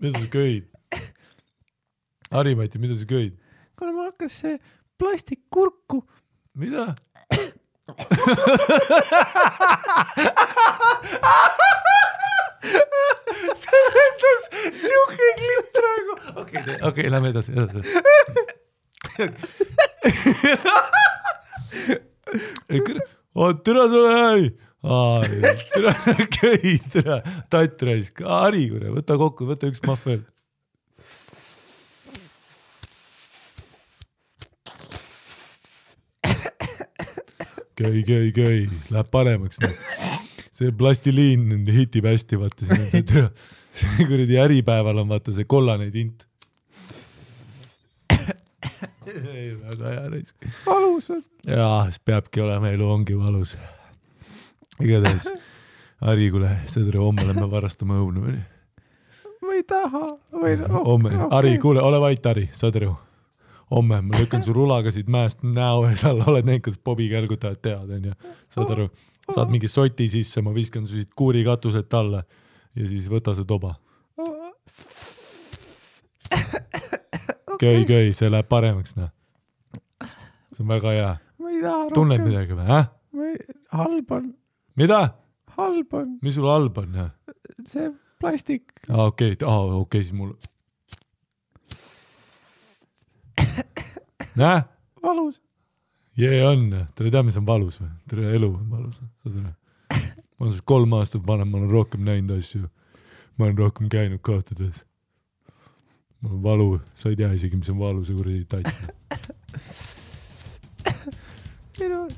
Mida sa köid? Harimati, mida sa köid? Kuna mul hakkas see plastikkurku. Mida? See lendas siuke klipp praegu. Okei, lähme edasi. Türa sulle äi. Türa köi, türa. Tatt raisk. Hari, kure, võta kokku, võta üks mahv veel. Köi. Läheb paremaks. See plastiliin hitib hästi, vaata. See kuradi äripäeval on vaata see kollane tint. Ei, väga hea raisk. Valus on. Jaa, siis peabki olema, elu ongi valus. Igatahes, Hari, kuule, sõdre, homme lähme varastama õunu. Ma ei taha. Homme, Hari, kuule, ole vait, Hari, sõdre. Homme, ma lükkan su rulaga siit mäest näo ees alla, oled näinud, kuidas Bobi kälgutajad teavad, on ju. Saad aru, saad mingi soti sisse, ma viskan su siit kuuri katuselt alla ja siis võta see toba. Köi, see läheb paremaks, noh. See on väga hea. Ma ei taha rohkem. Tunned midagi või, Halb on. Mida? Halb on. Mis sul halb on, jah? See plastik. Okei, siis mul... Näe? Valus. Jee on, tere tea, mis on valus või? Tere elu on valus. Ma olen 3 aastat vanem, ma olen rohkem näinud asju. Ma olen rohkem käinud kohtades. Mul on valu, sa ei tea isegi, mis on valu, see kuradi tatt.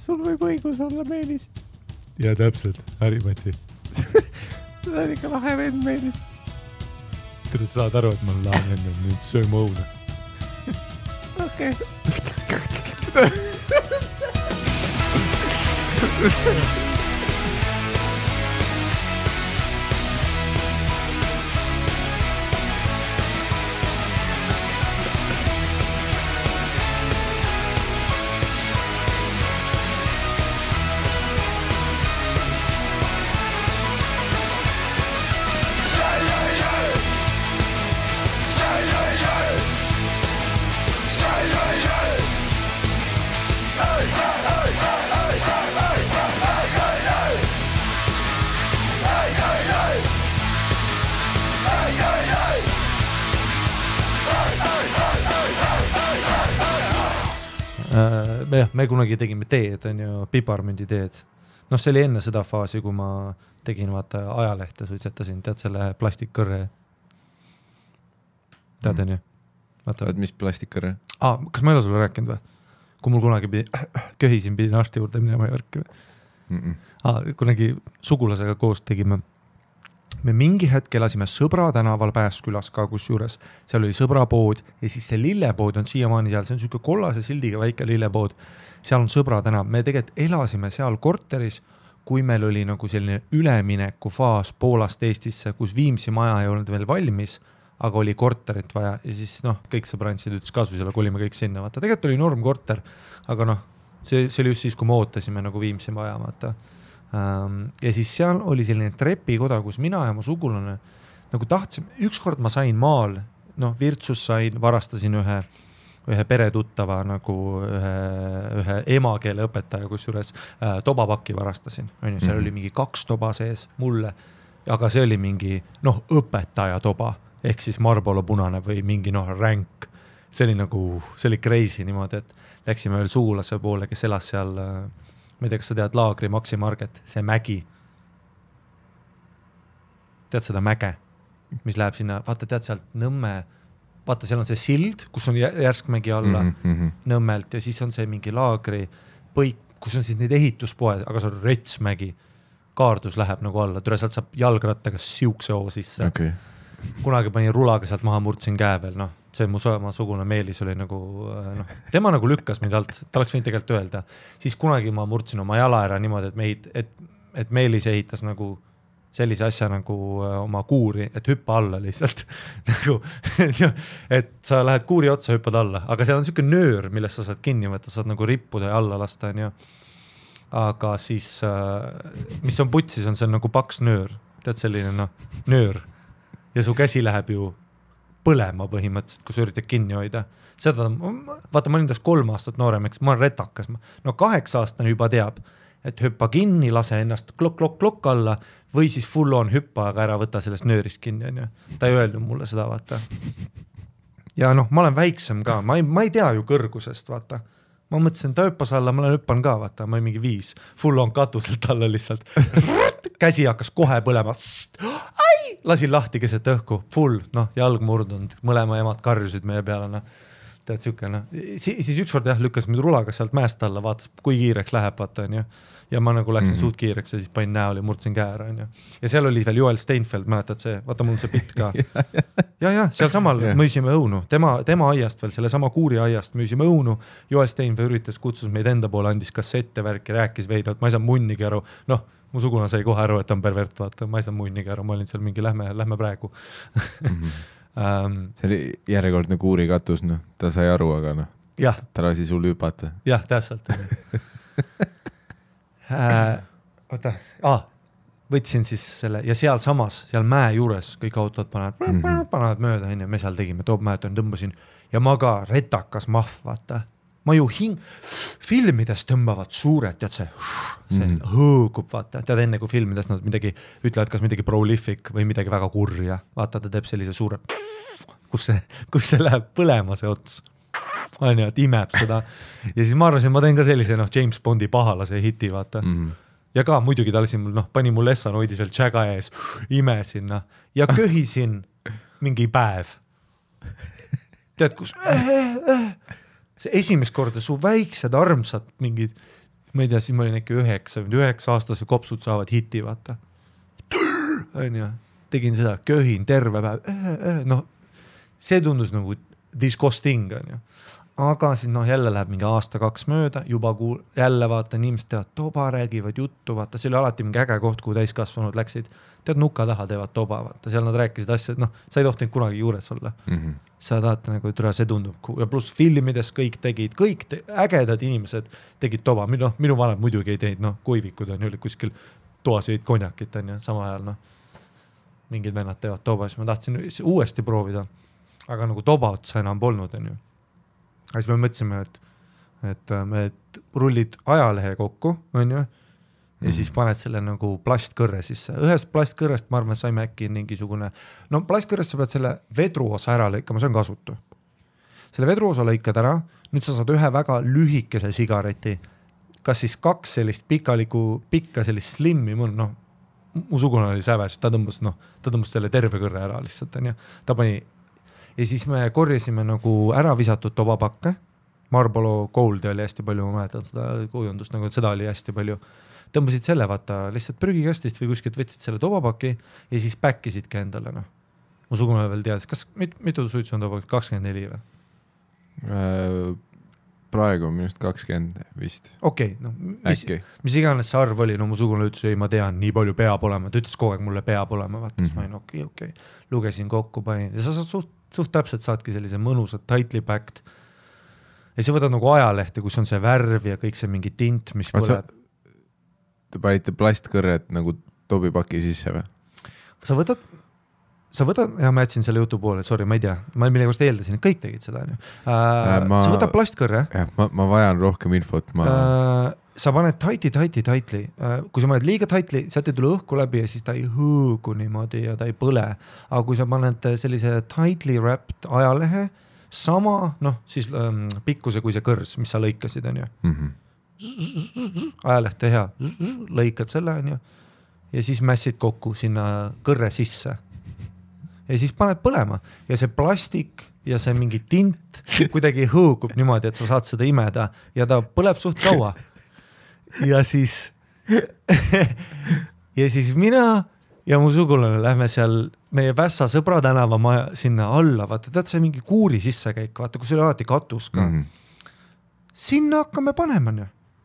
Sul võib õigus olla, Meelis. Ja täpselt, Harimati. See on ikka lahe vend, Meelis. Tere, saad aru, et ma olen lahe vend, nüüd söö mu õuna. Okei. Me kunagi tegime teed, on ju, piparmündi teed. Noh, see oli enne seda faasi, kui ma tegin vaata ajalehte, suitsetasin, tead selle plastikkõrre. Tead, on ju? Vaat mis plastikkõrre? Kas ma ei ole sulle rääkinud või? Kui mul kunagi köhisin, pidin arsti juurde minema Jorki või? Kunagi sugulasega koos tegime. Me mingi hetk elasime Sõbra tänaval Pääskülas ka kusjuures. Seal oli Sõbrapood ja siis see lillepood on siiamaani seal. See on selline kollase sildiga väike lillepood. Seal on Sõbra tänav. Me tegelikult elasime seal korteris, kui meil oli nagu selline ülemineku faas Poolast Eestisse, kus Viimsi maja ei olnud veel valmis, aga oli korterit vaja ja siis kõik sõbrantsid ütles kasvusele, kolime kõik sinna. Vaata, tegelikult oli norm korter, aga see oli just siis, kui me ootasime nagu Viimsi maja, vaata. Ja siis seal oli selline trepikoda, kus mina ja mu sugulane nagu tahtsime, ükskord ma sain maal, Virtsus sain, varastasin ühe peretuttava nagu ühe emakeele õpetaja, kusjuures tobapakki varastasin, seal oli mingi 2 toba sees mulle, aga see oli mingi õpetaja toba, ehk siis Marlboro punane või mingi ränk, see oli crazy niimoodi, et läksime veel sugulase poole, kes elas seal ma ei tea, kas sa tead Laagri Maxi Market, see mägi. Tead seda mäge, mis läheb sinna, vaata tead sealt Nõmme, vaata seal on see sild, kus on järskmägi alla Nõmmelt ja siis on see mingi Laagri põik, kus on siis neid ehituspoed, aga see on retsmägi. Kaardus läheb nagu alla, türa sealt saab jalgrattaga siukse hoo sisse. Okay. Kunagi panin rulaga sealt maha, murtsin käe veel, see mu sugune Meelis oli nagu, tema nagu lükkas mind alt, ta oleks võinud tegelikult öelda. Siis kunagi ma murtsin oma jala ära niimoodi, et Meelis ehitas nagu sellise asja nagu oma kuuri, et hüppa alla lihtsalt. Et sa lähed kuuri otsa, hüppad alla, aga seal on selline nöör, millest sa saad kinni võtta, saad nagu rippuda ja alla lasta. Aga siis, mis on putsis, on see nagu paks nöör. Tead selline nöör. Ja su käsi läheb ju põlema põhimõtteliselt, kui sa üritad kinni hoida. Seda, vaata, ma olin tast 3 aastat noorem, eks ma olen retakas. No 8-aastane juba teab, et hüppa kinni, lase ennast klokk alla või siis full on hüppa, aga ära võta sellest nöörist kinni. On ju. Ta ei öelnud mulle seda, vaata. Ja noh, ma olen väiksem ka, ma ei tea ju kõrgusest, vaata. Ma mõtlesin, ta hüppas alla, ma olen hüppan ka, vaata, ma olen mingi 5. Full on katuselt alla lihtsalt. Käsi hakkas kohe põlema. Lasin lahti keset õhku, full, noh, jalg murdunud, mõlema emad karjusid meie peale, noh. Tead siuke, noh. Siis ükskord jah, lükkas mind rulaga sealt mäest alla, vaatas, kui kiireks läheb, vaata, on ju. Ja ma nagu läksin suht kiireks ja siis panin näoli, murdsin käe ära, on ju. Ja seal oli veel Joel Steinfeld, mäletad see, vaata, mul on see pilt ka. ja, seal samal müüsime õunu, tema aiast veel, selle sama kuuri aiast müüsime õunu. Joel Steinfeld üritas, kutsus meid enda poole, andis kassette värki, rääkis veidalt, ma ei saa munnigi aru, noh, mu suguna sai kohe aru, et on pervert, vaata, ma ei saa munnigi aru, ma olin seal mingi, lähme praegu. See oli järjekordne kuuri katus, noh, ta sai aru, aga noh, ta lasi sul hüpata. Jah, täpselt. Võtsin siis selle ja seal samas, seal mäe juures kõik autod panevad mööda, me seal tegime, toobmäeton tõmbasin ja ma ka retakas mahv, vaata. Ma ju filmides tõmbavad suured, tead see hõõgub, vaata, tead enne kui filmides nad midagi ütlevad, kas midagi prolific või midagi väga kurja, vaata, ta teeb sellise suure, kus see läheb põlema see ots, on ju, et imeb seda ja siis ma arvasin, ma teen ka sellise, noh, James Bondi pahalase hiti, vaata ja ka muidugi ta lasin mul, noh, pani mul Lessan hoidis veel tšäga ees, imesin, noh, ja köhisin mingi päev, tead, kus see esimest korda su väiksed armsad mingid, ma ei tea, siis ma olin äkki 9-aastase kopsud saavad hiti, vaata. On ju, tegin seda, köhin terve päev, noh, see tundus nagu disgusting, on ju. Aga siis noh, jälle läheb mingi 1-2 mööda, juba jälle vaata, inimesed teevad toba, räägivad juttu, vaata, see oli alati mingi äge koht, kuhu täiskasvanud läksid, tead nuka taha teevad toba, vaata, seal nad rääkisid asjad, noh, sa ei tohtinud kunagi juures olla. Sa tahad nagu, et see tundub, ja pluss filmides kõik tegid, ägedad inimesed tegid toba, minu vanem muidugi ei teinud, noh, kuivikud on ju kuskil toas jõid konjakit, on ju, sama ajal, noh, mingid vennad teevad toba, siis ma tahtsin uuesti proovida, aga nagu toba otsa enam polnud, on ju. Ja siis me mõtlesime, et me rullid ajalehe kokku, on ju, ja siis paned selle nagu plastkõrre sisse. Ühest plastkõrrest, ma arvan, saime äkki mingisugune, no plastkõrrest sa pead selle vedruosa ära lõikama, see on kasutu. Selle vedruosa lõikad ära, nüüd sa saad ühe väga lühikese sigareti, kas siis 2 sellist pikka sellist slimmi, noh, mu sugune oli säves, ta tõmbas selle terve kõrre ära lihtsalt, on ju, ta pani. Ja siis me korjasime nagu ära visatud tobapakke, Marlboro Goldi oli hästi palju, ma mäletan seda kujundust, nagu seda oli hästi palju, tõmbasid selle, vaata, lihtsalt prügikastist või kuskilt võtsid selle tobapaki ja siis päkkisidki endale, noh. Mu sugune veel teadis, kas mitu suitsu on tobapakk, 24 või? Praegu on minust 20 vist. Okei, noh, mis iganes see arv oli, no mu sugune ütles, ei, ma tean, nii palju peab olema, ta ütles kogu aeg mulle peab olema, vaata, siis ma olin okei, lugesin kokku, panin ja sa suht täpselt saadki sellise mõnusad tightly packed ja sa võtad nagu ajalehte, kus on see värv ja kõik see mingi tint, mis põleb. Te panite plastkõrred nagu tobipaki sisse või? Sa võtad, ja ma jätsin selle jutu poole, sorry, ma ei tea, ma millegust eeldasin, et kõik tegid seda. Sa võtad plastkõrre. Ma vajan rohkem infot. Sa paned tightly, kui sa paned liiga tightly, sealt ei tule õhku läbi ja siis ta ei hõõgu niimoodi ja ta ei põle. Aga kui sa paned sellise tightly wrapped ajalehe, sama, noh, siis pikkuse kui see kõrs, mis sa lõikasid, on ju. Ajalehte hea, lõikad selle, on ju, ja siis mässid kokku sinna kõrre sisse. Ja siis paned põlema ja see plastik ja see mingi tint kuidagi hõõgub niimoodi, et sa saad seda imeda ja ta põleb suht kaua. Ja siis mina ja mu sugulane lähme seal meie Vässa Sõbra tänava sinna alla, vaata, tead see mingi kuuri sissekäik, vaata, kus oli alati katus ka. Sinna hakkame panema,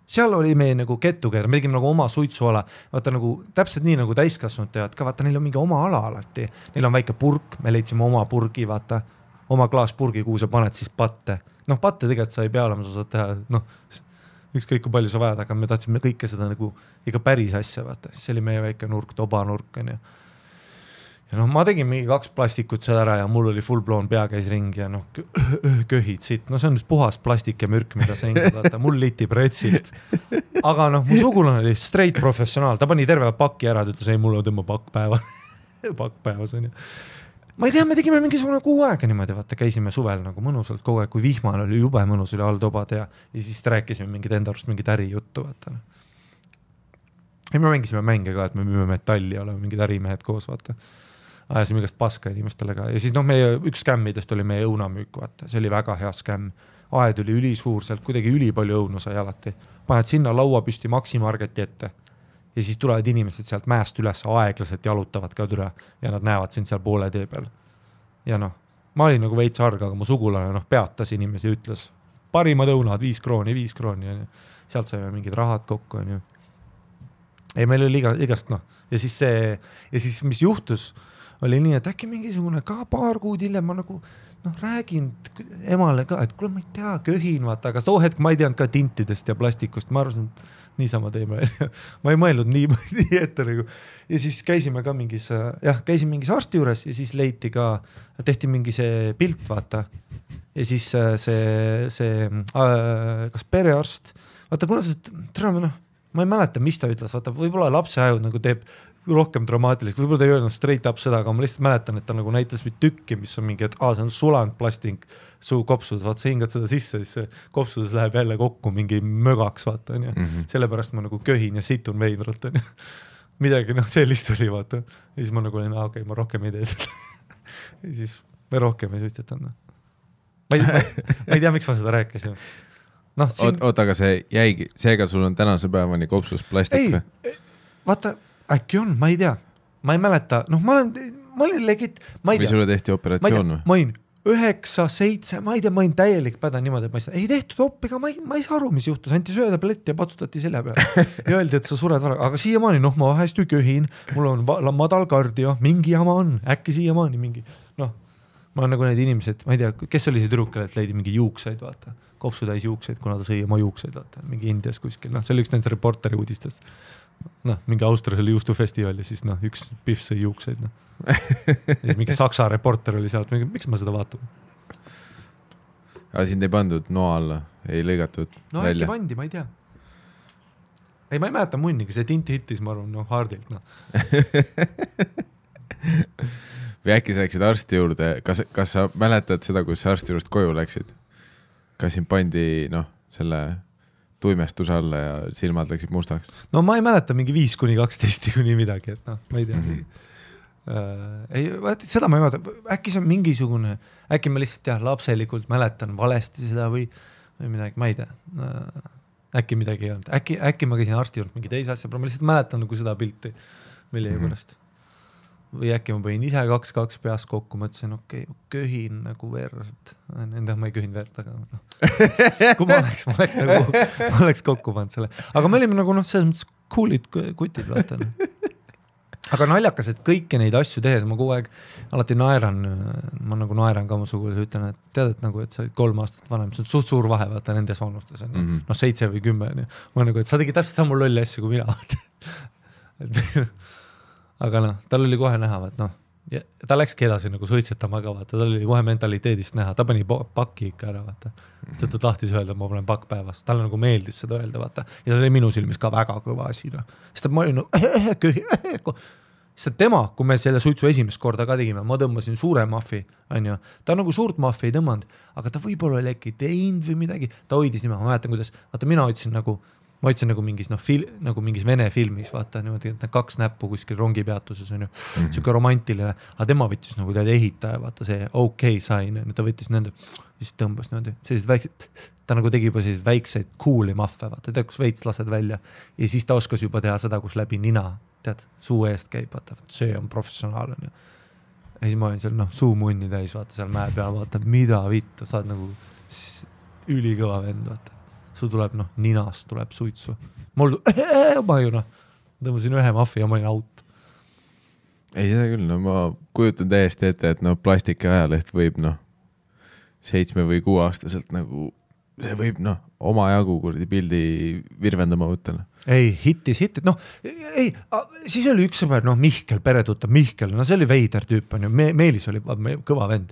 seal oli meie nagu kettukeer, me tegime nagu oma suitsuala, vaata nagu täpselt nii nagu täiskasvanud teavad ka, vaata, neil on mingi oma ala alati, neil on väike purk, me leidsime oma purgi, vaata, oma klaaspurgi, kuhu sa paned siis patte. Noh, patte tegelikult sa ei pea olema, sa saad teha, noh, ükskõik kui palju sa vajad, aga me tahtsime kõike seda nagu ikka päris asja, vaata, siis oli meie väike nurk, tobanurk, on ju. ja noh, ma tegin mingi 2 plastikut seal ära ja mul oli full blown pea käis ringi ja noh, köhid siit, no see on puhas plastik ja mürk, mida sa hingad, vaata, mul litib retsilt. Aga noh, mu sugulane oli straight professionaal, ta pani terve pakki ära, ta ütles, ei, mul on tõmba pakk päevas on ju. Ma ei tea, me tegime mingisugune 6 aega niimoodi, vaata, käisime suvel nagu mõnusalt kogu aeg, kui vihmal oli jube mõnus, oli all tobad ja siis rääkisime mingid enda arust mingid ärijuttu, vaata. Ja me mängisime mänge ka, et me müüme metalli, oleme mingid ärimehed koos, vaata. Ajasime igast paska inimestele ka. Ja siis noh, meie üks skämmidest oli meie õunamüük, vaata. See oli väga hea skämm. Aed oli ülisuur, sealt kuidagi ülipalju õunu sai alati. Paned sinna laua püsti Maximargeti ette. Ja siis tulevad inimesed sealt mäest üles aeglaselt jalutavad ka türa ja nad näevad sind seal poole tee peal. Ja noh, ma olin nagu veits arg, aga mu sugulane noh, peatas inimesi ja ütles, parimad õunad, 5 krooni. Ja sealt saime mingid rahad kokku. On ju. Ei, meil oli igast noh. Ja siis mis juhtus, oli nii, et äkki mingisugune ka paar kuud hiljem ma nagu noh, räägin emale ka, et kuule, ma ei tea, köhin, vaata, aga too hetk ma ei teadnud ka tintidest ja plastikust, ma arvasin, et niisama teeme. Ma ei mõelnud nii ette nagu. Ja siis käisime ka mingis arsti juures ja siis leiti ka, tehti mingi see pilt, vaata. Ja siis see kas perearst, vaata, kuna see, ma ei mäleta, mis ta ütles, vaata, võib-olla lapse ajud nagu teeb rohkem dramaatiliseks, võib-olla ta ei öelnud straight up seda, aga ma lihtsalt mäletan, et ta nagu näitas tükki, mis on mingi, et see on sulanud plastik suu kopsudes, vaata, sa hingad seda sisse, siis see kopsudes läheb jälle kokku mingi mögaks, vaata, on ju. Sellepärast ma nagu köhin ja situn veidralt, on ju. Midagi, noh, sellist oli, vaata. Ja siis ma nagu olin, okei, ma rohkem ei tee seda. Ja siis me rohkem ei suitsetanud. Ma ei tea, miks ma seda rääkisin. No, Oota, aga see jäigi, seega sul on tänase päevani kopsus plastik või? Ei, vaata, äkki on, ma ei tea. Ma ei mäleta, noh, ma olin legit, ma ei tea. Või sulle tehti operatsioon või? Ma olin 9, 7, ma ei tea, ma olin täielik päda niimoodi, et ei tehtud oppiga, ma ei saa aru, mis juhtus, anti söödablett ja patsutati selja peale. Ja öeldi, et sa sured vara, aga siiamaani, noh, ma vahest ju köhin, mul on madal kardio, mingi jama on, äkki siiamaani mingi, noh, ma olen nagu need inimesed, ma ei tea, kes oli see tüdrukale, et leidi mingi juukseid, vaata. Kopsu täis juukseid, kuna ta sõi oma juukseid, vaata, mingi Indias kuskil, noh, see oli üks nende reporteri uudistest. Noh, mingi Austrias oli juustufestival ja siis noh, üks pihv sõi juukseid, noh. Ja siis mingi Saksa reporter oli sealt, miks ma seda vaatan? Aga sind ei pandud noa alla, ei lõigatud no, välja? No äkki pandi, ma ei tea. Ei, ma ei mäleta munnigi, see tint hittis, ma arvan, noh, hardilt, noh. Või äkki sa läksid arsti juurde, kas sa mäletad seda, kus sa arsti juurest koju läksid? Kas sind pandi, noh, selle tuimestuse alla ja silmad läksid mustaks? No ma ei mäleta mingi 5-12 kuni midagi, et noh, ma ei tea. Ei, seda ma ei mäleta, äkki see on mingisugune, äkki ma lihtsalt lapselikult mäletan valesti seda või midagi, ma ei tea. Äkki midagi ei olnud, äkki ma käisin arsti juurde mingi teise asja, ma lihtsalt mäletan nagu seda pilti, mille pärast. Või äkki ma põin ise 2 peas kokku, mõtlesin, okei, köhin nagu verd. Endah ma ei köhin verd, aga no. Kui ma oleks kokku pannud selle. Aga me olime nagu noh, selles mõttes coolid kutid, vaata. Aga naljakas, et kõiki neid asju tehes ma kogu aeg alati naeran ka mu sugulas, ütlen, et tead, et nagu, et sa olid 3 aastat vanem, see on suht suur vahe, vaata, nendes vanustes on, noh, 7 või 10. Ma nagu, et sa tegid täpselt samu lolli asju kui mina, vaata. Aga noh, tal oli kohe näha, et noh, ta läkski edasi nagu suitsetama ka, vaata, tal oli kohe mentaliteedist näha, ta pani pakki ikka ära, vaata. Sest ta tahtis öelda, et ma panen pakk päevas. Talle nagu meeldis seda öelda, vaata. Ja see oli minu silmis ka väga kõva asi, noh. Sest ma olin nagu, sest tema, kui me selle suitsu esimest korda ka tegime, ma tõmbasin suure maffi, on ju. Ta nagu suurt maffi ei tõmmanud, aga ta võib-olla oli äkki teinud või midagi. Ta hoidis nime, ma mäletan, kuidas, vaata, mina hoidsin nagu mingis, noh, nagu mingis vene filmis, vaata, niimoodi, et 2 näppu kuskil rongipeatuses on ju, siuke romantiline, aga tema võttis nagu tead ehitaja, vaata see okei sain, ta võttis nende, siis tõmbas niimoodi, sellised väiksed, ta nagu tegi juba sellised väikseid cool'i maffe, vaata, tead, kus veits lased välja ja siis ta oskas juba teha seda, kus läbi nina, tead, suu eest käib, vaata, see on professionaal, on ju. Ja siis ma olin seal, noh, suu munni täis, vaata, seal mäe peal, vaata, mida vittu, saad nagu ülikõva vend, vaata. Sul tuleb, noh, ninast tuleb suitsu. Ma ju, noh, tõmbasin 1 maffi ja ma olin out. Ei, seda küll, no ma kujutan täiesti ette, et no plastiki ajaleht võib, noh, 7 või 6 aastaselt nagu see võib omajagu kuradi pildi virvendama võtta. Ei, hittis, noh, ei, siis oli üks sõber, Mihkel, peretuttav Mihkel, see oli veider tüüp, on ju, Meelis oli kõva vend.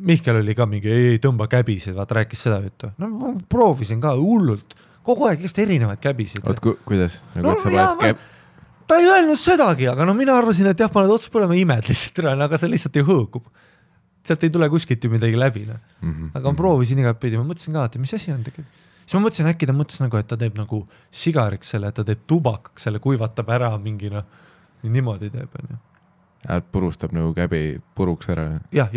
Mihkel oli ka mingi, ei tõmba käbisid, vaata, rääkis seda juttu. No ma proovisin ka hullult, kogu aeg just erinevaid käbisid. Oot, kuidas? Ta ei öelnud sedagi, aga mina arvasin, et jah, ma oled otsas põlema imed lihtsalt, aga see lihtsalt ei hõõgub. Sealt ei tule kuskilt ju midagi läbi. Aga ma proovisin igat pidi, ma mõtlesin ka, et mis asi on tegelikult. Siis ma mõtlesin, äkki ta mõtles nagu, et ta teeb nagu sigariks selle, et ta teeb tubakaks selle, kuivatab ära mingi niimoodi teeb. Et purustab nagu käbi puruks ära. Ja.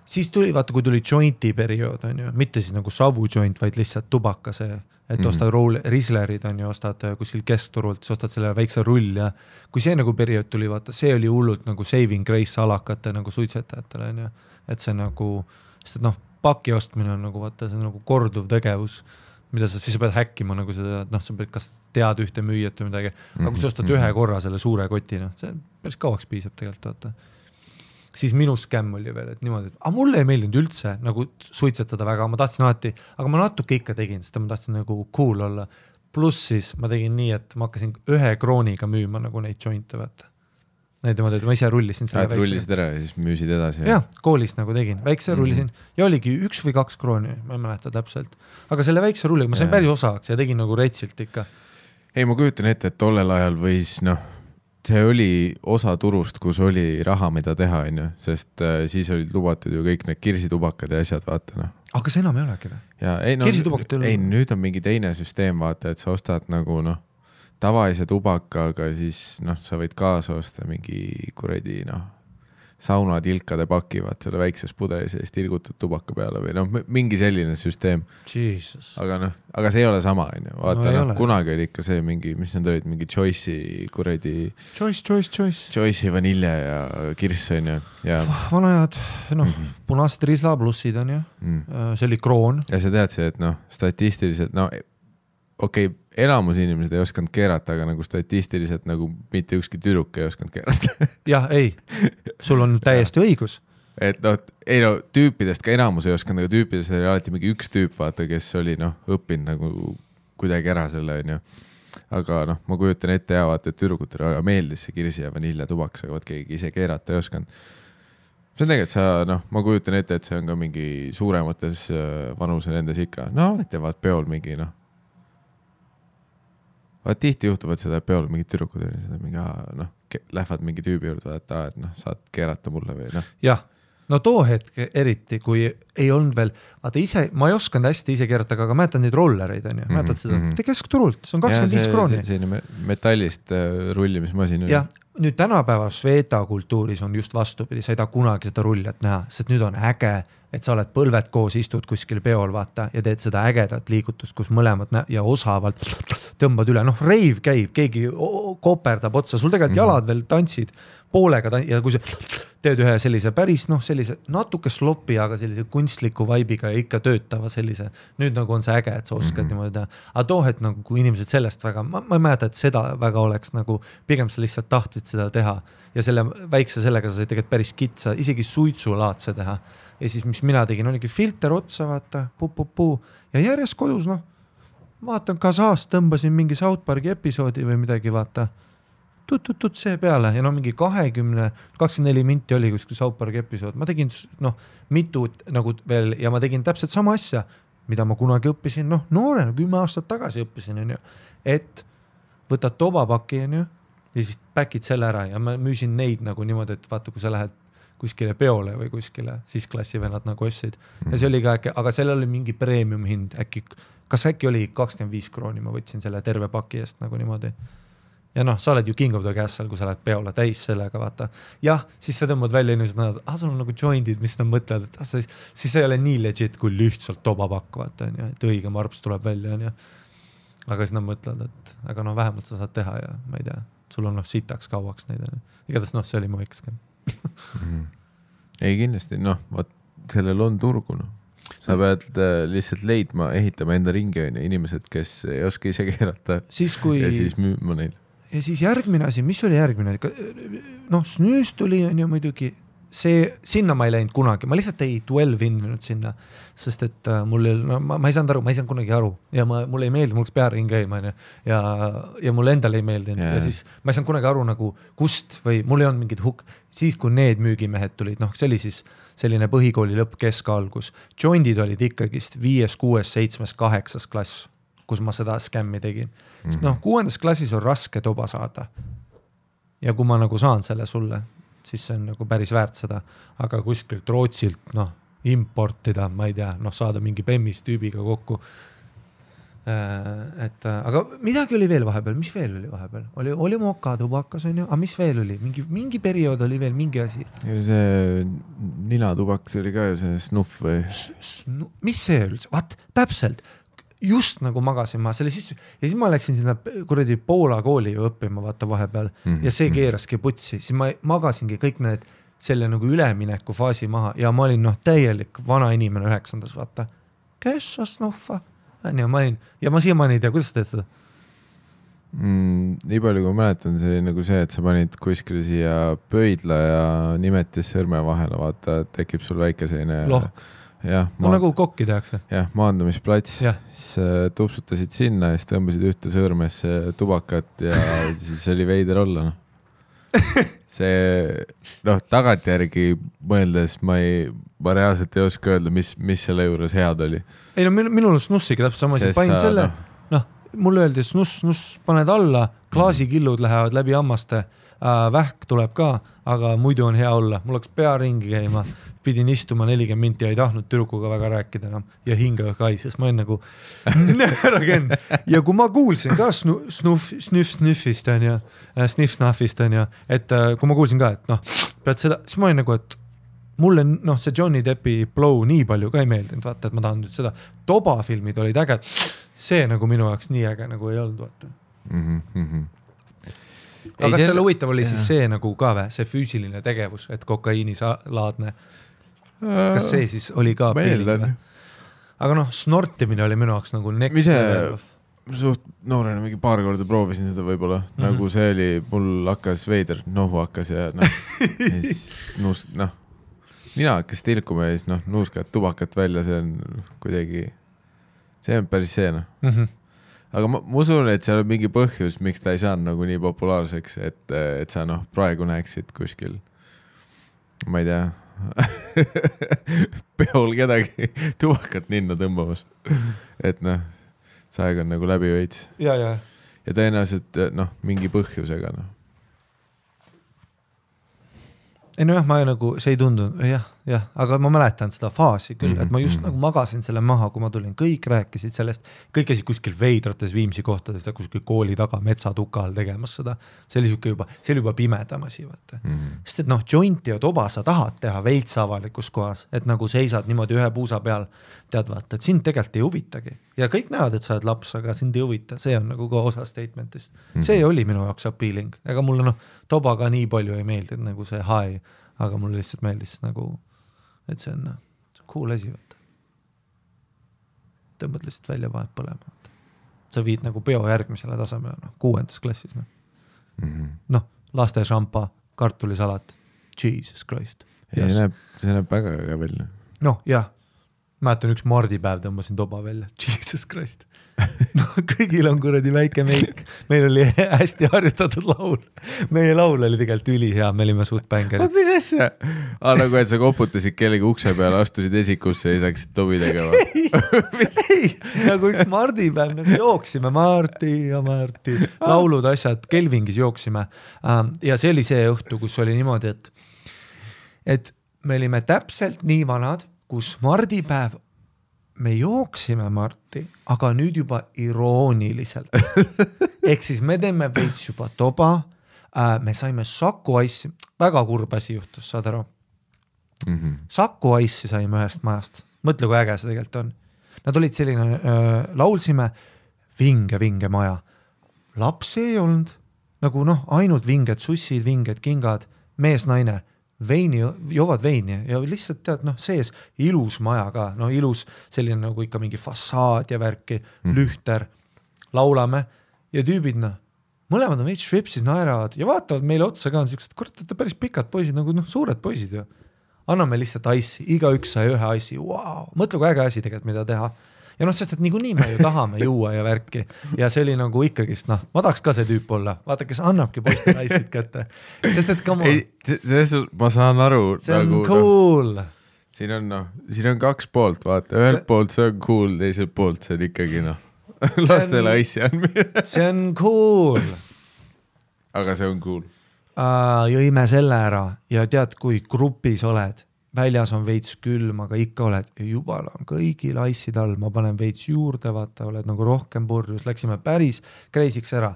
Siis tuli, vaata, kui tuli jointi periood, on ju, mitte siis nagu savu joint, vaid lihtsalt tubaka see, et ostad Rieslerid, on ju, ostad kuskil keskturult, siis ostad selle väikse rull ja kui see nagu periood tuli, vaata, see oli hullult nagu saving grace alakate nagu suitsetajatele, on ju, et see nagu, sest paki ostmine on nagu, vaata, see on nagu korduv tegevus, mida siis pead häkkima nagu seda, et sa pead kas tead ühte müüjat või midagi, aga kui sa ostad ühe korra selle suure koti, see päris kauaks piisab tegelikult, vaata. Siis minu skämm oli veel, et niimoodi, et mulle ei meeldinud üldse nagu suitsetada väga, ma tahtsin alati, aga ma natuke ikka tegin, sest ma tahtsin nagu cool olla. Pluss siis ma tegin nii, et ma hakkasin 1 krooniga müüma nagu neid jointe, vaata. Neid ma ise rullisin selle väikse. Rullisid ära ja siis müüsid edasi. Jah, koolis nagu tegin, väikse rullisin ja oligi 1 või 2 krooni, ma ei mäleta täpselt. Aga selle väikse rulliga ma sain päris osaks ja tegin nagu retsilt ikka. Ei, ma kujutan ette, et tollel ajal võis, see oli osa turust, kus oli raha, mida teha, on ju, sest siis olid lubatud ju kõik need kirsitubakad ja asjad, vaata. Aga see enam ei olegi või? Ei, nüüd on mingi teine süsteem, vaata, et sa ostad nagu, tavalise tubakaga, siis sa võid kaasa osta mingi kuradi, saunatilkade paki, vaat selle väikses pudelis ja siis tilgutud tubaka peale või mingi selline süsteem. Jesus. Aga see ei ole sama, on ju. Vaata, kunagi oli ikka see mingi, mis need olid, mingi Choice'i kuradi... Choice'i vanilje ja kirss, on ju. Ja... Vanajad, punased Riesla plussid on ju. See oli kroon. Ja sa tead see, et statistiliselt, okei, elamus inimesed ei osanud keerata, aga nagu statistiliselt nagu mitte ükski tüdruk ei osanud keerata. Jah, ei, sul on täiesti õigus. Et tüüpidest ka elamus ei osanud, aga tüüpidest oli alati mingi üks tüüp, vaata, kes oli õppinud nagu kuidagi ära selle, on ju. Aga ma kujutan ette ja vaata, et tüdrukutele meeldis see kirsi ja vanilja tubaks, aga keegi ise keerata ei osanud. See on tegelikult ma kujutan ette, et see on ka mingi suuremates vanuse nendes ikka. Alati vaat peol mingi, tihti juhtub, et seda peol mingid tüdrukud lähevad mingi tüübi juurde, et saad keerata mulle või Jah, too hetk eriti, kui ei olnud veel, vaata ise, ma ei osanud hästi ise keerata, aga mäletan neid rollereid, on ju, mäletad seda, keskturult, see on 25 krooni. See metallist rullimismasin. Jah, nüüd tänapäeva Sveta kultuuris on just vastupidi, sa ei taha kunagi seda rullijat näha, sest nüüd on äge, et sa oled põlved koos, istud kuskil peol, vaata, ja teed seda ägedat liigutust, kus mõlemad ja osavalt tõmbad üle. Reiv käib, keegi koperdab otsa, sul tegelikult jalad veel tantsid poolega ja kui sa teed ühe sellise päris, sellise natuke slopi, aga sellise kunstliku vaibiga ja ikka töötava sellise, nüüd nagu on see äge, et sa oskad niimoodi teha. Aga toohet nagu, kui inimesed sellest väga, ma ei mäleta, et seda väga oleks nagu, pigem sa lihtsalt tahtsid seda teha ja selle väikse sellega sa said tegelikult päris kitsa, isegi suitsulaadse teha. Ja siis, mis mina tegin, oligi filter otsa, vaata, puu. Ja järjest kodus, vaatan Kasaast, tõmbasin mingi South Parki episoodi või midagi, vaata, tut see peale ja mingi 24 minti oli kuskil South Parki episood. Ma tegin, mitu nagu veel ja ma tegin täpselt sama asja, mida ma kunagi õppisin, noorena, 10 aastat tagasi õppisin, on ju, et võtad tobapaki, on ju, ja siis päkid selle ära ja ma müüsin neid nagu niimoodi, et vaata, kui sa lähed kuskile peole või kuskile, siis klassivennad nagu ostsid. Ja see oli ka äkki, aga seal oli mingi premium hind, kas äkki oli 25 krooni, ma võtsin selle terve paki eest nagu niimoodi. Ja sa oled ju king of the castle, kui sa lähed peole täis sellega, vaata. Jah, siis sa tõmbad välja inimesed, sul on nagu jointid, mis nad mõtlevad, et siis ei ole nii legit, kui lihtsalt tobapakk, vaata, et õige marps tuleb välja, on ju. Aga siis nad mõtlevad, et aga vähemalt sa saad teha ja ma ei tea, sul on sitaks kauaks neid. Igatahes see oli mu väikeskem. Ei kindlasti, sellel on turgu. Sa pead lihtsalt leidma, ehitama enda ringi inimesed, kes ei oska ise keerata ja siis müüma neil. Ja siis järgmine asi, mis oli järgmine? Snüüs tuli on ju muidugi, sinna ma ei läinud kunagi, ma lihtsalt ei 12 inninud sinna, sest et mul ma ei saanud kunagi aru ja mul ei meeldi, mul oleks pearing käima ja mul endal ei meeldinud ja siis ma ei saanud kunagi aru nagu kust või mul ei olnud mingid siis kui need müügimehed tulid, see oli siis selline põhikooli lõpp keskalgus, jointid olid ikkagist 5, 6, 7, 8 klass, kus ma seda skämmi tegin. Sest 6. klassis on raske toba saada. Ja kui ma nagu saan selle sulle, siis see on nagu päris väärt seda, aga kuskilt Rootsilt importida, ma ei tea, saada mingi Bemmis tüübiga kokku. Aga midagi oli veel vahepeal, mis veel oli vahepeal? Oli moka tubakas, on ju, aga mis veel oli? Mingi periood oli veel mingi asi. See ninatubakas oli ka ju see snuff või? Mis see üldse? Vaat, täpselt. Just nagu magasin ma selle sisse ja siis ma läksin sinna kuradi Poola kooli ju õppima vaata vahepeal ja see keeraski putsi, siis ma magasingi kõik need selle nagu ülemineku faasi maha ja ma olin täielik vana inimene 9. vaata. Kes sa snuffa? Ja ma siiamaani ei tea, kuidas sa teed seda? Nii palju kui mäletan, see oli nagu see, et sa panid kuskil siia pöidla ja nimetis sõrme vahele, vaata, tekib sul väike selline lohk. Nagu kokki tehakse. Jah, maandumisplats. Siis tupsutasid sinna ja siis tõmbasid ühte sõrmesse tubakat ja siis oli veider olla. See, tagantjärgi mõeldes ma reaalselt ei oska öelda, mis selle juures head oli. Ei minul snussiga täpselt sama asi. Panin selle, mulle öeldi snuss paned alla, klaasikillud lähevad läbi hammaste, vähk tuleb ka, aga muidu on hea olla. Mul oleks pea ringi käima. Pidin istuma 40 minti ja ei tahtnud tüdrukuga väga rääkida enam ja hinga kaises. Ma olen nagu näragen. Ja kui ma kuulsin ka sniff-snuffist on ja sniff-snuffist on ja, et kui ma kuulsin ka, et pead seda, siis ma olin nagu, et mulle see Johnny Deppi Blow nii palju ka ei meeldinud, vaata, et ma tahan nüüd seda toba filmid olid äge. See nagu minu jaoks nii äge nagu ei olnud, vaata. Aga kas selle huvitav oli siis see nagu ka või, see füüsiline tegevus, et kokaiinilaadne, kas see siis oli ka peeling? Aga snortimine oli minu jaoks nagu next level. Suht noorena mingi paar korda proovisin seda võib-olla, nagu see oli, mul hakkas veider, nohu hakkas ja nina hakkas tilkuma ja siis nuuskad tubakat välja, see on kuidagi, see on päris see Aga ma usun, et seal on mingi põhjus, miks ta ei saanud nagu nii populaarseks, et sa praegu näeksid kuskil, ma ei tea, peol kedagi tubakat ninna tõmbamas. Et see aeg on nagu läbi veits. Ja tõenäoliselt mingi põhjusega. Ei ma nagu, see ei tundunud, jah, aga ma mäletan seda faasi küll, et ma just nagu magasin selle maha, kui ma tulin, kõik rääkisid sellest, kõik käisid kuskil veidrates Viimsi kohtades, kuskil kooli taga metsatukal tegemas seda, see oli juba pimedam asi, vaata. Sest et jointi ja toba sa tahad teha veits avalikus kohas, et nagu seisad niimoodi ühe puusa peal, tead vaata, et sind tegelikult ei huvitagi ja kõik näevad, et sa oled laps, aga sind ei huvita, see on nagu ka osa statementist. See oli minu jaoks appealing, ega mulle toba ka nii palju ei meeldinud nagu see high, aga mulle lihtsalt meeldis nagu, et see on cool asi, võtta. Tõmbad lihtsalt välja vahet põlema. Sa viid nagu peo järgmisele tasemele, 6. klassis. Laste šampa, kartulisalat, Jesus Christ. Ja see näeb väga välja. Jah. Mäletan üks mardipäev tõmbasin toba välja. Jesus Christ. Kõigil on kuradi väike meik. Meil oli hästi harjutatud laul. Meie laul oli tegelikult ülihea, me olime suht bängerid. Mis asja? Nagu et sa koputasid kellegi ukse peale, astusid esikusse ja saaksid tobi tegema. Ei, nagu üks mardipäev, nagu jooksime Marti ja Marti. Laulud, asjad, Kelvingis jooksime. Ja see oli see õhtu, kus oli niimoodi, et me olime täpselt nii vanad, kus mardipäev, me jooksime Marti, aga nüüd juba irooniliselt. Ehk siis me teeme veits juba toba, me saime Saku Ice'i, väga kurb asi juhtus, saad aru. Saku Ice'i saime ühest majast, mõtle kui äge see tegelikult on. Nad olid selline, laulsime vinge maja. Lapsi ei olnud, nagu ainult vinged sussid, vinged kingad, mees, naine. Joovad veini ja lihtsalt tead, sees ilus maja ka, ilus selline nagu ikka mingi fassaad ja värki, lühter, laulame ja tüübid, mõlemad on veits švipsis, naeravad ja vaatavad meile otsa ka, on siuksed, kurat, päris pikad poisid, nagu suured poisid ju. Anname lihtsalt ice'i, igaüks sai ühe ice'i, wow. Mõtle kui äge asi tegelikult, mida teha. Ja sest et niikuinii me ju tahame juua ja värki ja see oli nagu ikkagist, ma tahaks ka see tüüp olla, vaata, kes annabki poistele ice'id kätte, sest et ma saan aru. See on nagu, cool. Siin on kaks poolt, vaata, ühelt poolt see on cool, teiselt poolt see on ikkagi lastele ice'i andmine. See on cool. Aga see on cool. Jõime selle ära ja tead, kui grupis oled, väljas on veits külm, aga ikka oled jubala on kõigil ice'id all, ma panen veits juurde, vaata, oled nagu rohkem purjus, läksime päris kreisiks ära.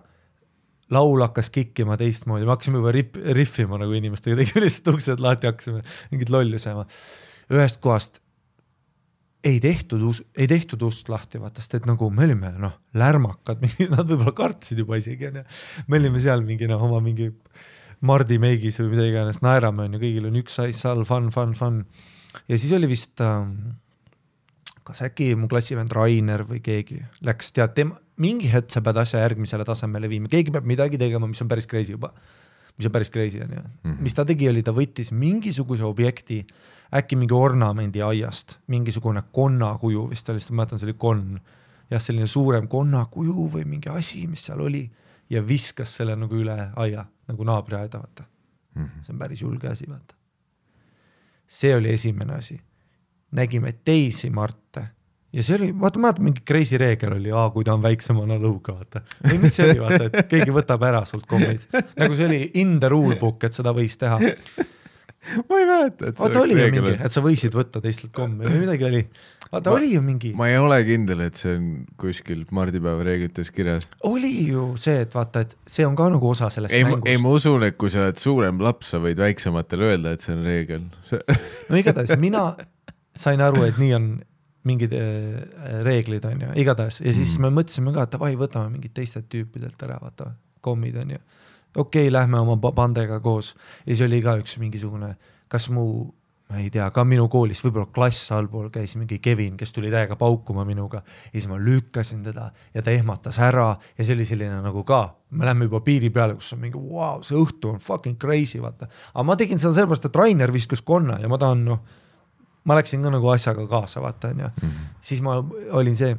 Laul hakkas kikkima teistmoodi, me hakkasime juba riffima nagu inimestega, tegime lihtsalt uksed lahti, hakkasime mingit lollusema. Ühest kohast ei tehtud ust lahti, vaata, sest et nagu me olime lärmakad, nad võib-olla kartsid juba isegi. Me olime seal oma mingi Mardi meigis või mida iganes, naerame on ju, kõigil on üks ice all, fun. Ja siis oli vist, kas äkki mu klassivend Rainer või keegi läks, tead, mingi hetk sa pead asja järgmisele tasemele viima, keegi peab midagi tegema, mis on päris crazy juba. Mis on päris crazy on ju. Mis ta tegi oli, ta võttis mingisuguse objekti, äkki mingi ornamendi aiast, mingisugune konnakuju, vist oli, ma mäletan, see oli konn. Ja selline suurem konnakuju või mingi asi, mis seal oli ja viskas selle nagu üle aia, nagu naabri aeda, vaata. See on päris julge asi, vaata. See oli esimene asi. Nägime teisi Marte ja see oli, vaata, mingi crazy reegel oli, kui ta on väiksemana lõuga, vaata. Või mis see oli, vaata, et keegi võtab ära sult kommid. Nagu see oli in the rule book, et seda võis teha. Ma ei mäleta, et see oli ju mingi, et sa võisid võtta teistelt kommi või midagi oli. Vaata, oli ju mingi. Ma ei ole kindel, et see on kuskil mardipäeva reeglites kirjas. Oli ju see, et vaata, et see on ka nagu osa sellest mängust. Ei, ma usun, et kui sa oled suurem laps, sa võid väiksematele öelda, et see on reegel. No igatahes, mina sain aru, et nii on mingid reeglid on ju, igatahes. Ja siis me mõtlesime ka, et vai, võtame mingid teised tüüpidelt ära, vaata, kommid on ju. Okei, lähme oma bandega koos. Ja siis oli ka üks mingisugune, kas ma ei tea, ka minu koolis, võib-olla klass allpool käis mingi Kevin, kes tuli täiega paukuma minuga. Ja siis ma lükkasin teda ja ta ehmatas ära ja see oli selline nagu ka, me lähme juba piiri peale, kus on mingi, wow, see õhtu on fucking crazy, vaata. Aga ma tegin seda sellepärast, et Rainer viskas konna ja ma tahan, ma läksin ka nagu asjaga kaasa, vaata, on ju. Siis ma olin see.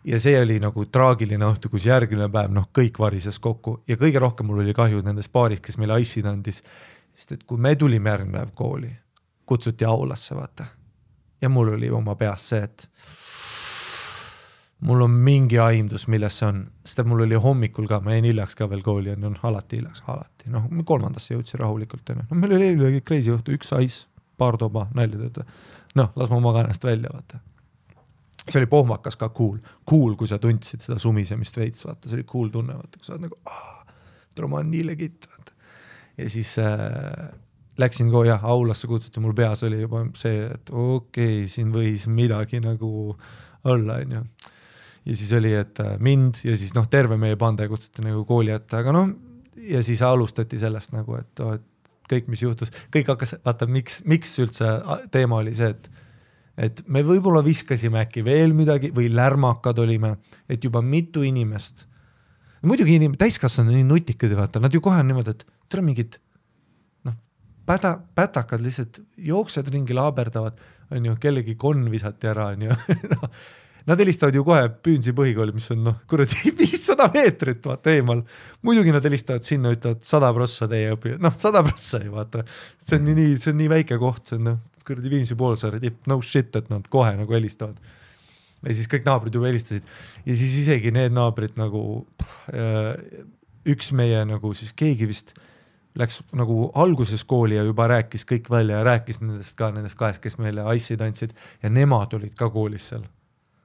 Ja see oli nagu traagiline õhtu, kus järgmine päev, kõik varises kokku ja kõige rohkem mul oli kahju nendest paaris, kes meile ice'id andis, sest et kui me tulime järgmine päev kooli, kutsuti aulasse, vaata. Ja mul oli oma peas see, et mul on mingi aimdus, milles see on, sest et mul oli hommikul ka, ma jäin hiljaks ka veel kooli, on alati hiljaks, alati. Me 3. jõudsin rahulikult. Meil oli crazy õhtu, üks ice, paar toba, nälja tööta. Las ma maga ennast välja, vaata. See oli pohmakas ka cool, kui sa tundsid seda sumisemist veits, vaata, see oli cool tunne, vaata, kui sa oled nagu, ma on nii legit, vaata. Ja siis läksin aulasse kutsuti, mul peas oli juba see, et okei, siin võis midagi nagu olla, on ju. Ja siis oli, et mind ja siis terve meie bande kutsuti nagu kooli ette, aga ja siis alustati sellest nagu, et kõik, mis juhtus, kõik hakkas, vaata, miks üldse teema oli see, et me võib-olla viskasime äkki veel midagi või lärmakad olime, et juba mitu inimest, muidugi täiskasvanud nii nutikad, vaata, nad ju kohe on niimoodi, et tere mingid pätakad lihtsalt jooksed ringi laaberdavad, on ju, kellegi konn visati ära, on ju. Nad helistavad ju kohe Püünsi põhikooli, mis on 500 meetrit vaata eemal. Muidugi nad helistavad sinna, ütlevad 100% teie õpi. 100% ei vaata. See on nii väike koht, see on Viimsi poolsaare tipp, no shit, et nad kohe nagu helistavad. Ja siis kõik naabrid juba helistasid. Ja siis isegi need naabrid nagu üks meie nagu siis keegi vist läks nagu alguses kooli ja juba rääkis kõik välja ja rääkis nendest kahest, kes meile ice'id andsid ja nemad olid ka koolis seal.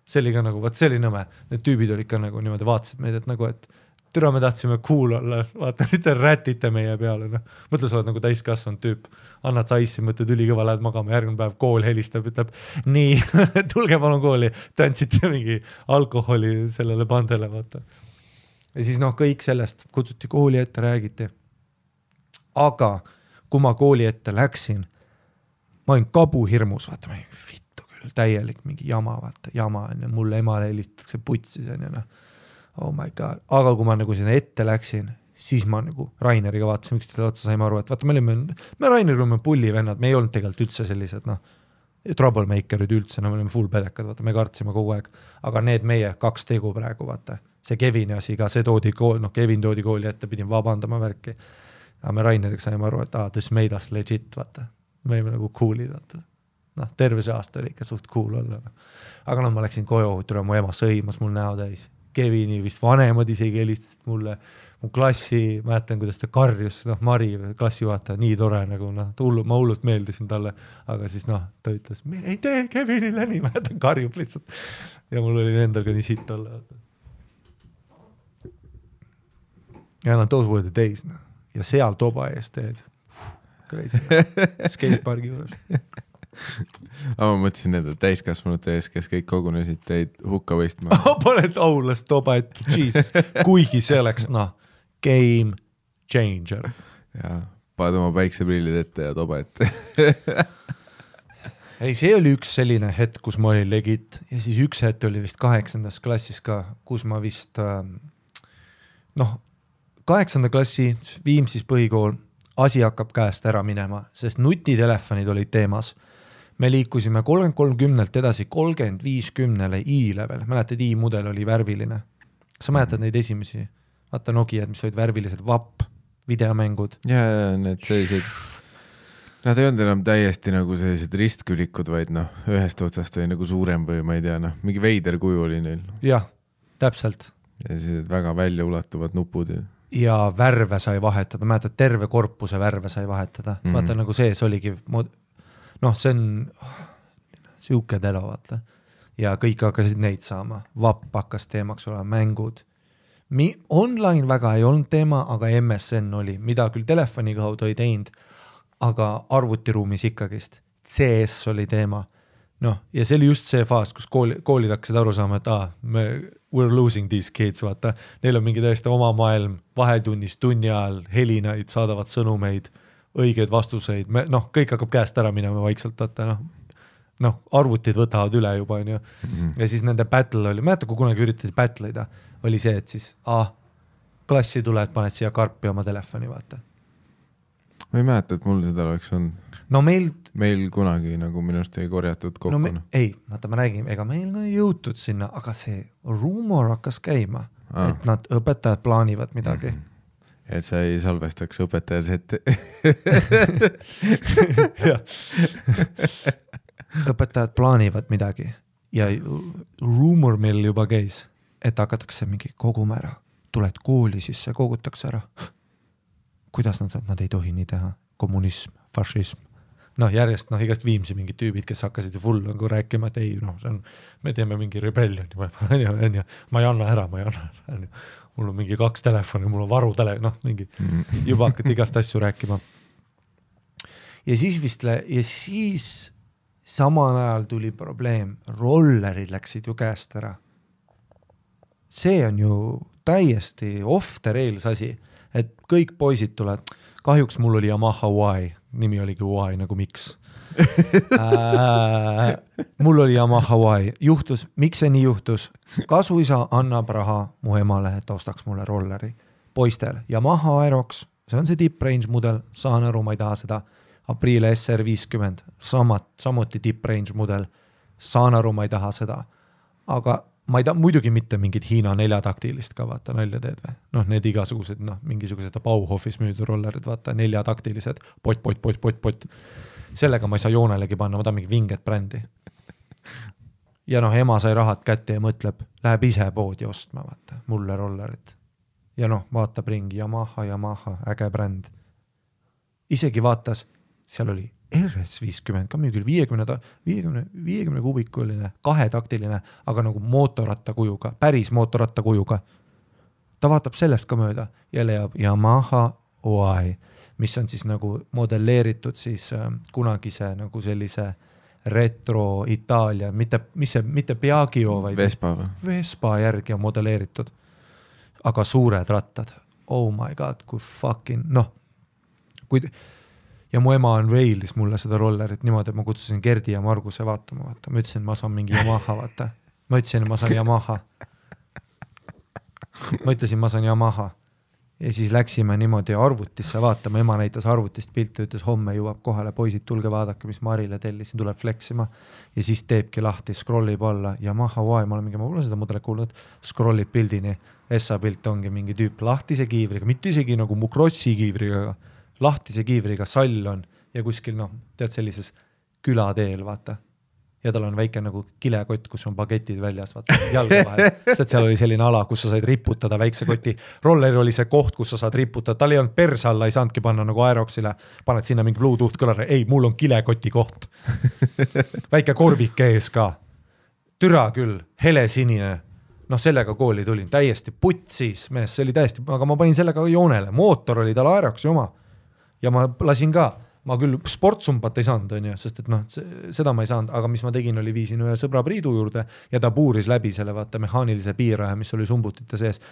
See oli ka nagu, see oli nõme. Need tüübid olid ka nagu niimoodi vaatasid meid, et nagu, et türa me tahtsime cool olla, vaata, mitte rätite meie peale. Mõtle, sa oled nagu täiskasvanud tüüp, annad sa ice'i, mõtled ülikõva, lähed magama, järgmine päev kool helistab, ütleb, nii, tulge palun kooli, tantsite mingi alkoholi sellele bandele, vaata. Ja siis kõik sellest kutsuti kooli ette, räägiti. Aga kui ma kooli ette läksin, ma olin kabuhirmus, vaata, ma olin vittu küll, täielik mingi jama, vaata, jama on ja mulle emale helistatakse putsis on ja oh my god, aga kui ma nagu sinna ette läksin, siis ma nagu Raineriga vaatasin, miks teile otsa saime aru, et vaata, me Raineriga oleme pullivennad, me ei olnud tegelikult üldse sellised, troublemakerid üldse, me olime full pedekad, vaata, me kartsime kogu aeg, aga need meie 2 tegu praegu, vaata, see Kevini asi ka, see toodi kooli, Kevin toodi kooli ette, pidin vabandama värki, aga me Raineriga saime aru, et this made us legit, vaata, me olime nagu cool'id, vaata, terve see aasta oli ikka suht cool olla, aga ma läksin koju, mu ema sõimas mul näo täis, Kevini vist vanemad isegi helistasid mulle, mu klassi, mäletan, kuidas ta karjus, Mari, klassijuhataja, nii tore nagu, ma hullult meeldisin talle, aga siis ta ütles, me ei tee Kevinile nii, mäletan, karjub lihtsalt. Ja mul oli endal ka nii sitt olla. Ja those were the days, ja seal toba ees teed. Crazy. Skatepargi juures. Aga ma mõtlesin nende täiskasvanute ees, kes kõik kogunesid teid hukka võistma. Paned aulas toba ette, Jesus, kuigi see oleks, game changer. Ja, paned oma päikseprillid ette ja toba ette. Ei, see oli üks selline hetk, kus ma olin legit ja siis üks hetk oli vist 8. klassis ka, kus ma vist 8. klassi Viimsis põhikool, asi hakkab käest ära minema, sest nutitelefonid olid teemas. Me liikusime 30-30 edasi 35-10 i-level. Mäletad, i-mudel oli värviline. Sa mäletad neid esimesi? Vaata Nokiad, mis olid värvilised, vapp, videomängud. Ja need sellised, nad ei olnud enam täiesti nagu sellised ristkülikud, vaid ühest otsast oli nagu suurem või ma ei tea, mingi veider kuju oli neil. Jah, täpselt. Ja sellised väga välja ulatuvad nupud. Ja värve sai vahetada, mäletad, terve korpuse värve sai vahetada. Vaata nagu sees oligi see on siuke telo, vaata. Ja kõik hakkasid neid saama. Vapp hakkas teemaks olema, mängud. Online väga ei olnud teema, aga MSN oli, mida küll telefoni kaudu ei teinud, aga arvutiruumis ikkagist. CS oli teema. Ja see oli just see faas, kus koolid hakkasid aru saama, et we're losing these kids, vaata. Neil on mingi täiesti oma maailm, vahetunnis, tunni ajal, helinaid, saadavad sõnumeid, õigeid vastuseid, kõik hakkab käest ära minema vaikselt, vaata, arvutid võtavad üle juba, ja siis nende battle oli, mäeta, kui kunagi üritati battle'ida, oli see, et siis, klassi tuled, paned siia karpi oma telefoni, vaata. Ma ei mäleta, et mul seda oleks olnud. Meil kunagi nagu minust ei korjatud kokku. Ei, vaata, ma räägin, ega meil ei jõutud sinna, aga see rumor hakkas käima, et nad õpetajad plaanivad midagi. Et sa ei salvestaks õpetajas ette. Õpetajad plaanivad midagi ja rumor meil juba käis, et hakatakse mingi koguma ära. Tuled kooli, siis see kogutakse ära. Kuidas nad ei tohi nii teha? Kommunism, fašism. Järjest igast Viimsi mingid tüübid, kes hakkasid ju full nagu rääkima, et ei, me teeme mingi rebellion. Ma ei anna ära. Mul on mingi 2 telefoni, mul on varutele, mingi juba hakkad igast asju rääkima. Ja siis samal ajal tuli probleem, rollerid läksid ju käest ära. See on ju täiesti off the rails asi, et kõik poisid tulevad. Kahjuks mul oli Yamaha Y, nimi oligi Y nagu miks. Mul oli Yamaha Y. Juhtus, miks see nii juhtus? Kasuisa annab raha mu emale, et ostaks mulle rolleri. Poistel Yamaha Aerox, see on see tip-range mudel, saan aru, ma ei taha seda. Aprilia SR50, samuti tip-range mudel, saan aru, ma ei taha seda. Aga ma ei taha muidugi mitte mingid Hiina 4-taktilist ka, vaata, nalja teed või? Need igasugused, mingisugused Bauhofis müüdud rollerid, vaata, 4-taktilised, pot. Sellega ma ei saa joonelegi panna, ma tahan mingi vinget brändi. Ja ema sai rahad kätte ja mõtleb, läheb ise poodi ostma, vaata, mulle rollerit. Ja vaatab ringi, Yamaha, äge bränd. Isegi vaatas, seal oli RS50, ka müügil 50 kubikuline, 2-taktiline, aga nagu mootorratta kujuga, päris mootorratta kujuga. Ta vaatab sellest ka mööda ja leiab Yamaha Y, mis on siis nagu modelleeritud siis kunagise nagu sellise retro Itaalia, mitte Piaggio, vaid Vespa järgi on modelleeritud, aga suured rattad. Oh my god, kui fucking, ja mu ema on Wales mulle seda rollerit niimoodi, et ma kutsusin Gerdi ja Marguse vaatama, vaata. Ma ütlesin, ma saan mingi Yamaha, vaata. Ma ütlesin, ma saan Yamaha. Ma ütlesin, ma saan Yamaha. ja siis läksime niimoodi arvutisse vaatama, ema näitas arvutist pilti, ütles homme jõuab kohale, poisid, tulge vaadake, mis Marile tellisin, tuleb fleksima ja siis teebki lahti, scrollib alla ja ma pole seda mudelit kuulnud, scrollib pildini, Essa pilt ongi mingi tüüp lahtise kiivriga, mitte isegi nagu mu krossi kiivriga, lahtise kiivriga sall on ja kuskil tead sellises külateel, vaata. Ja tal on väike nagu kilekott, kus on bagetid väljas, vaata, jalga vahel. Sest seal oli selline ala, kus sa said riputada väikse koti. Roller oli see koht, kus sa saad riputada. Tal ei olnud perse alla, ei saanudki panna nagu Aeroxile. Paned sinna mingi Bluetooth kõlare. Ei, mul on kilekoti koht. Väike korvike ees ka. Türa küll, hele sinine. Sellega kooli tulin. Täiesti putsis mees, see oli täiesti, aga ma panin sellega joonele. Mootor oli tal Aeroxi oma. Ja ma lasin ka. Ma küll sportsumpat ei saanud, on ju, sest et seda ma ei saanud, aga mis ma tegin, oli viisin ühe sõbra Priidu juurde ja ta puuris läbi selle vaata mehaanilise piiraja, mis oli sumbutite sees,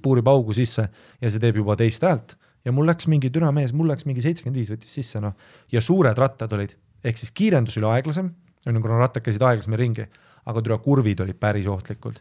puurib augu sisse ja see teeb juba teist häält. Ja mul läks mingi türa mees, mul läks mingi 75 võttis sisse, ja suured rattad olid, ehk siis kiirendus oli aeglasem, kuna rattad käisid aeglasem ringi, aga türa kurvid olid päris ohtlikult.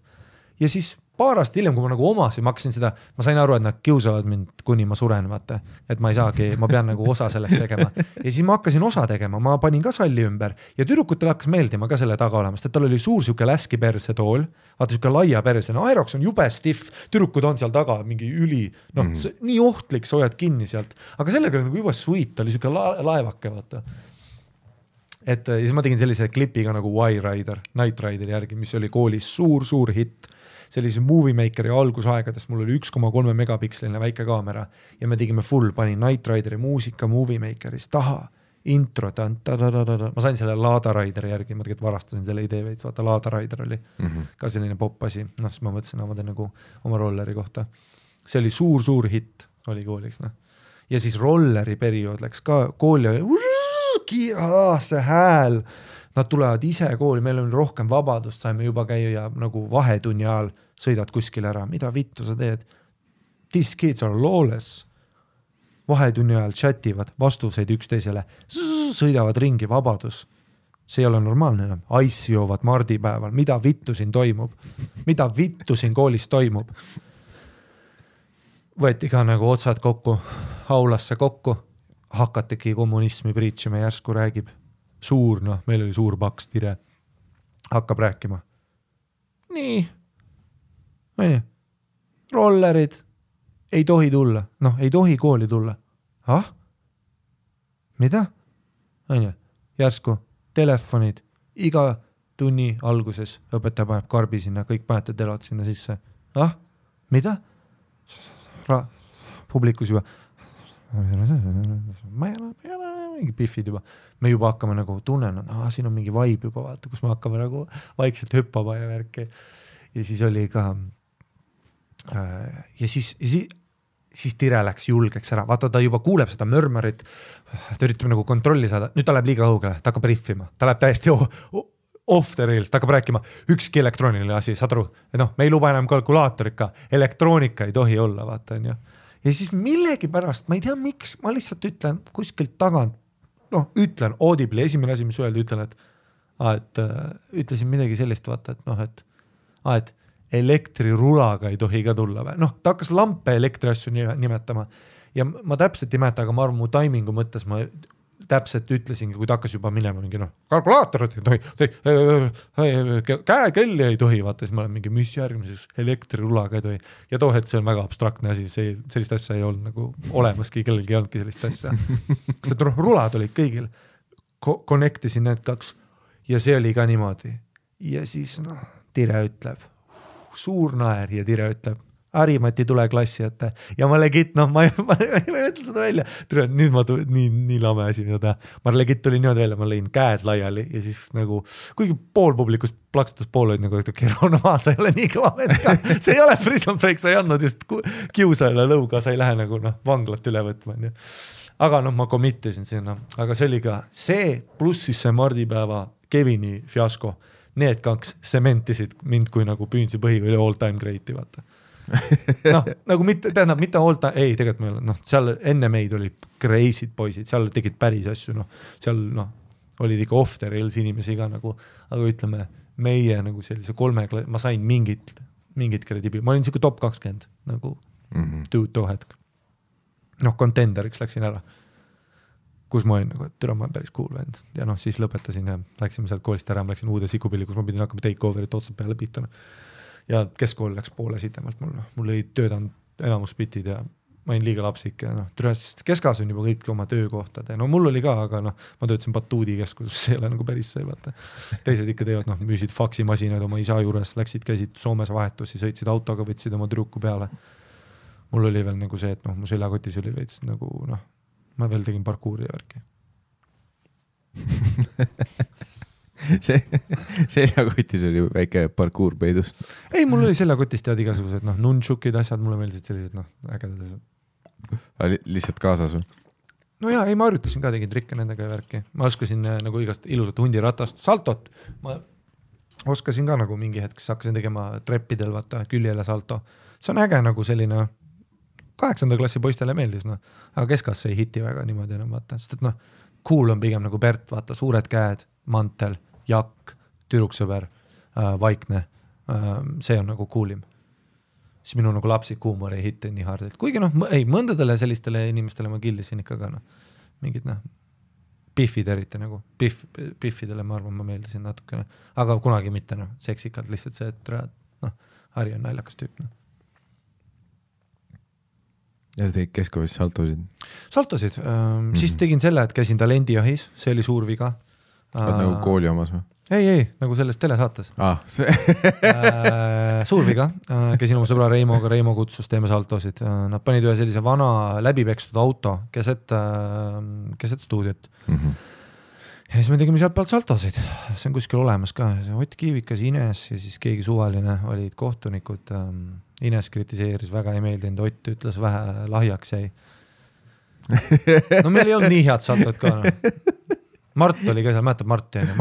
Ja siis paar aastat hiljem, kui ma nagu omasin, ma hakkasin seda, ma sain aru, et nad kiusavad mind, kuni ma suren, vaata, et ma ei saagi, ma pean nagu osa sellest tegema. Ja siis ma hakkasin osa tegema, ma panin ka salli ümber ja tüdrukutel hakkas meeldima ka selle taga olemast, et tal oli suur siuke läski perse tool, vaata siuke laia perse, Aerox on jube stiff, tüdrukud on seal taga mingi üli, nii ohtlik, sa hoiad kinni sealt, aga sellega oli nagu juba sweet, oli siuke laevake, vaata. Et ja siis ma tegin sellise klipiga nagu Y-Rider, Night Rideri järgi, mis oli koolis suur hitt. Sellise Movie Makeri algusaegadest mul oli 1,3 megapiksline väike kaamera ja me tegime full, panin Night Rideri muusika Movie Makeris taha, intro, ma sain selle Lada Rideri järgi, ma tegelikult varastasin selle idee veits, vaata Lada Rider oli ka selline pop asi, siis ma mõtlesin nagu oma rolleri kohta. See oli suur hitt, oli koolis. Ja siis rolleri periood läks ka, kooli oli see hääl, nad tulevad ise kooli, meil on rohkem vabadust, saime juba käia nagu vahetunni ajal, sõidad kuskil ära, mida vittu sa teed? These kids are lawless. Vahetunni ajal chativad, vastuseid üksteisele, sõidavad ringi, vabadus. See ei ole normaalne enam. Ice joovad mardipäeval, mida vittu siin toimub? Mida vittu siin koolis toimub? Võeti ka nagu otsad kokku, aulasse kokku, hakategi kommunismi preachima, järsku räägib. Suur, meil oli suur paks tire, hakkab rääkima. Nii, rollerid ei tohi tulla, ei tohi kooli tulla. Mida? Järsku, telefonid, iga tunni alguses õpetaja paneb karbi sinna, kõik panete telod sinna sisse. Mida? Publikus juba. Ma ei ole mingi piffid juba. Me juba hakkame nagu tunnen, siin on mingi vibe juba, vaata, kus me hakkame nagu vaikselt hüppama ja värki. Ja siis oli ka ja siis tire läks julgeks ära. Vaata, ta juba kuuleb seda mörmörit, ta üritab nagu kontrolli saada. Nüüd ta läheb liiga õugele, ta hakkab riffima. Ta läheb täiesti off the rails, ta hakkab rääkima ükski elektrooniline asi, saad aru? Me ei luba enam kalkulaatorika, elektroonika ei tohi olla, vaata, on ju. Ja siis millegi pärast, ma ei tea miks, ma lihtsalt ütlen kuskilt tagant, ütlen audibly, esimene asi, mis öelda, ütlen, et ütlesin midagi sellist, vaata, et elektrirulaga ei tohi ka tulla. Ta hakkas lampe elektriasju nimetama ja ma täpselt ei mäleta, aga ma arvan, mu taimingu mõttes ma täpselt ütlesingi, kui ta hakkas juba minema mingi kalkulaatorit ei tohi, käekelli ei tohi, vaata, siis ma olen mingi, mis järgmises elektrirulaga ei tohi. Ja toohet, see on väga abstraktne asi, sellist asja ei olnud nagu olemaski, kellelgi ei olnudki sellist asja. Sest rulad olid kõigil, connectisin need kaks ja see oli ka niimoodi. Ja siis tire ütleb, suur naer ja tire ütleb, Harimati tule klassi ette ja ma legit, ma ei ütle seda välja, nüüd ma nii lame asi, mida teha, ma legit tuli niimoodi välja, ma lõin käed laiali ja siis nagu, kuigi pool publikust plaksutus pool olid nagu, sa ei ole nii kõva vend ka, see ei ole prison break, sa ei andnud just kiusajale lõuga, sa ei lähe nagu vanglat üle võtma, aga ma committisin sinna, aga see oli ka see, pluss siis see mardipäeva Kevini fiasko, need kaks sementisid mind kui nagu Püünsi põhi või all time great'i, vaata. Nagu mitte all time, ei, tegelikult meil, seal enne meid oli crazy'd poisid, seal tegid päris asju, seal olid ikka off the rails inimesi ka nagu, aga ütleme, meie nagu sellise ma sain mingit kredibi, ma olin siuke top 20 nagu too hetk. noh, contenderiks läksin ära. Kus ma olin nagu, et türa ma olen päris cool vend. Ja noh, siis lõpetasin ja läksime sealt koolist ära, ma läksin uude sikupilli, kus ma pidin hakkama take over'it otsad peale pihta. Ja keskkool läks poole sitemalt mul ei töödanud enamus bitid ja ma olin liiga lapsik ja noh, keskas on juba kõik oma töökohtad ja no mul oli ka, aga noh, ma töötasin Batuudi keskuses, see ei ole nagu päris see, vaata. Teised ikka teevad, noh, müüsid faksimasinaid oma isa juures, käisid Soomes vahetusi, sõitsid autoga, võtsid oma tüdruku peale. Mul oli veel nagu see, et noh, mu seljakotis oli veits nagu noh, ma veel tegin parkuuri ja värki. seljakotis oli väike parkuur peidus. Ei, mul oli seljakotis tead igasugused noh, nunchukid asjad, mulle meeldisid sellised noh, ägedad asjad. Lihtsalt kaasas või? No jaa, ei, ma harjutasin ka, tegin trikke nendega ja värki. Ma oskasin nagu igast ilusat hundiratast, saltot. Ma oskasin ka nagu mingi hetk, hakkasin tegema treppidel, vaata, küljele salto. See on äge nagu selline 8. klassi poistele meeldis, noh. Aga keskas see ei hiti väga niimoodi enam, vaata. Sest et noh, cool on pigem nagu Bert, vaata, suured käed, mantel, jakk, tüdruksõber, vaikne. See on nagu coolim. Siis minu nagu lapsik huumor ei hitte nii hard. Kuigi noh, ei, mõndadele sellistele inimestele ma killisin ikka ka noh, mingid noh, piffid eriti nagu, piffidele ma arvan, ma meeldisin natukene, aga kunagi mitte noh, seksikalt lihtsalt see, et noh, Harri on naljakas tüüp noh. Ja sa tegid keskoolis saltosid? Saltosid, siis tegin selle, et käisin talendijahis, see oli suur viga. Nagu kooli omas või? Ei, nagu selles telesaates. See. Suur viga, käisin oma sõbra Reimoga, Reimo kutsus, teeme saltosid. Nad panid ühe sellise vana läbipekstud auto keset stuudiot. Ja siis me tegime sealt pealt saltosid. See on kuskil olemas ka. Ott Kiivikas, Ines ja siis keegi suvaline olid kohtunikud. Ines kritiseeris, väga ei meeldinud, Ott ütles vähe lahjaks jäi. No meil ei olnud nii head saltod ka. No. Mart oli ka seal, mäletab Marti on ju.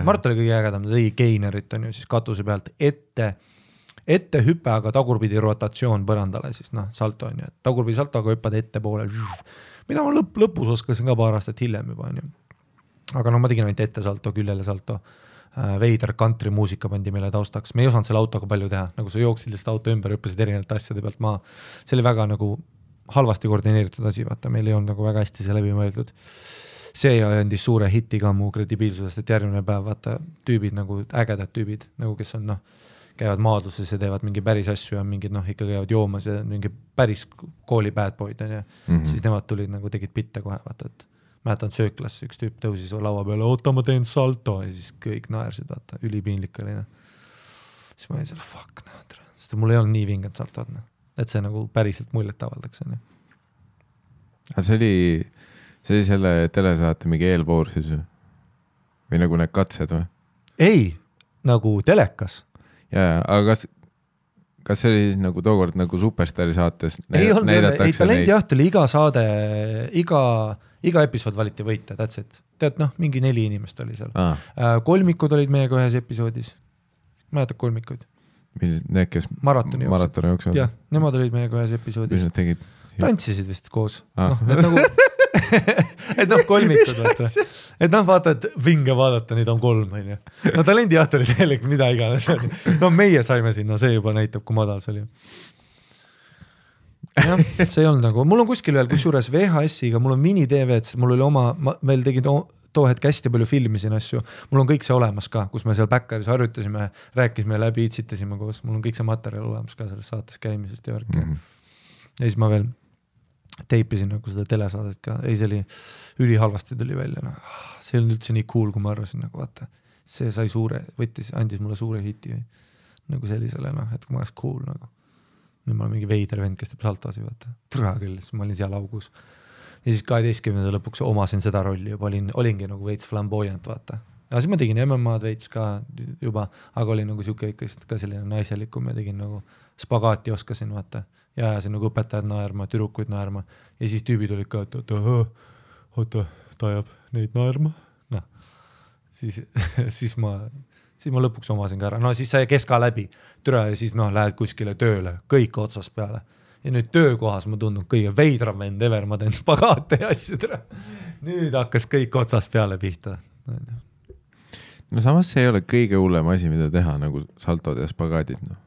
Mart oli kõige ägedam, ta tegi geinerit on ju siis katuse pealt ette hüpe, aga tagurpidi rotatsioon põrandale siis noh, salto on ju. Tagurpidi salto, aga hüppad ette poole. Mida ma lõpus oskasin ka paar aastat hiljem juba on ju. Aga no ma tegin ainult ette salto, küljele salto. Veider country muusika pandi meile taustaks. Me ei osanud selle autoga palju teha, nagu sa jooksid lihtsalt auto ümber, hüppasid erinevalt asjade pealt maa. See oli väga nagu halvasti koordineeritud asi, vaata, meil ei olnud nagu väga hästi see läbi mõeldud. See andis suure hiti ka mu kredibiilsusest, et järgmine päev vaata tüübid nagu ägedad tüübid, nagu kes on noh, käivad maadluses ja teevad mingi päris asju ja mingid noh, ikka käivad joomas ja mingi päris kooli bad boyd on ja siis nemad tulid nagu tegid pitte kohe, vaata, et mäletan sööklas, üks tüüp tõusis laua peale, oota ma teen salto ja siis kõik naersid, vaata, ülipiinlik oli. Siis ma olin seal, fuck, sest mul ei olnud nii vinged saltod, et see nagu päriselt muljet avaldaks. Aga see oli selle telesaate mingi eelvoor siis või nagu need katsed või? Ei, nagu telekas. Ja, aga kas see oli siis nagu tookord nagu Superstari saates ei Talendjaht oli iga saade, iga episood valiti võita, that's it. Tead, noh, mingi 4 inimest oli seal. Kolmikud olid meiega ühes episoodis. Mäletad kolmikuid? Need, kes maratoni jooksid? Jah, nemad olid meiega ühes episoodis. Mis nad tegid? Tantsisid vist koos. Et nagu et noh, kolmikud vaata. Et noh, vaata, et vinge vaadata, neid on 3 on ju. No Talendjaht oli tegelikult mida iganes. No meie saime sinna, see juba näitab, kui madal see oli. Jah, see ei olnud nagu, mul on kuskil veel kusjuures VHS-iga, mul on mini-DV'd, mul oli oma, ma veel tegin too hetk hästi palju filmisin asju, mul on kõik see olemas ka, kus me seal Backeris harjutasime, rääkisime läbi, itsitasime koos, mul on kõik see materjal olemas ka selles saates käimisest ja värki. Ja siis ma veel teipisin nagu seda telesaadet ka, ei see oli ülihalvasti tuli välja, no. See oli üldse nii cool, kui ma arvasin, nagu vaata, see sai andis mulle suure hiti nagu sellisele, noh, et kui ma oleks cool nagu. Nüüd ma olen mingi veider vend, kes teeb saltosi, vaata, türa küll, siis ma olin seal augus. Ja siis 12. lõpuks omasin seda rolli juba, olingi nagu veits flamboyant, vaata. Ja siis ma tegin MMA-d veits ka juba, aga olin nagu siuke ikka ka selline naiselikum ja tegin nagu spagaati oskasin, vaata. Ja ajasin nagu õpetajad naerma, türukuid naerma ja siis tüübid olid ka, et oota, ta ajab neid naerma. No. Siis ma lõpuks omasin ka ära. No siis sai keska läbi, türa ja siis noh, lähed kuskile tööle, kõik otsast peale. Ja nüüd töökohas ma tundun kõige veidram vend ever, ma teen spagaate ja asju türa. Nüüd hakkas kõik otsast peale pihta. No samas see ei ole kõige hullem asi, mida teha, nagu saltod ja spagaadid, noh.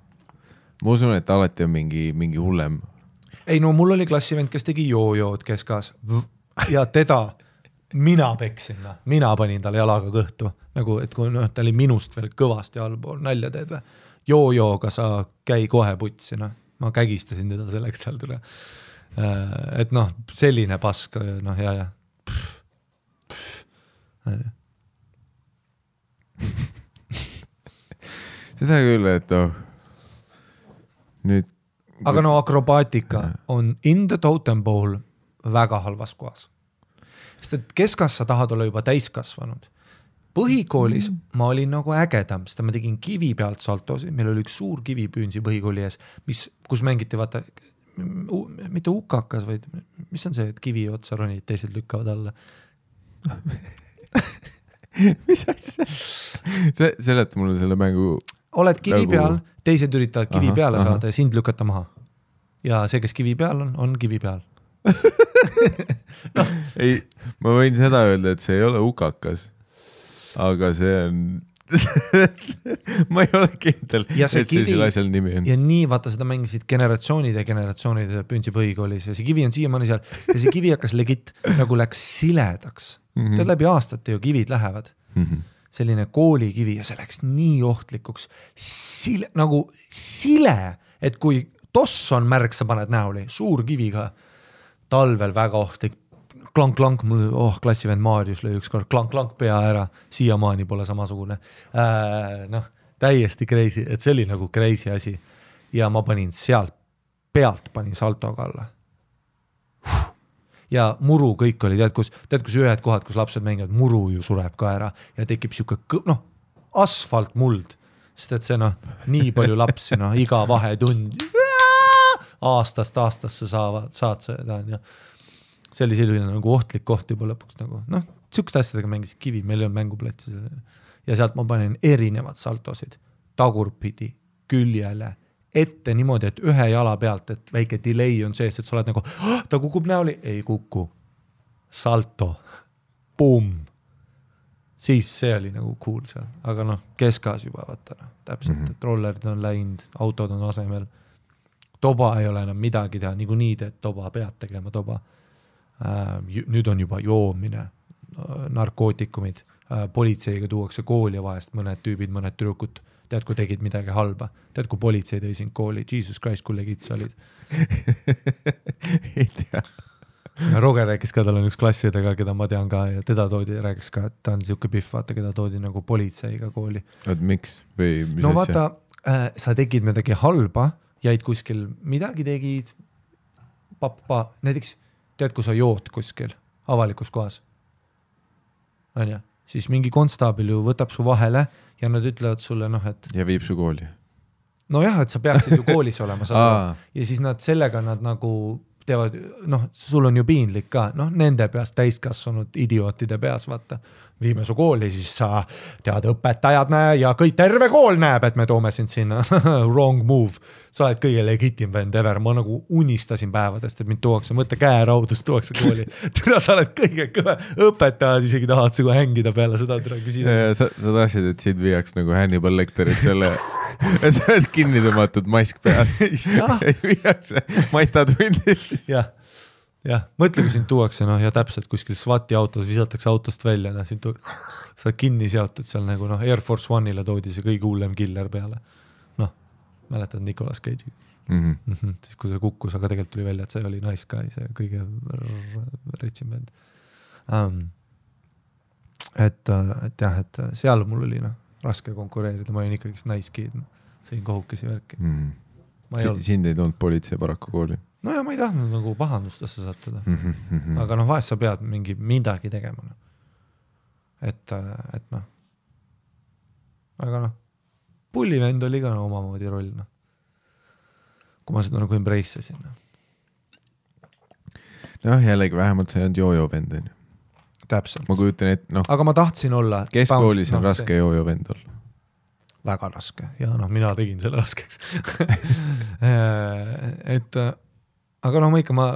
Ma usun, et alati on mingi hullem. ei no mul oli klassivend, kes tegi joojood keskas ja teda mina peksin, mina panin talle jalaga kõhtu, nagu et kui ta oli minust veel kõvasti allpool, nalja teed või, joojooga sa käi kohe putsi, ma kägistasin teda selleks seal tule. Et selline pask, ja. Seda küll, et nüüd aga akrobaatika on in the totem pole väga halvas kohas. Sest et keskas sa tahad olla juba täiskasvanud. Põhikoolis ma olin nagu ägedam, sest ma tegin kivi pealt saltosi, meil oli üks suur kivi püünsi põhikooli ees, kus mängiti, vaata, mitte ukakas, vaid mis on see, et kivi otsa ronid, teised lükkavad alla. Mis asja? Seleta mulle selle mängu. Oled kivi peal, teised üritavad kivi peale saada ja sind lükata maha. Ja see, kes kivi peal on kivi peal. Ei, ma võin seda öelda, et see ei ole ukakas, aga see on ma ei ole kindel, et see selle asjal nimi on. Ja nii, vaata, seda mängisid generatsioonide püünsi põhikoolis ja see kivi on siiamaani seal ja see kivi hakkas legit nagu läks siledaks. Tead läbi aastate ju kivid lähevad. Selline koolikivi ja see läks nii ohtlikuks. Nagu sile, et kui toss on märk, sa paned näoli, suur kivi ka, talvel väga ohtlik, klank, mul klassivend Maarius lõi ükskord klank pea ära, siiamaani pole samasugune. Täiesti crazy, et see oli nagu crazy asi. Ja ma panin sealt pealt panin saltoga alla. Ja muru kõik oli, tead kus ühed kohad, kus lapsed mängivad, muru ju sureb ka ära ja tekib siuke, asfalt muld, sest et see nii palju lapsi, iga vahetund aastast aastasse saad seda, ja see oli selline nagu ohtlik koht juba lõpuks nagu, siukest asjadega mängisid kivi, meil ei olnud mänguplatsi ja sealt ma panin erinevad saltosid, tagurpidi, küljele, ette niimoodi, et ühe jala pealt, et väike delay on sees, et sa oled nagu, ta kukub näoli, ei kuku, salto, boom, siis see oli nagu cool seal, aga keskas juba, vaata, täpselt, et rollerid on läinud, autod on asemel, toba ei ole enam midagi teha, nii teed toba, pead tegema toba, nüüd on juba joomine, narkootikumid, politseiga tuuakse kooli vahest, mõned tüübid, mõned tüdrukud, tead, kui tegid midagi halba, tead, kui politsei tõi sind kooli, Jesus Christ, kui legit sa olid. Ei tea. Ja Roger rääkis ka, tal on üks klassiõdega, keda ma tean ka, ja teda toodi, rääkis ka, et ta on siuke pihv, vaata, keda toodi nagu politseiga kooli. Oot, miks? Või mis asja? Vaata, sa tegid midagi halba, jäid kuskil, midagi tegid, näiteks, tead, kui sa jood kuskil avalikus kohas, on ja? Siis mingi konstaabil ju võtab su vahele ja nad ütlevad sulle, et... Ja viib su kooli. Nojah, et sa peaksid ju koolis olema. Ja siis sellega nad nagu teevad, sul on ju piinlik ka, nende peas täiskasvanud idiootide peas, vaata, viime su kooli, siis sa tead, õpetajad näe ja kõik terve kool näeb, et me toome sind sinna. Wrong move. Sa oled kõige legitim vend ever. Ma nagu unistasin päevadest, et mind tuuakse, mõtle käeraudust tuuakse kooli. Türa, sa oled kõige kõve. Õpetajad isegi tahad sigu hängida peale seda türa küsida. Sa tahtsid, et sind viiaks nagu Hannibal Lecterit selle, et sa oled kinni tõmmatud mask peas. Viiakse maitatundi. Jah, mõtle, kui sind tuuakse, ja täpselt kuskil SWAT-i autos visatakse autost välja, sa oled kinni seotud seal nagu, Air Force One'ile toodi see kõige hullem killer peale. Mäletad Nicolas Cage'i. Siis kui see kukkus, aga tegelikult tuli välja, et see oli nice guy, see kõige retsim vend. Et jah, et seal mul oli raske konkureerida, ma olin ikkagi nice kid, sõin kohukesi värki. Sind ei toonud politsei paraku kooli? No ja ma ei tahtnud nagu pahandustesse sattuda. Aga vahest sa pead midagi tegema. Et aga pullivend oli ka omamoodi roll. Kui ma seda nagu embrace'asin. Jällegi vähemalt see on joojo vend. Täpselt. Ma kujutan, et aga ma tahtsin olla... Keskkoolis on raske joojo vend olla. Väga raske. Ja mina tegin selle raskeks. Aga ma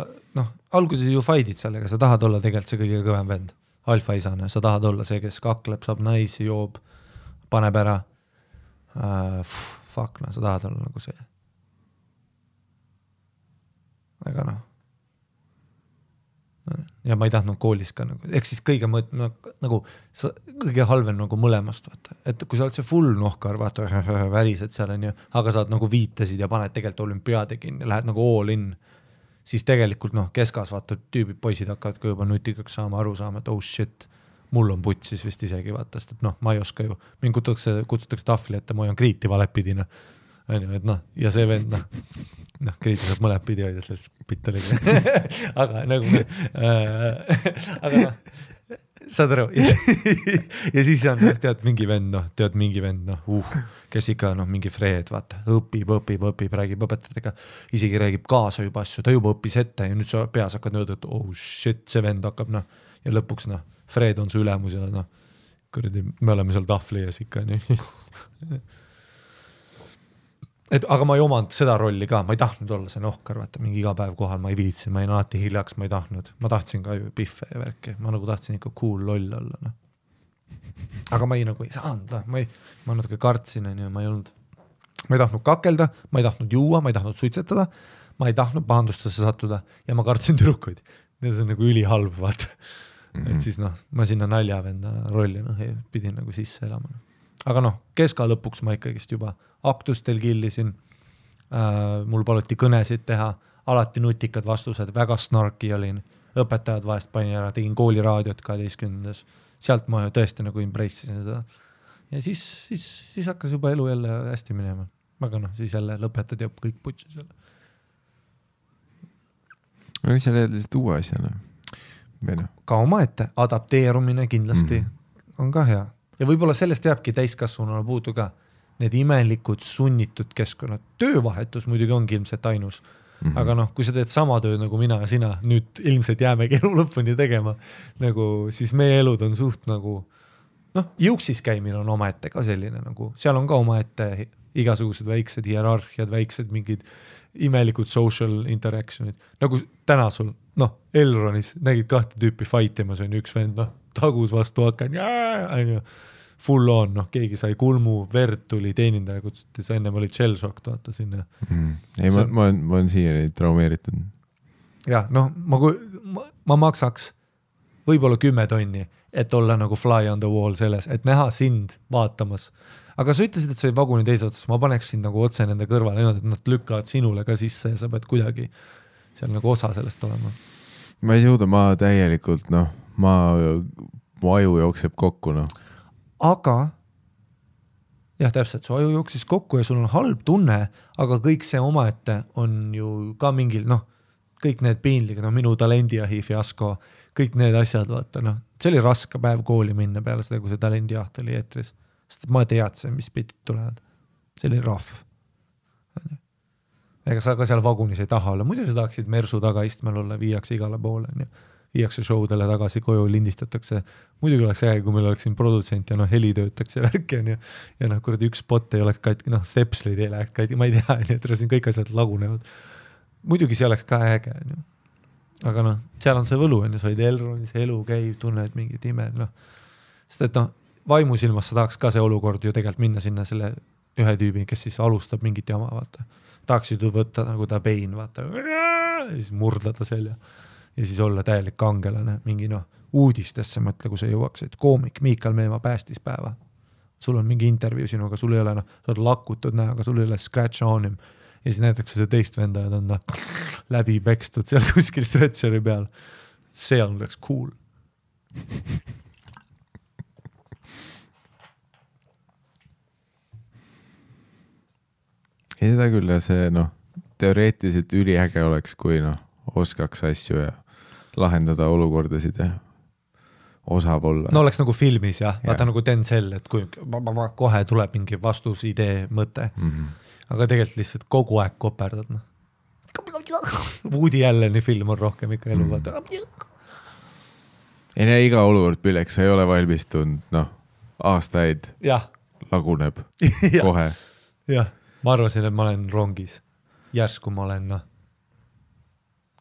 alguses ju fight'id sellega, sa tahad olla tegelikult see kõige kõvem vend, alfaisane, sa tahad olla see, kes kakleb, saab naisi, joob, paneb ära, sa tahad olla nagu see. aga noh. Ja ma ei tahtnud koolis ka nagu, ehk siis kõige kõige halvem nagu mõlemast, vaata. Et kui sa oled see full nohkar, vaata, värised seal on ju, aga saad nagu viitesid ja paned tegelikult olümpiaade kinni, lähed nagu all in, siis tegelikult keskas vaata, tüübid, poisid hakkavad ka juba nutikaks saama, aru saama, et oh shit, mul on putsis vist isegi vaata, sest et ma ei oska ju, mind kutsutakse tahvli ette, ma hoian kriiti valepidina. Et ja see vend, kriiti saab mõled pidi hoida selles pittaliga. aga nagu, aga saad aru, ja siis on, tead mingi vend, kes ikka mingi Fred, vaata, õpib, räägib õpetajatega, isegi räägib kaasa juba asju, ta juba õppis ette ja nüüd sa peas hakkad nõuda, et oh shit, see vend hakkab, ja lõpuks, Fred on su ülemus ja kuradi, me oleme seal tahvli ees ikka, nii. Aga ma ei omanud seda rolli ka, ma ei tahtnud olla see nohkar, vaata, mingi iga päev kohal, ma ei viitsin, ma ei alati hiljaks, ma ei tahtnud, ma tahtsin ka ju piffe ja värki, ma nagu tahtsin ikka cool loll olla, aga ma ei saanud, ma natuke kartsin, ma ei tahtnud kakelda, ma ei tahtnud juua, ma ei tahtnud suitsetada, ma ei tahtnud pahandustesse sattuda ja ma kartsin tüdrukuid, need on nagu ülihalb, vaata, et siis ma sinna naljavenda rolli pidin nagu sisse elama. Aga keska lõpuks ma ikkagist juba aktustel killisin, mul paluti kõnesid teha, alati nutikad vastused, väga snarki olin, õpetajad vahest panin ära, tegin kooliraadiot 12. Sealt ma tõesti nagu embrace'isin seda. Ja siis hakkas juba elu jälle hästi minema. Aga siis jälle lõpetad ja kõik putsis jälle. Mis sa leed lihtsalt uue asjana? Ka omaette, adapteerumine kindlasti on ka hea. Ja võib-olla sellest jääbki täiskasvununa puudu ka need imelikud sunnitud keskkonnad. Töövahetus muidugi ongi ilmselt ainus. Aga kui sa teed sama tööd nagu mina ja sina, nüüd ilmselt jäämegi elu lõpuni tegema, siis meie elud on suht nagu, jõuksis käimine on omaette ka selline, seal on ka omaette igasugused väiksed hierarhiad, väiksed mingid imelikud social interactionid. Nagu täna sul, Elronis nägid 2 tüüpi fightimas, on üks vend, tagus vastu hakan, full on, keegi sai kulmu, verd tuli teenindaja, kutsuti, sa ennem oli shell-shock, vaata sinna. Ei, ma olen siiani traumeeritud. Jah, ma maksaks võib-olla 10 tonni, et olla nagu fly on the wall selles, et näha sind vaatamas. Aga sa ütlesid, et sa olid vaguni teise otsas, ma paneks sind nagu otse nende kõrvale, et nad lükkavad sinule ka sisse ja sa pead kuidagi seal nagu osa sellest olema. Ma ei suuda, ma täielikult, mu aju jookseb kokku, Aga, jah, täpselt, su aju jooksis kokku ja sul on halb tunne, aga kõik see omaette on ju ka mingil, kõik need piinlig, minu talendiahi fiasko, kõik need asjad, vaata, see oli raske päev kooli minna peale seda, kui see talendiaht oli eetris. Sest ma teadsin, mis pitid tulevad. See oli rahv. Ega sa ka seal vagunis ei taha olla. Muidu sa tahaksid mersu taga istmel olla, viiakse igale poole. Viiakse showdele tagasi, koju lindistatakse. Muidugi oleks äge, kui meil oleks siin produtsent ja heli töötakse värki. Ja kuradi üks spot ei oleks katki, stepslid ei läheks katki, ma ei tea, et siin kõik asjad lagunevad. Muidugi see oleks ka äge. Aga seal on see võlu, sa olid Elronis, elu käib, tunned mingit ime. Sest et vaimusilmas sa tahaks ka see olukord ju tegelikult minna sinna selle ühe tüübi, kes siis alustab mingit jama, vaata. Tahaksid ju võtta nagu ta pein, vaata. Ja siis murdlada selja. Ja siis olla täielik kangelane, mingi uudistesse mõtle, kui sa jõuaksid. Koomik Miikal Meemaa päästis päeva. Sul on mingi intervjuu sinuga, sul ei ole, sa oled lakutud näoga, sul ei ole scratch on him. Ja siis näitakse see teist venda ja ta on läbi pekstud seal kuskil stretcheri peal. See on oleks cool. Ei seda küll ja see teoreetiliselt üliäge oleks, kui oskaks asju ja lahendada olukordasid ja osav olla. Oleks nagu filmis jah, vaata nagu Denzel, et kui kohe tuleb mingi vastus, idee, mõte. Aga tegelikult lihtsalt kogu aeg koperdad. Woody Alleni film on rohkem ikka elu, vaata. Ei näe iga olukord pilleks, sa ei ole valmistunud, aastaid laguneb kohe. Jah. Ma arvasin, et ma olen rongis. Järsku ma olen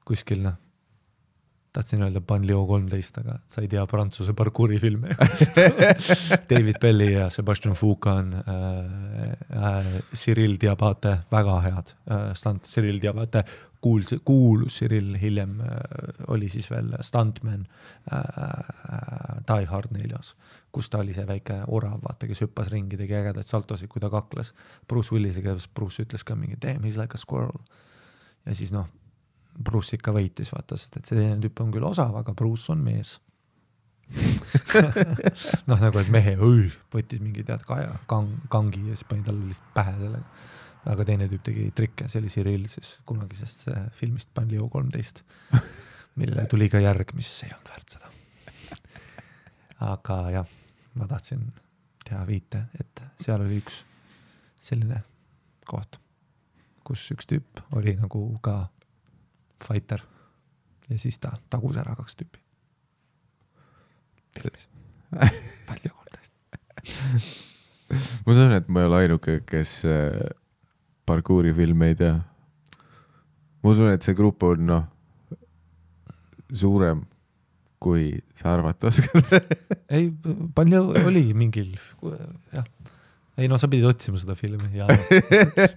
kuskil tahtsin öelda Banlieue 13, aga sa ei tea Prantsuse parkuuri filme. David Belli ja Sebastian Foucan, Cyril Diabate, väga head stunt. Cyril Diabate, kuulus Cyril, hiljem oli siis veel stuntman Die Hard 4, kus ta oli see väike orav, vaata, kes hüppas ringi, tegi ägedaid saltosid, kui ta kakles Bruce Willisega, Bruce ütles ka mingi damn, he's like a squirrel. Ja siis Bruce ikka võitis, vaata, sest et see teine tüüp on küll osav, aga Bruce on mees. Nagu et mehe võttis mingi kangi ja siis pani talle lihtsalt pähe sellega. Aga teine tüüp tegi trikke, see oli Cyril siis kunagisest filmist Banlieue 13, mille tuli ka järg, mis ei olnud väärt seda. Aga jah, ma tahtsin teha viite, et seal oli üks selline koht, kus üks tüüp oli nagu ka fighter ja siis ta tagus ära 2 tüüpi. Filmis. Palju 13. Ma sain, et ma ei ole ainuke, kes parkuuri filme ei tea. Ma usun, et see grupp on suurem, kui sa arvata oskad. Ei, palju oli mingil, jah. Ei, sa pidid otsima seda filmi ja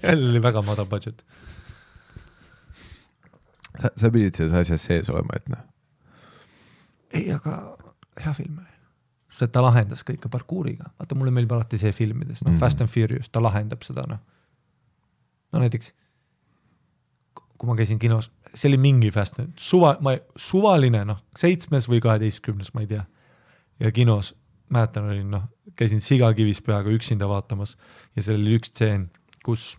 sellel oli väga mada budget. Sa pidid selles asjas sees olema, et Ei, aga hea film oli. Sest et ta lahendas kõike parkuuriga. Vaata, mulle meeldib alati see filmides. Fast and Furious, ta lahendab seda. Näiteks, kui ma käisin kinos, see oli mingi fast, suvaline, 7 või 12, ma ei tea. Ja kinos, mäletan, olin, käisin Sigakivis peaga üksinda vaatamas ja seal oli üks tseen, kus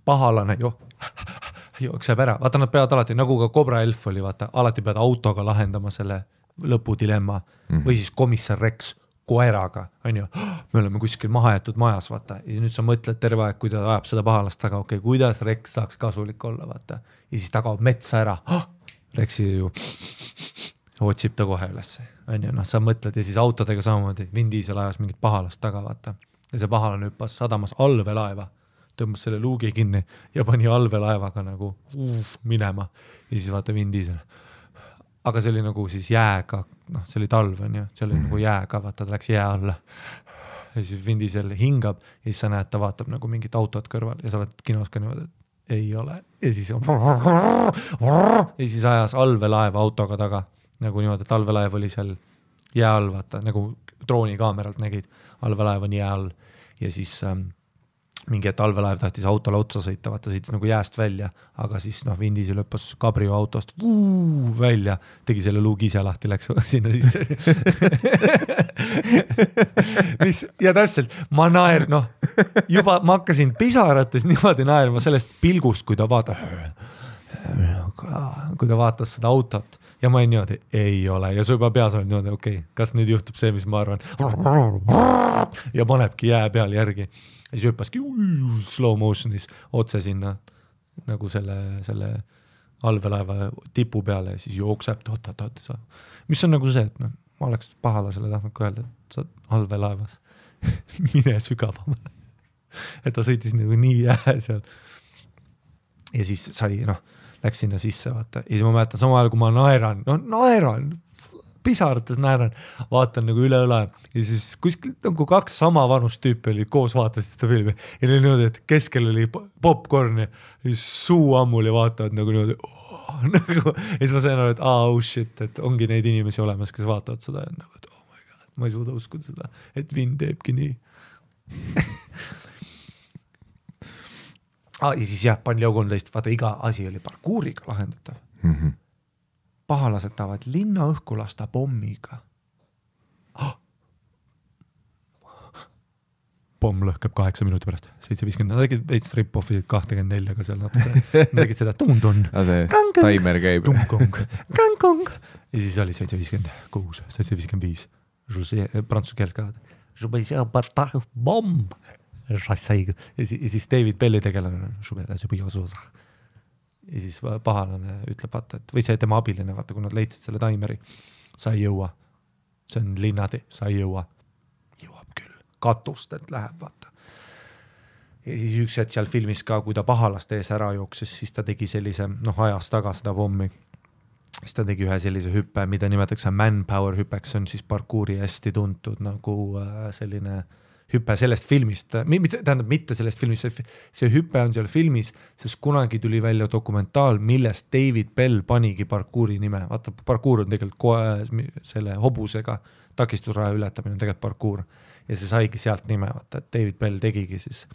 pahalane jookseb ära. Vaata, nad peavad alati, nagu ka Cobra Elf oli, vaata, alati peavad autoga lahendama selle lõpudilemma või siis komissar Rex koeraga, on ju, me oleme kuskil mahajätud majas, vaata, ja nüüd sa mõtled terve aeg, kui ta ajab seda pahalast taga, okei, kuidas Rex saaks kasulik olla, vaata, ja siis ta kaob metsa ära, Rexi ju otsib ta kohe üles, on ju, sa mõtled ja siis autodega samamoodi, Vin Diesel ajas mingit pahalast taga, vaata, ja see pahalane hüppas sadamas allveelaeva, tõmbas selle luugi kinni ja pani allveelaevaga nagu minema ja siis vaata Vin Diesel. Aga see oli nagu siis jääga, see oli talv, on ju, see oli nagu jääga, vaata, ta läks jää alla. Ja siis Vin Diesel hingab ja siis sa näed, ta vaatab nagu mingit autot kõrval ja sa oled kinos ka niimoodi, et ei ole. Ja siis ajas allveelaeva autoga taga, nagu niimoodi, et allveelaev oli seal jää all, vaata, nagu droonikaameralt nägid, allveelaev on jää all ja siis mingi talvelaev tahtis autole otsa sõita, vaata sõitis nagu jääst välja, aga siis Vin Diesel lõppas Cabrio autost välja, tegi selle luugi ise lahti, läks sinna sisse. Ja täpselt, ma naer, juba ma hakkasin pisarates niimoodi naerma sellest pilgust, kui ta vaatas seda autot ja ma niimoodi, ei ole, ja su juba peas on niimoodi, okei, kas nüüd juhtub see, mis ma arvan, ja panebki jää peal järgi. Ja siis hüppaski slow motionis otse sinna nagu selle allveelaeva tipu peale ja siis jookseb mis on nagu see, et ma oleks pahalasele tahtnud öelda, et sa allveelaevas mine sügavam. Et ta sõitis nagu nii jää seal ja siis sai, läks sinna sisse, vaata. Ja siis ma mäletan samal ajal, kui ma naeran, pisarates naeran, vaatan nagu üle õla ja siis kuskil nagu 2 sama vanust tüüpi oli koos vaatasid seda filmi ja oli niimoodi, et keskel oli popcorn ja siis suu ammul ja vaatavad nagu niimoodi ja siis ma sain aru, et shit, et ongi neid inimesi olemas, kes vaatavad seda ja nagu, et oh my god, ma ei suuda uskuda seda, et Vin teebki nii. Ja siis jah, Banlieue 13, vaata iga asi oli parkuuriga lahendatav. Pahalased tahavad linna õhku lasta pommiga. Pomm lõhkeb 8 minuti pärast, 7.50. Nad tegid veits rip-offisid 24, aga seal natuke tegid seda tun-tun. See timer käib. Kang-kong. Ja siis oli 7.56, 7.55. Prantsuse keelt ka. Bomb. Ja siis David Belli tegelane. Ja siis pahalane ütleb, vaata, et, või see tema abiline, vaata, kui nad leidsid selle taimeri, sa ei jõua. See on linnade, sa ei jõua. Jõuab küll. Katust, et läheb, vaata. Ja siis üks hetk seal filmis ka, kui ta pahalast ees ära jooksis, siis ta tegi sellise, ajas taga seda pommi. siis ta tegi ühe sellise hüppe, mida nimetatakse manpower hüppeks, see on siis parkuuri hästi tuntud nagu selline hüppe sellest filmist, tähendab mitte sellest filmist, see hüppe on seal filmis, sest kunagi tuli välja dokumentaal, millest David Bell panigi parkuuri nime. Vaata, parkuur on tegelikult selle hobusega, takistusraja ületamine on tegelikult parkuur ja see saigi sealt nime, vaata, et David Bell tegigi siis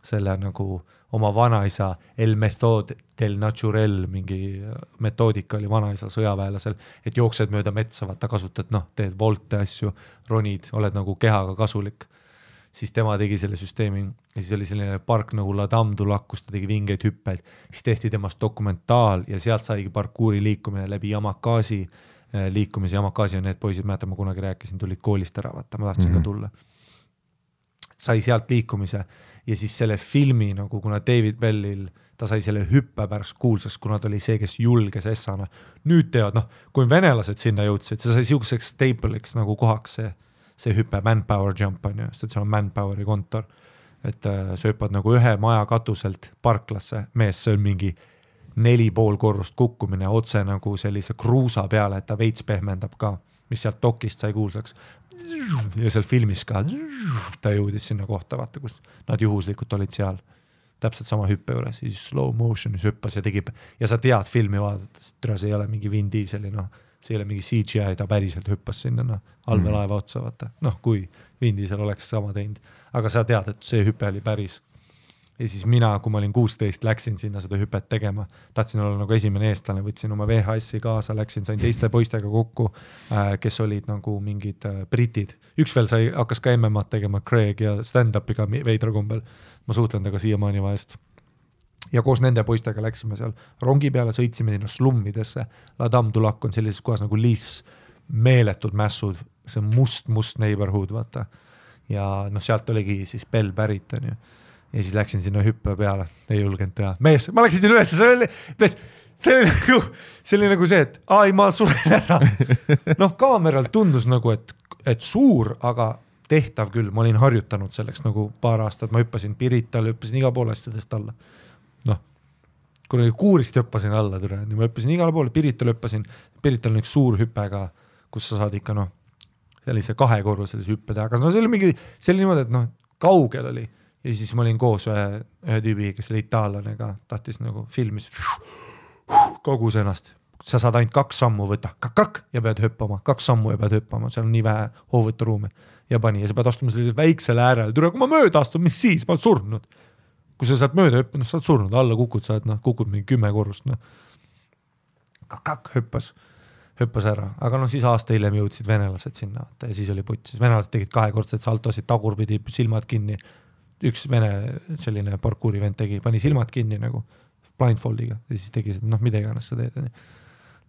selle nagu oma vanaisa El Method del Naturel, mingi metoodika oli vanaisa sõjaväelasel, et jooksed mööda metsa, vaata kasutad, teed volte asju, ronid, oled nagu kehaga kasulik. Siis tema tegi selle süsteemi ja siis oli selline park nagu La Dame du Lac, kus ta tegi vingeid hüppeid, siis tehti temast dokumentaal ja sealt saigi parkuuri liikumine läbi Yamakasi liikumise. Yamakasi on need poisid, mäletan, ma kunagi rääkisin, tulid koolist ära, vaata, ma tahtsin ka tulla. Sai sealt liikumise ja siis selle filmi nagu, kuna David Bellil, ta sai selle hüppe pärast kuulsaks, kuna ta oli see, kes julges essana. Nüüd teevad, kui venelased sinna jõudsid, see sai siukseks staple'iks nagu kohaks see hüppe, manpower jump on ju, sest see on manpoweri kontor, et sa hüppad nagu ühe maja katuselt parklasse, mees, see on mingi 4,5 korrust kukkumine otse nagu sellise kruusa peale, et ta veits pehmendab ka, mis sealt dokist sai kuulsaks ja seal filmis ka ta jõudis sinna kohta, vaata, kus nad juhuslikult olid seal täpselt sama hüppe juures, siis slow motionis hüppas ja tegi ja sa tead filmi vaadates, see ei ole mingi Vin Dieseli, see ei ole mingi CGI, ta päriselt hüppas sinna allveelaeva otsa, vaata. Kui Vin Diesel oleks sama teinud. Aga sa tead, et see hüpe oli päris. Ja siis mina, kui ma olin 16, läksin sinna seda hüpet tegema. Tahtsin olla nagu esimene eestlane, võtsin oma VHS-i kaasa, sain teiste poistega kokku, kes olid nagu mingid britid. Üks veel hakkas ka MMA-d tegema, Craig ja stand-upiga veidra kombel. Ma suhtlen temaga siiamaani vahest. Ja koos nende poistega läksime seal rongi peale, sõitsime sinna slummidesse. La Dame du Lac on sellises kohas nagu Liis, meeletud mässud, see must neighborhood, vaata. Ja sealt oligi siis Bell pärit, on ju. Ja siis läksin sinna hüppe peale, ei julgenud teha. Mees, ma läksin sinna üles, see oli nagu see, et ma suren ära. Kaameral tundus nagu, et suur, aga tehtav küll. Ma olin harjutanud selleks nagu paar aastat, ma hüppasin Pirital, hüppasin iga pool asjadest alla. Kui kuurist hüppasin alla, ma hüppasin igale poole, Pirital hüppasin, Pirital on üks suur hüppega, kus sa saad ikka sellise 2-korruselise hüppe teha, aga see oli mingi, see oli niimoodi, et kaugel oli ja siis ma olin koos ühe tüübi, kes oli itaallane ka, tahtis nagu filmis kogus ennast, sa saad ainult 2 sammu võtta, ja pead hüppama, 2 sammu ja pead hüppama, seal on nii vähe hoovõturuumi ja pani ja sa pead astuma sellisel väiksel äärel, kui ma mööda astun, mis siis, ma olen surnud. Kui sa saad mööda hüppanud, sa oled surnud, alla kukud, sa oled kukud mingi 10 korrust. Hüppas ära, aga siis aasta hiljem jõudsid venelased sinna ja siis oli putt. Venelased tegid 2-kordsed saltosid, tagurpidi silmad kinni. Üks vene selline parkuuri vend pani silmad kinni nagu blindfoldiga ja siis tegi seda, mida iganes sa teed.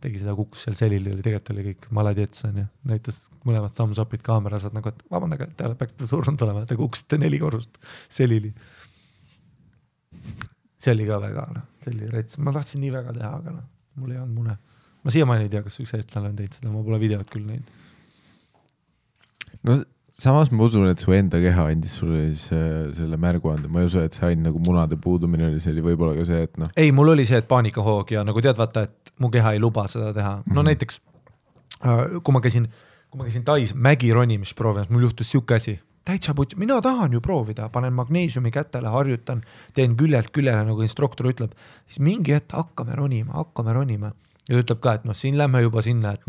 Tegi seda, kukkus seal selili, tegelikult oli kõik maladjets, näitas mõlemad thumbs up'id kaamera, saad nagu, et vabandage, te peaks seda surnud olema, te kukkusite 4 korrust selili. See oli ka väga, see oli rets. Ma tahtsin nii väga teha, aga mul ei olnud mune. Ma siiamaani ei tea, kas üks eestlane on teinud seda, ma pole videot küll neid. Samas ma usun, et su enda keha andis sulle selle märguande. Ma ei usu, et see ainult nagu munade puudumine oli, see oli võib-olla ka see, et Ei, mul oli see, et paanikahoog ja nagu tead, vaata, et mu keha ei luba seda teha. Näiteks, kui ma käisin Tais mägironimist proovimas, mul juhtus siuke asi. Täitsa putt, mina tahan ju proovida, panen magneesiumi kätele, harjutan, teen küljelt küljele, nagu instruktor ütleb, siis mingi hetk hakkame ronima. Ja ta ütleb ka, et siin lähme juba sinna, et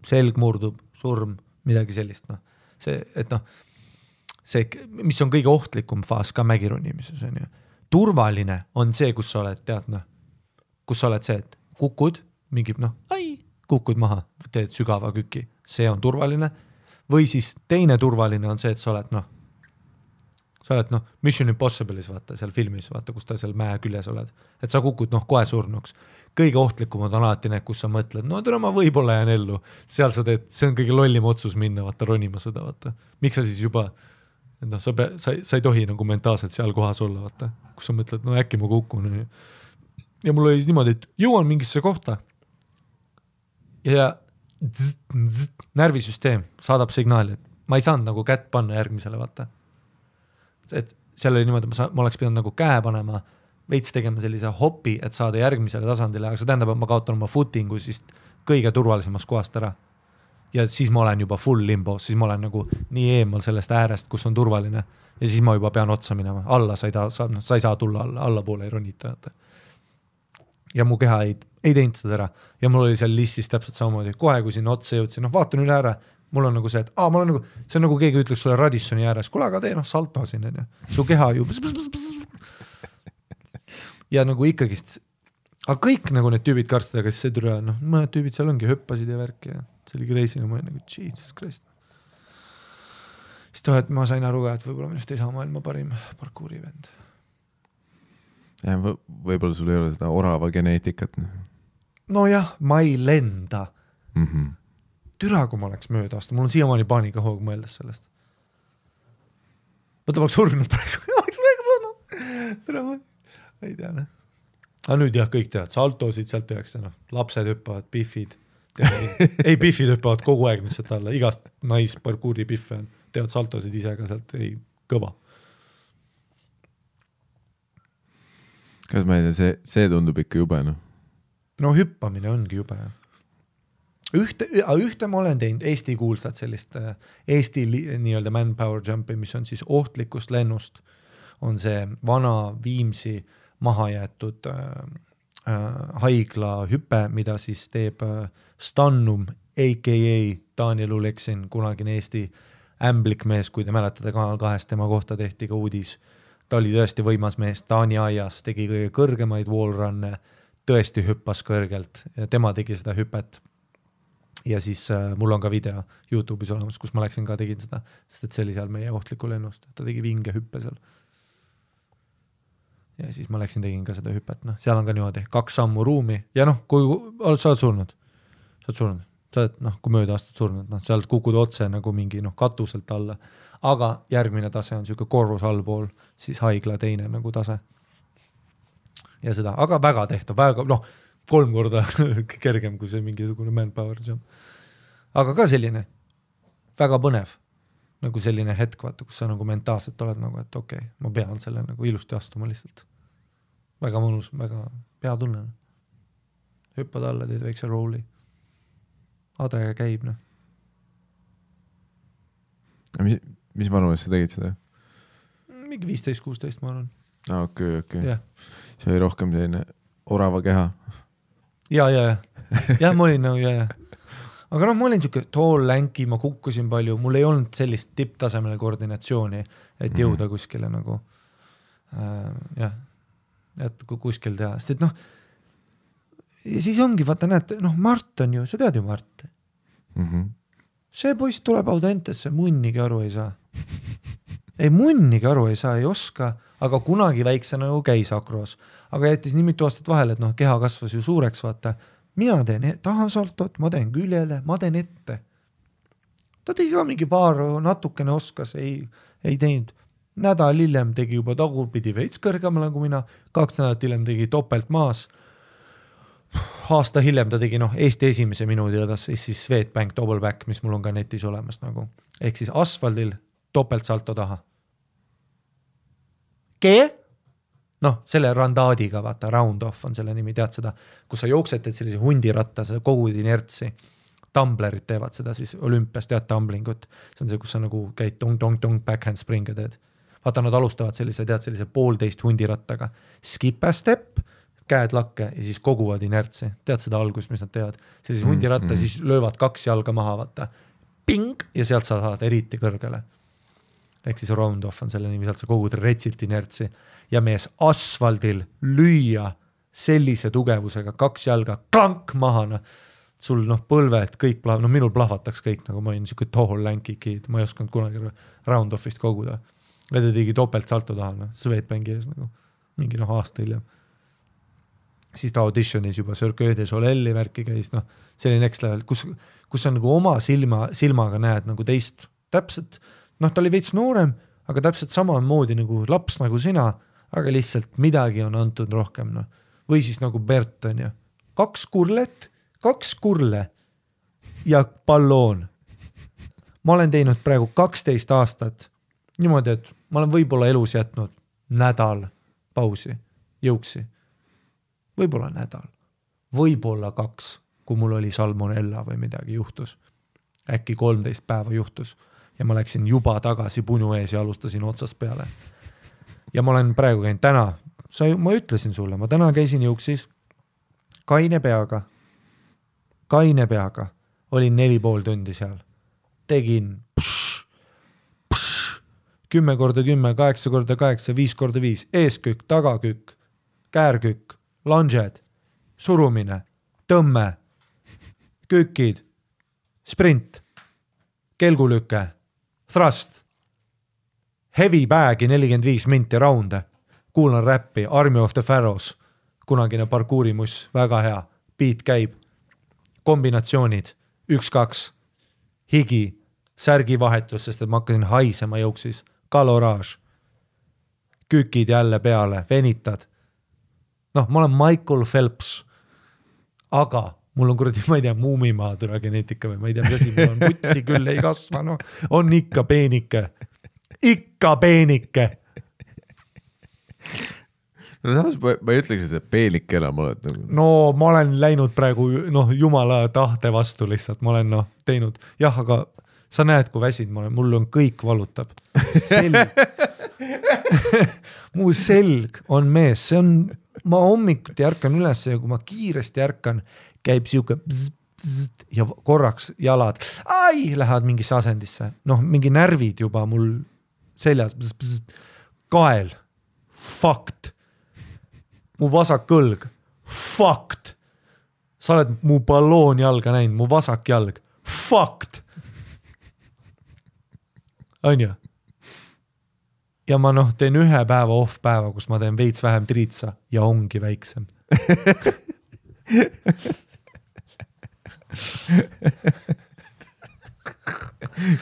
selg murdub, surm, midagi sellist. See, et see, mis on kõige ohtlikum faas ka mägironimises, on ju. Turvaline on see, kus sa oled, tead, kus sa oled see, et kukud, mingi, kukud maha, teed sügava küki, see on turvaline. Või siis teine turvaline on see, et sa oled Mission Impossible'is, vaata, seal filmis, vaata, kus ta seal mäe küljes oled. Et sa kukud kohe surnuks. Kõige ohtlikumad on alati need, kus sa mõtled, ma võib-olla jään ellu. Seal sa teed, see on kõige lollim otsus minna, vaata, ronima seda, vaata. Miks sa siis juba, sa ei tohi nagu mentaalselt seal kohas olla, vaata. Kus sa mõtled, äkki ma kukun. Ja mul oli niimoodi, et jõuan mingisse kohta ja närvisüsteem saadab signaali, et ma ei saanud nagu kätt panna järgmisele, vaata. Et seal oli niimoodi, ma oleks pidanud nagu käe panema veits tegema sellise hopi, et saada järgmisele tasandile, aga see tähendab, et ma kaotan oma footingu siis kõige turvalisemast kohast ära. Ja siis ma olen juba full limbo, siis ma olen nagu nii eemal sellest äärest, kus on turvaline ja siis ma juba pean otsa minema. Alla sa ei saa tulla alla poole ei ronita. Ja mu keha ei teinud seda ära ja mul oli seal listis täpselt samamoodi. Kohe, kui sinna otsa jõudsin, vaatan üle ära, mul on nagu see, et ma olen nagu, see on nagu keegi ütleks sulle Radissoni ääres, kuule, aga tee salto siin, su keha ju ja nagu ikkagist, aga kõik nagu need tüübid karstid, aga siis see türa, mõned tüübid seal ongi, hüppasid ja värki ja see oli reisina, ma olin nagu, Jesus Christ. Siis et ma sain aru ka, et võib-olla minust ei saa maailma parim parkuuri vend. Ja, võib-olla sul ei ole seda orava geneetikat. No jah, ma ei lenda. Türa, kui ma oleks mööda aasta, mul on siiamaani paanika hoog mõeldes sellest. Võtta ma oleks surnud praegu, türa ma ei tea, aga nüüd jah, kõik teavad, saltosid sealt tehakse, lapsed hüppavad, biffid, ei biffid hüppavad kogu aeg nüüd sealt alla, igast naisparkuuri biffe on, teavad saltosid ise ka sealt, ei kõva. Kas ma ei tea, see tundub ikka jube, No hüppamine ongi jube. Ühte ma olen teinud Eesti kuulsad sellist Eesti nii-öelda manpower jumpi, mis on siis ohtlikust lennust, on see vana Viimsi maha jäetud haigla hüpe, mida siis teeb Stannum, a.k.a. Daniel Uleksin, kunagine Eesti ämblikmees, kui te mäletate Kanal 2, tema kohta tehti ka uudis. Ta oli tõesti võimas mees, Taani aias, tegi kõige kõrgemaid wallrunne, tõesti hüppas kõrgelt ja tema tegi seda hüpet. Ja siis mul on ka video YouTube'is olemas, kus ma läksin ka tegin seda, sest et see oli seal meie ohtliku lennust, ta tegi vinge hüppe seal. Ja siis ma läksin tegin ka seda hüpet, seal on ka niimoodi 2 sammu ruumi ja kui sa oled surnud, sa oled, kui mööda aastat surnud, sa oled kukud otse nagu mingi katuselt alla, aga järgmine tase on siuke korrus allpool, siis haigla teine nagu tase. Ja seda, aga väga tehtav, väga, 3 korda kergem kui see mingisugune manpower jump. Aga ka selline väga põnev, nagu selline hetk, vaata, kus sa nagu mentaalselt oled nagu, et okei, ma pean selle nagu ilusti astuma lihtsalt. Väga mõnus, väga hea tunne. Hüppad alla, teed väikse rooli. Adrega käib, Mis vanuses sa tegid seda? Mingi 15-16 ma arvan. Okei. Yeah. See oli rohkem selline orava keha. Ja, ma olin nagu, Aga ma olin siuke tall länki, ma kukkusin palju, mul ei olnud sellist tipptasemele koordinatsiooni, et jõuda kuskile nagu, et kuskil teha. Sest et ja siis ongi, vaata näed, Mart on ju, sa tead ju Mart. See poiss tuleb Audentesse, munnigi aru ei saa. Ei munnigi aru ei saa, ei oska, aga kunagi väikse nagu käis akroos. Aga jättis nii mitu aastat vahel, et keha kasvas ju suureks, vaata. Mina teen tahasaltot, ma teen küljele, ma teen ette. Ta tegi ka mingi paar natukene oskas, ei teinud. Nädal hiljem tegi juba tagurpidi veits kõrgemale kui mina, 2 nädalat hiljem tegi topelt maas. Aasta hiljem ta tegi Eesti esimese minuti õdas, siis Swedbank double back, mis mul on ka netis olemas nagu. Ehk siis asfaldil topelt salto taha. Selle randaadiga, vaata, round off on selle nimi, tead seda, kus sa jooksed, teed sellise hundiratta, seda kogud inertsi. Tumblerid teevad seda siis olümpias, tead tumblingut. See on see, kus sa nagu käid tong-tong-tong backhand springa teed. Vaata, nad alustavad sellise 1,5 hundirattaga. Skip a step, käed lakke ja siis koguvad inertsi. Tead seda algust, mis nad teevad. Sellise hundiratta, siis löövad 2 jalga maha, vaata. Ping! Ja sealt sa saad eriti kõrgele. Ehk siis round off on selle nimi, sealt sa kogud retsilt inertsi ja mees asfaldil lüüa sellise tugevusega 2 jalga klank maha, sul põlved, kõik minul plahvataks kõik, nagu ma olin niisugune tall länki kid, ma ei osanud kunagi round offist koguda. Ja ta tegi topelt salto taha, Swedbanki ees nagu, mingi aasta hiljem. Siis ta auditionis juba Cirque du Soleil'i värki käis, see oli next level, kus sa nagu oma silmaga näed nagu teist täpselt, ta oli veits noorem, aga täpselt samamoodi nagu laps nagu sina, aga lihtsalt midagi on antud rohkem. Või siis nagu Bert on ju. 2 kurlet, 2 kurle ja palloon. Ma olen teinud praegu 12 aastat niimoodi, et ma olen võib-olla elus jätnud nädal pausi. jõuksi. Võib-olla nädal, võib-olla 2, kui mul oli salmonella või midagi juhtus. Äkki 13 päeva juhtus ja ma läksin juba tagasi punu ees ja alustasin otsast peale. Ja ma olen praegu käinud täna, ma ütlesin sulle, ma täna käisin jõuksis kaine peaga, olin 4,5 tundi seal. Tegin 10x10, 8x8, 5x5, eeskükk, tagakükk, käärkükk, lunged, surumine, tõmme, kükid, sprint, kelgulüke, thrust, heavy bag'i 45 minti raunde, kuulan räppi, Army of the Pharaohs, kunagine parkuurimuss, väga hea, beat käib, kombinatsioonid, 1-2, higi, särgivahetus, sest et ma hakkasin haisema jõuksis, kaloraaž, kükid jälle peale, venitad. Noh, ma olen Michael Phelps, aga mul on kuradi, ma ei tea, muumimaa türa geneetika või ma ei tea, mis asi, mul on putsi küll ei kasva, no on ikka peenike. No samas ma ei ütleks, et peenik enam oled. No ma olen läinud praegu jumala tahte vastu lihtsalt, ma olen teinud, jah, aga sa näed, kui väsid ma olen, mul on kõik valutab. Selg. Mu selg on mees, see on, ma hommikuti ärkan üles ja kui ma kiiresti ärkan, käib siuke ja korraks jalad, lähevad mingisse asendisse. Mingi närvid juba mul seljas, kael, fakt, mu vasak kõlg, fakt, sa oled mu balloon jalga näinud, mu vasak jalg, fakt. On ju? Ja ma teen 1 päeva off päeva, kus ma teen veits vähem triitsa ja ongi väiksem.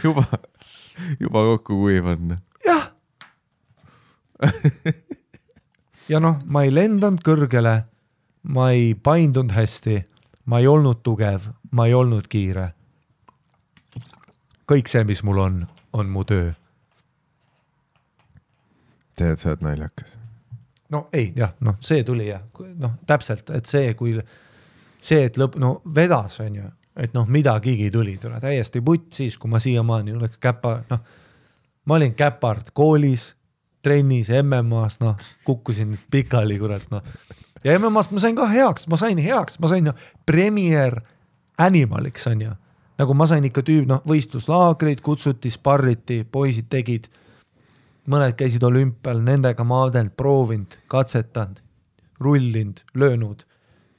juba kokku kuivann. Jah. Ja ma ei lendanud kõrgele, ma ei paindunud hästi, ma ei olnud tugev, ma ei olnud kiire. Kõik see, mis mul on mu töö. Tead, sa oled naljakas. No ei, jah, see tuli jah, täpselt, et et vedas on ju, et midagigi tuli, täiesti putt siis, kui ma siiamaani oleks ma olin käpard koolis, trennis, MM-as, kukkusin pikali, kurat, ja MM-as ma sain ka heaks, ma sain premier animaliks, on ju, nagu ma sain ikka võistluslaagrid, kutsuti, sparriti, poisid tegid, mõned käisid olümpial, nendega maadelt, proovinud, katsetanud, rullinud, löönud,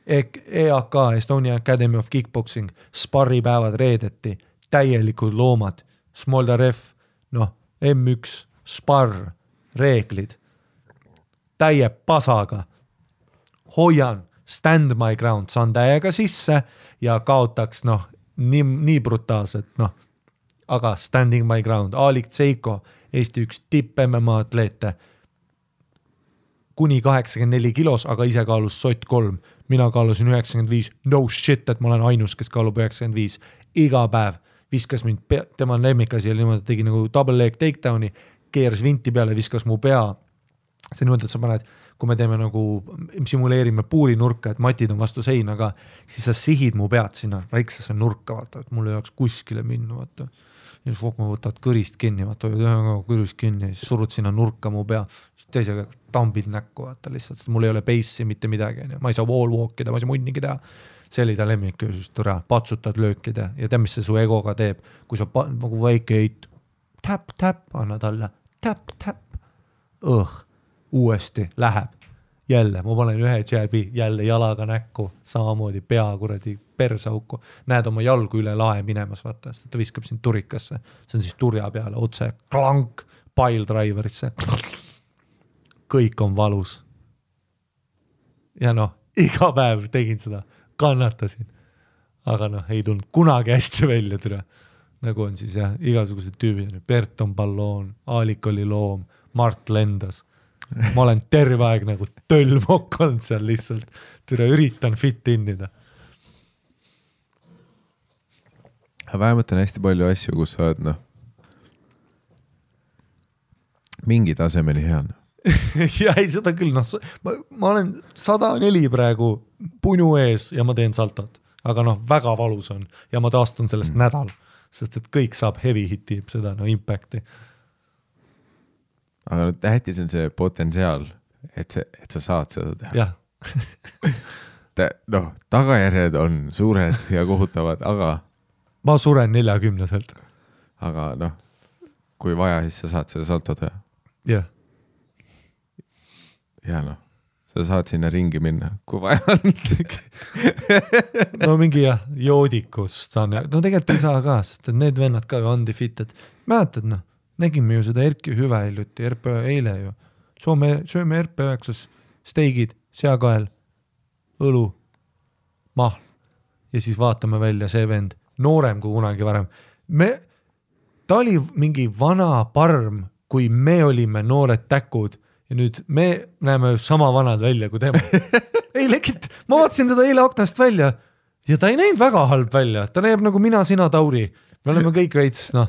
EAK, Estonia Academy of Kickboxing, sparripäevad reedeti, täielikud loomad, Smoldarev, M1, sparr, reeglid, täie pasaga, hoian, stand my ground, saan täiega sisse ja kaotaks, nii brutaalselt, aga standing my ground, Alik Tseiko, Eesti üks tipp MMA atleete, kuni 84 kilos, aga ise kaalus sott 3, mina kaalusin 95, no shit, et ma olen ainus, kes kaalub 95, iga päev viskas mind, tema lemmikasi oli niimoodi, tegi nagu double leg takedowni, keeras vinti peale, viskas mu pea, see niimoodi, et sa paned, kui me teeme simuleerime puurinurka, et matid on vastu seinaga, siis sa sihid mu pead sinna väiksesse nurka, vaata, et mul ei oleks kuskile minna, vaata. Ja siis ma võtad kõrist kinni, vaata, kõrist kinni, siis surud sinna nurka mu pea, teisega tambid näkku, vaata lihtsalt, sest mul ei ole base'i mitte midagi, ma ei saa wall walkida, ma ei saa munnigi teha. See oli ta lemmik, patsutad löökida ja tead, mis see su egoga teeb, kui sa nagu väike eit, tap, anna talle, tap, uuesti läheb, jälle, ma panen ühe jääbi, jälle jalaga näkku, samamoodi pea kuradi persauku, näed oma jalgu üle lae minemas, vaata, sest ta viskab sind turikasse, see on siis turja peale, otse klank, pile driverisse, kõik on valus. Ja iga päev tegin seda, kannatasin, aga ei tulnud kunagi hästi välja türa, nagu on siis jah, igasugused tüübid, Bert on balloon, Aalik oli loom, Mart lendas, ma olen terve aeg nagu tölmokk olnud seal lihtsalt, türa üritan fit innida. Vähemalt on hästi palju asju, kus sa oled mingi tasemeni hea. ja ei, seda küll, noh, ma olen 104 praegu punu ees ja ma teen saltot, aga noh, väga valus on ja ma taastun sellest nädal, sest et kõik saab heavy hiti, seda no impact'i. Aga tähtis on see potentsiaal, et sa saad seda teha. Jah. Noh, tagajärjed on suured ja kohutavad, aga ma suren 40-selt. Aga noh, kui vaja, siis sa saad selle salto teha. Jah. Ja noh, sa saad sinna ringi minna, kui vaja on. No mingi jah, joodikust saan, no tegelikult ei saa ka, sest need vennad ka ju undefeated. Mäletad noh, nägime ju seda Erki Hüve hiljuti, RP eile ju. Sööme RP9 steigid, seakael, õlu, mahl ja siis vaatame välja see vend, noorem kui kunagi varem. Ta oli mingi vana parm, kui me olime noored täkud ja nüüd me näeme sama vanad välja kui tema. Ei legit, ma vaatasin teda eile aknast välja ja ta ei näinud väga halb välja, ta näeb nagu mina, sina, Tauri. Me oleme kõik veits, noh,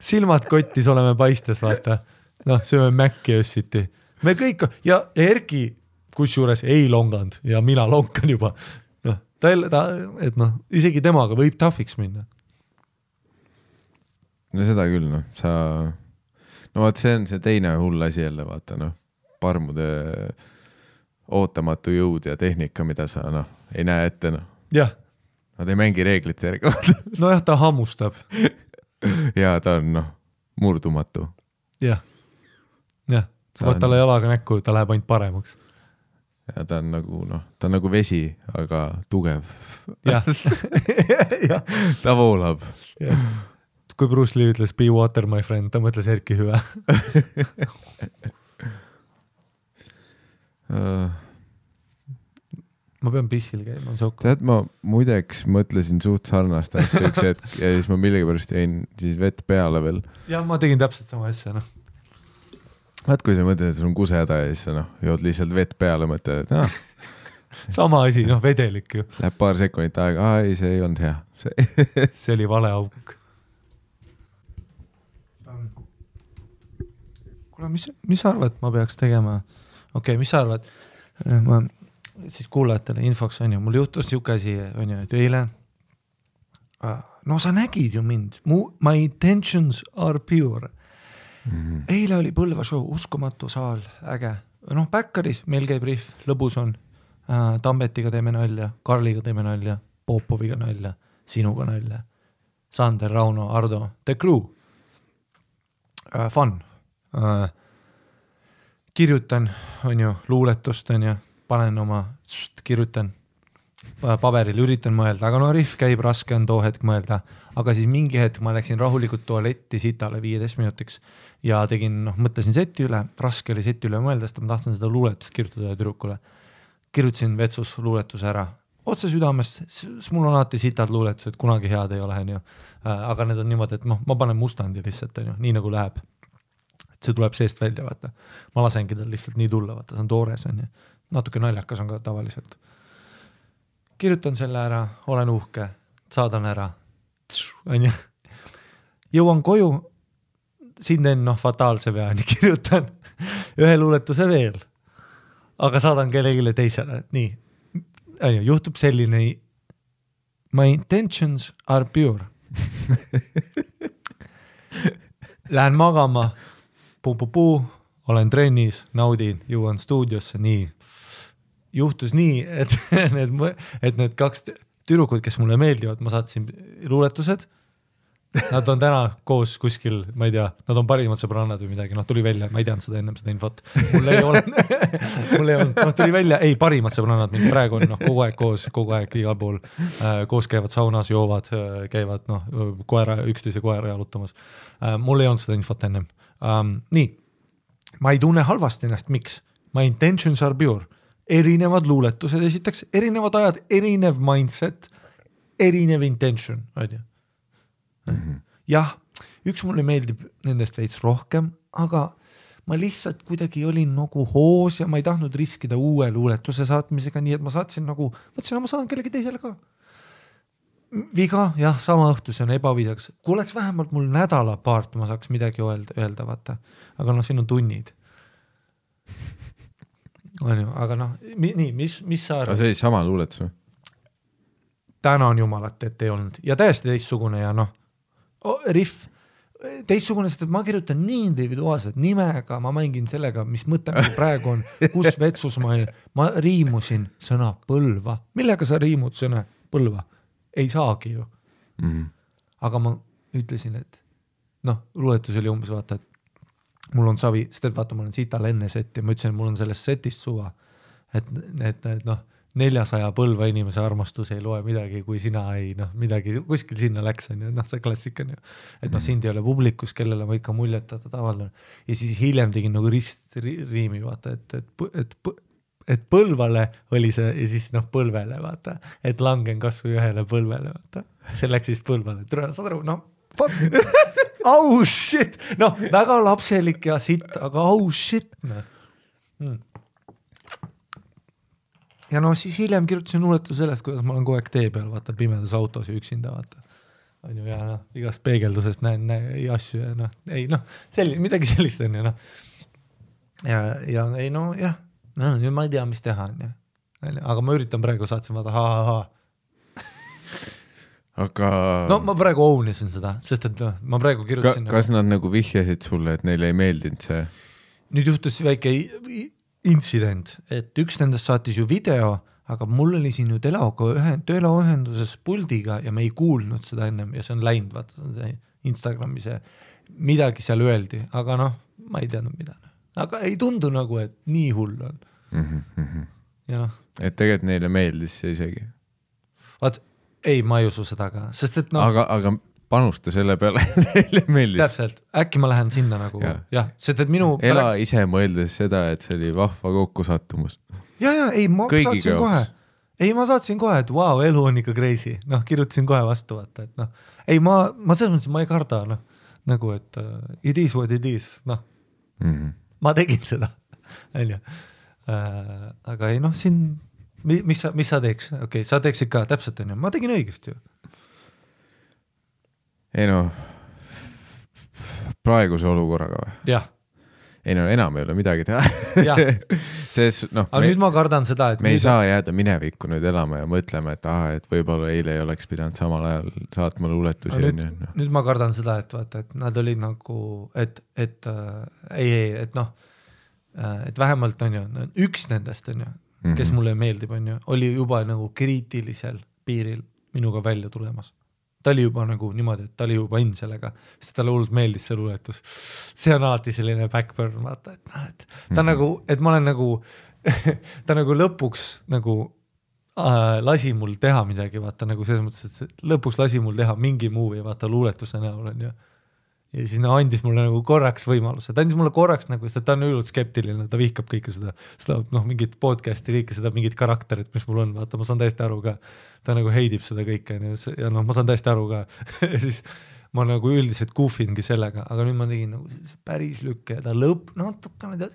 silmad kottis oleme paistes, vaata. Noh, sööme Mäkki össiti. Me kõik, ja Erki kusjuures ei longanud ja mina lonkan juba. Noh, et noh, isegi temaga võib tahviks minna. No seda küll, noh, no vaat see on see teine hull asi jälle, vaata, noh, parmude ootamatu jõud ja tehnika, mida sa, noh, ei näe ette, noh. Jah. Nad ei mängi reeglite järgi. No jah, ta hammustab. Ja ta on, noh, murdumatu. Jah. Jah, sa võid talle jalaga näkku, ta läheb ainult paremaks. Ja ta on nagu, noh, ta on nagu vesi, aga tugev. Jah. Ta voolab. Jah. Kui Bruce Lee ütles be water my friend, ta mõtles Erki Hüve. Ma pean pissil käima, on sokku. Tead, ma muideks mõtlesin suht sarnast asja üks hetk ja siis ma millegipärast jäin siis vett peale veel. Jah, ma tegin täpselt sama asja, noh. Vaat kui sa mõtled, et sul on kusehäda ja siis sa noh, jood lihtsalt vett peale, mõtled, et sama asi, noh, vedelik ju. Läheb paar sekundit aega, ei, see ei olnud hea. See oli vale auk. Kuule, mis arvad, ma peaks tegema? Okei, mis arvad? Ma siis kuulajatele infoks on ju, mul juhtus niuke asi, on ju, et eile, no sa nägid ju mind, my intentions are pure. Eile oli Põlva show, uskumatu saal, äge. Noh, Backeris meil käib riff, lõbus on. Tambetiga teeme nalja, Karliga teeme nalja, Popoviga nalja, sinuga nalja, Sander, Rauno, Ardo, The Crew. Fun. Kirjutan, on ju, luuletust, on ju, panen oma, kirjutan paberil, üritan mõelda, aga no riff käib, raske on too hetk mõelda, aga siis mingi hetk ma läksin rahulikult tualetti sitale 15 minutiks ja tegin, noh, mõtlesin seti üle, raske oli seti üle mõelda, sest ma tahtsin seda luuletust kirjutada tüdrukule. Kirjutasin vetsus luuletuse ära. Otse südamest, mul on alati sitad luuletused, kunagi head ei ole, on ju. Aga need on niimoodi, et ma panen mustandi lihtsalt, on ju, nii nagu läheb. Et see tuleb seest välja, vaata. Ma lasengi tal lihtsalt nii tulla, vaata, see on toores, on ju. Natuke naljakas on ka tavaliselt. Kirjutan selle ära, olen uhke, saadan ära, on ju. Jõuan koju, siin teen, noh, fataalse veani, kirjutan ühe luuletuse veel, aga saadan kellegile teisele, nii, on ju, juhtub selline, my intentions are pure. Lähen magama, puu, olen trennis, naudin, jõuan stuudiosse, nii. Juhtus nii, et need kaks tüdrukud, kes mulle meeldivad, ma saatsin luuletused, nad on täna koos kuskil, ma ei tea, nad on parimad sõbrannad või midagi, noh, tuli välja, ma ei teadnud seda ennem seda infot, mul ei olnud, noh, tuli välja, ei, parimad sõbrannad, mind praegu on, noh, kogu aeg koos, kogu aeg igal pool, koos käivad saunas, joovad, käivad, noh, üksteise koera jalutamas. Mul ei olnud seda infot ennem. Nii, ma ei tunne halvasti ennast, miks? My intentions are pure. Erinevad luuletused esitaks, erinevad ajad, erinev mindset, erinev intention, on ju. Jah, üks mulle meeldib nendest veits rohkem, aga ma lihtsalt kuidagi olin nagu hoos ja ma ei tahtnud riskida uue luuletuse saatmisega, nii et ma saatsin nagu, mõtlesin, ma saan kellegi teisele ka. Viga, jah, sama õhtus on ebaviisaks. Kui oleks vähemalt mul nädala paart, ma saaks midagi öelda, vaata. Aga noh, siin on tunnid. on ju, aga noh, nii, mis sa arvad? aga see oli sama luuletus või? Tänan jumalat, et ei olnud ja täiesti teistsugune ja noh, riff teistsugune, sest et ma kirjutan nii individuaalselt nimega, ma mängin sellega, mis mõte praegu on, kus vetsus ma riimusin sõna põlva. Millega sa riimud sõna põlva? Ei saagi ju. Aga ma ütlesin, et noh, luuletus oli umbes vaata, et mul on savi, sest et vaata, mul on sital enne seti ja ma ütlesin, et mul on sellest setist suva, et noh, 400 põlva inimese armastus ei loe midagi, kui sina ei, noh, midagi kuskil sinna läks, on ju, noh, see klassika on ju, et noh, sind ei ole publikus, kellele ma ikka muljetada tavalne. Ja siis hiljem tegin nagu riimi, vaata, et põlvale oli see ja siis noh, põlvele, vaata, et langen kasvõi ühele põlvele, vaata, see läks siis põlvale, saad aru, noh, fuck, oh shit, noh, väga lapselik ja sitt, aga oh shit, noh. Ja no siis hiljem kirjutasin luuletu sellest, kuidas ma olen kogu aeg tee peal, vaata pimedas autos ja üksinda, vaata. On ju, ja noh, igast peegeldusest näen asju ja noh, ei noh, midagi sellist on ju, noh. Ja ei no, jah, no, nüüd ma ei tea, mis teha on ju. Aga ma üritan praegu, saatsin vaata, Aga... No ma praegu ounisin seda, sest et no, ma praegu kirjutasin... Kas nad nagu vihjasid sulle, et neile ei meeldinud see? Nüüd juhtus väike... intsident, et üks nendest saatis ju video, aga mul oli siin ju teleühenduses puldiga ja me ei kuulnud seda ennem ja see on läinud, vaata, see Instagrami see midagi seal öeldi, aga noh, ma ei teadnud mida. Aga ei tundu nagu, et nii hull on. Ja noh. Et tegelikult neile meeldis see isegi. Vaat, ei, ma ei usu seda ka, sest et noh... Aga panusta selle peale, neile meeldis. Täpselt, äkki ma lähen sinna nagu, jah, sest et minu... Ela ise mõeldes seda, et see oli vahva kokkusattumus. Ja, ei, ma saatsin kohe. Ei, ma saatsin kohe, et wow, elu on ikka crazy. Noh, kirjutasin kohe vastu, vaata, et noh. Ei, ma selles mõttes, ma ei karda, noh. Nagu, et it is what it is, noh. Ma tegin seda, on ju. Aga ei, noh, siin... Mis sa teeks? Okei, sa teeksid ka täpselt, on ju. Ma tegin õigesti ju. Ei no, praeguse olukorraga või? Jah. Ei no, enam ei ole midagi teha. Aga nüüd ma kardan seda, et... Me ei saa jääda minevikku nüüd elama ja mõtlema, et võib-olla eile ei oleks pidanud samal ajal saatma luuletusi. Nüüd ma kardan seda, et vaata, et nad olid nagu, et noh, et vähemalt on ju, üks nendest on ju, kes mulle meeldib on ju, oli juba nagu kriitilisel piiril minuga välja tulemas. Ta oli juba nagu niimoodi, et ta oli juba in sellega, sest talle hullult meeldis see luuletus. See on alati selline backburn, vaata, et ta nagu, et ma olen nagu, ta nagu lõpuks nagu lasi mul teha midagi, vaata, nagu selles mõttes, et lõpuks lasi mul teha mingi movie, vaata, luuletuse näol on ju. Ja siis andis mulle nagu korraks võimaluse, ta andis mulle korraks nagu, sest ta on üllult skeptiline, ta vihkab kõike seda noh, mingit podcasti, kõike seda, mingit karakterit, mis mul on, vaata, ma saan täiesti aru ka, ta nagu heidib seda kõike ja noh, ma saan täiesti aru ka, ja siis ma nagu üldiselt goofingi sellega, aga nüüd ma tegin nagu päris lükke ja ta natukene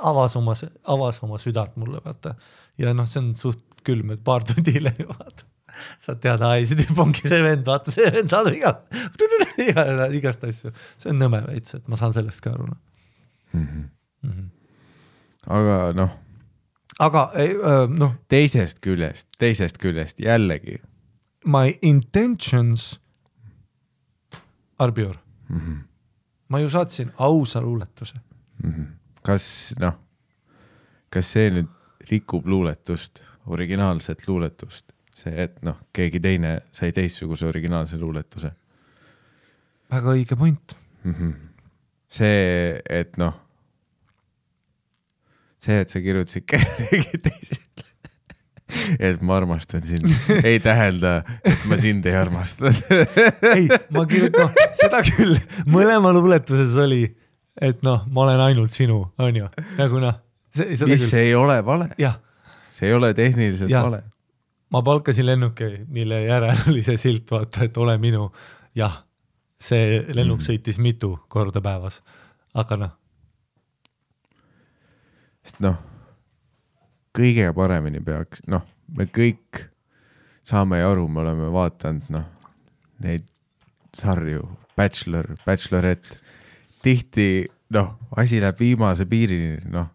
avas oma südant mulle, vaata, ja noh, see on suht külm, et paar tundi hiljem, vaata. Saad teada, see tüüp ongi see vend, vaata, see vend saadab igast asju. See on nõme veits, et ma saan sellest ka aru. Aga noh. Aga noh. Teisest küljest jällegi. My intentions are pure. Ma ju saatsin ausa luuletuse. Kas see nüüd rikub luuletust, originaalset luuletust? See, et noh, keegi teine sai teistsuguse originaalse luuletuse. Väga õige point. See, et noh, see, et sa kirjutasid kellegi teisele, et ma armastan sind, ei tähelda, et ma sind ei armasta. Ei, ma kirjutan, seda küll, mõlema luuletuses oli, et noh, ma olen ainult sinu, on ju, nagu noh. Mis ei ole vale. Jah. See ei ole tehniliselt vale. Ma palkasin lennuki, mille järel oli see silt, vaata, et ole minu. Jah, see lennuk sõitis mitu korda päevas, aga noh. Sest noh, kõige paremini peaks, noh, me kõik saame ja aru, me oleme vaatanud, noh, neid sarju, Bachelor, Bachelorette, tihti noh, asi läheb viimase piirini, noh,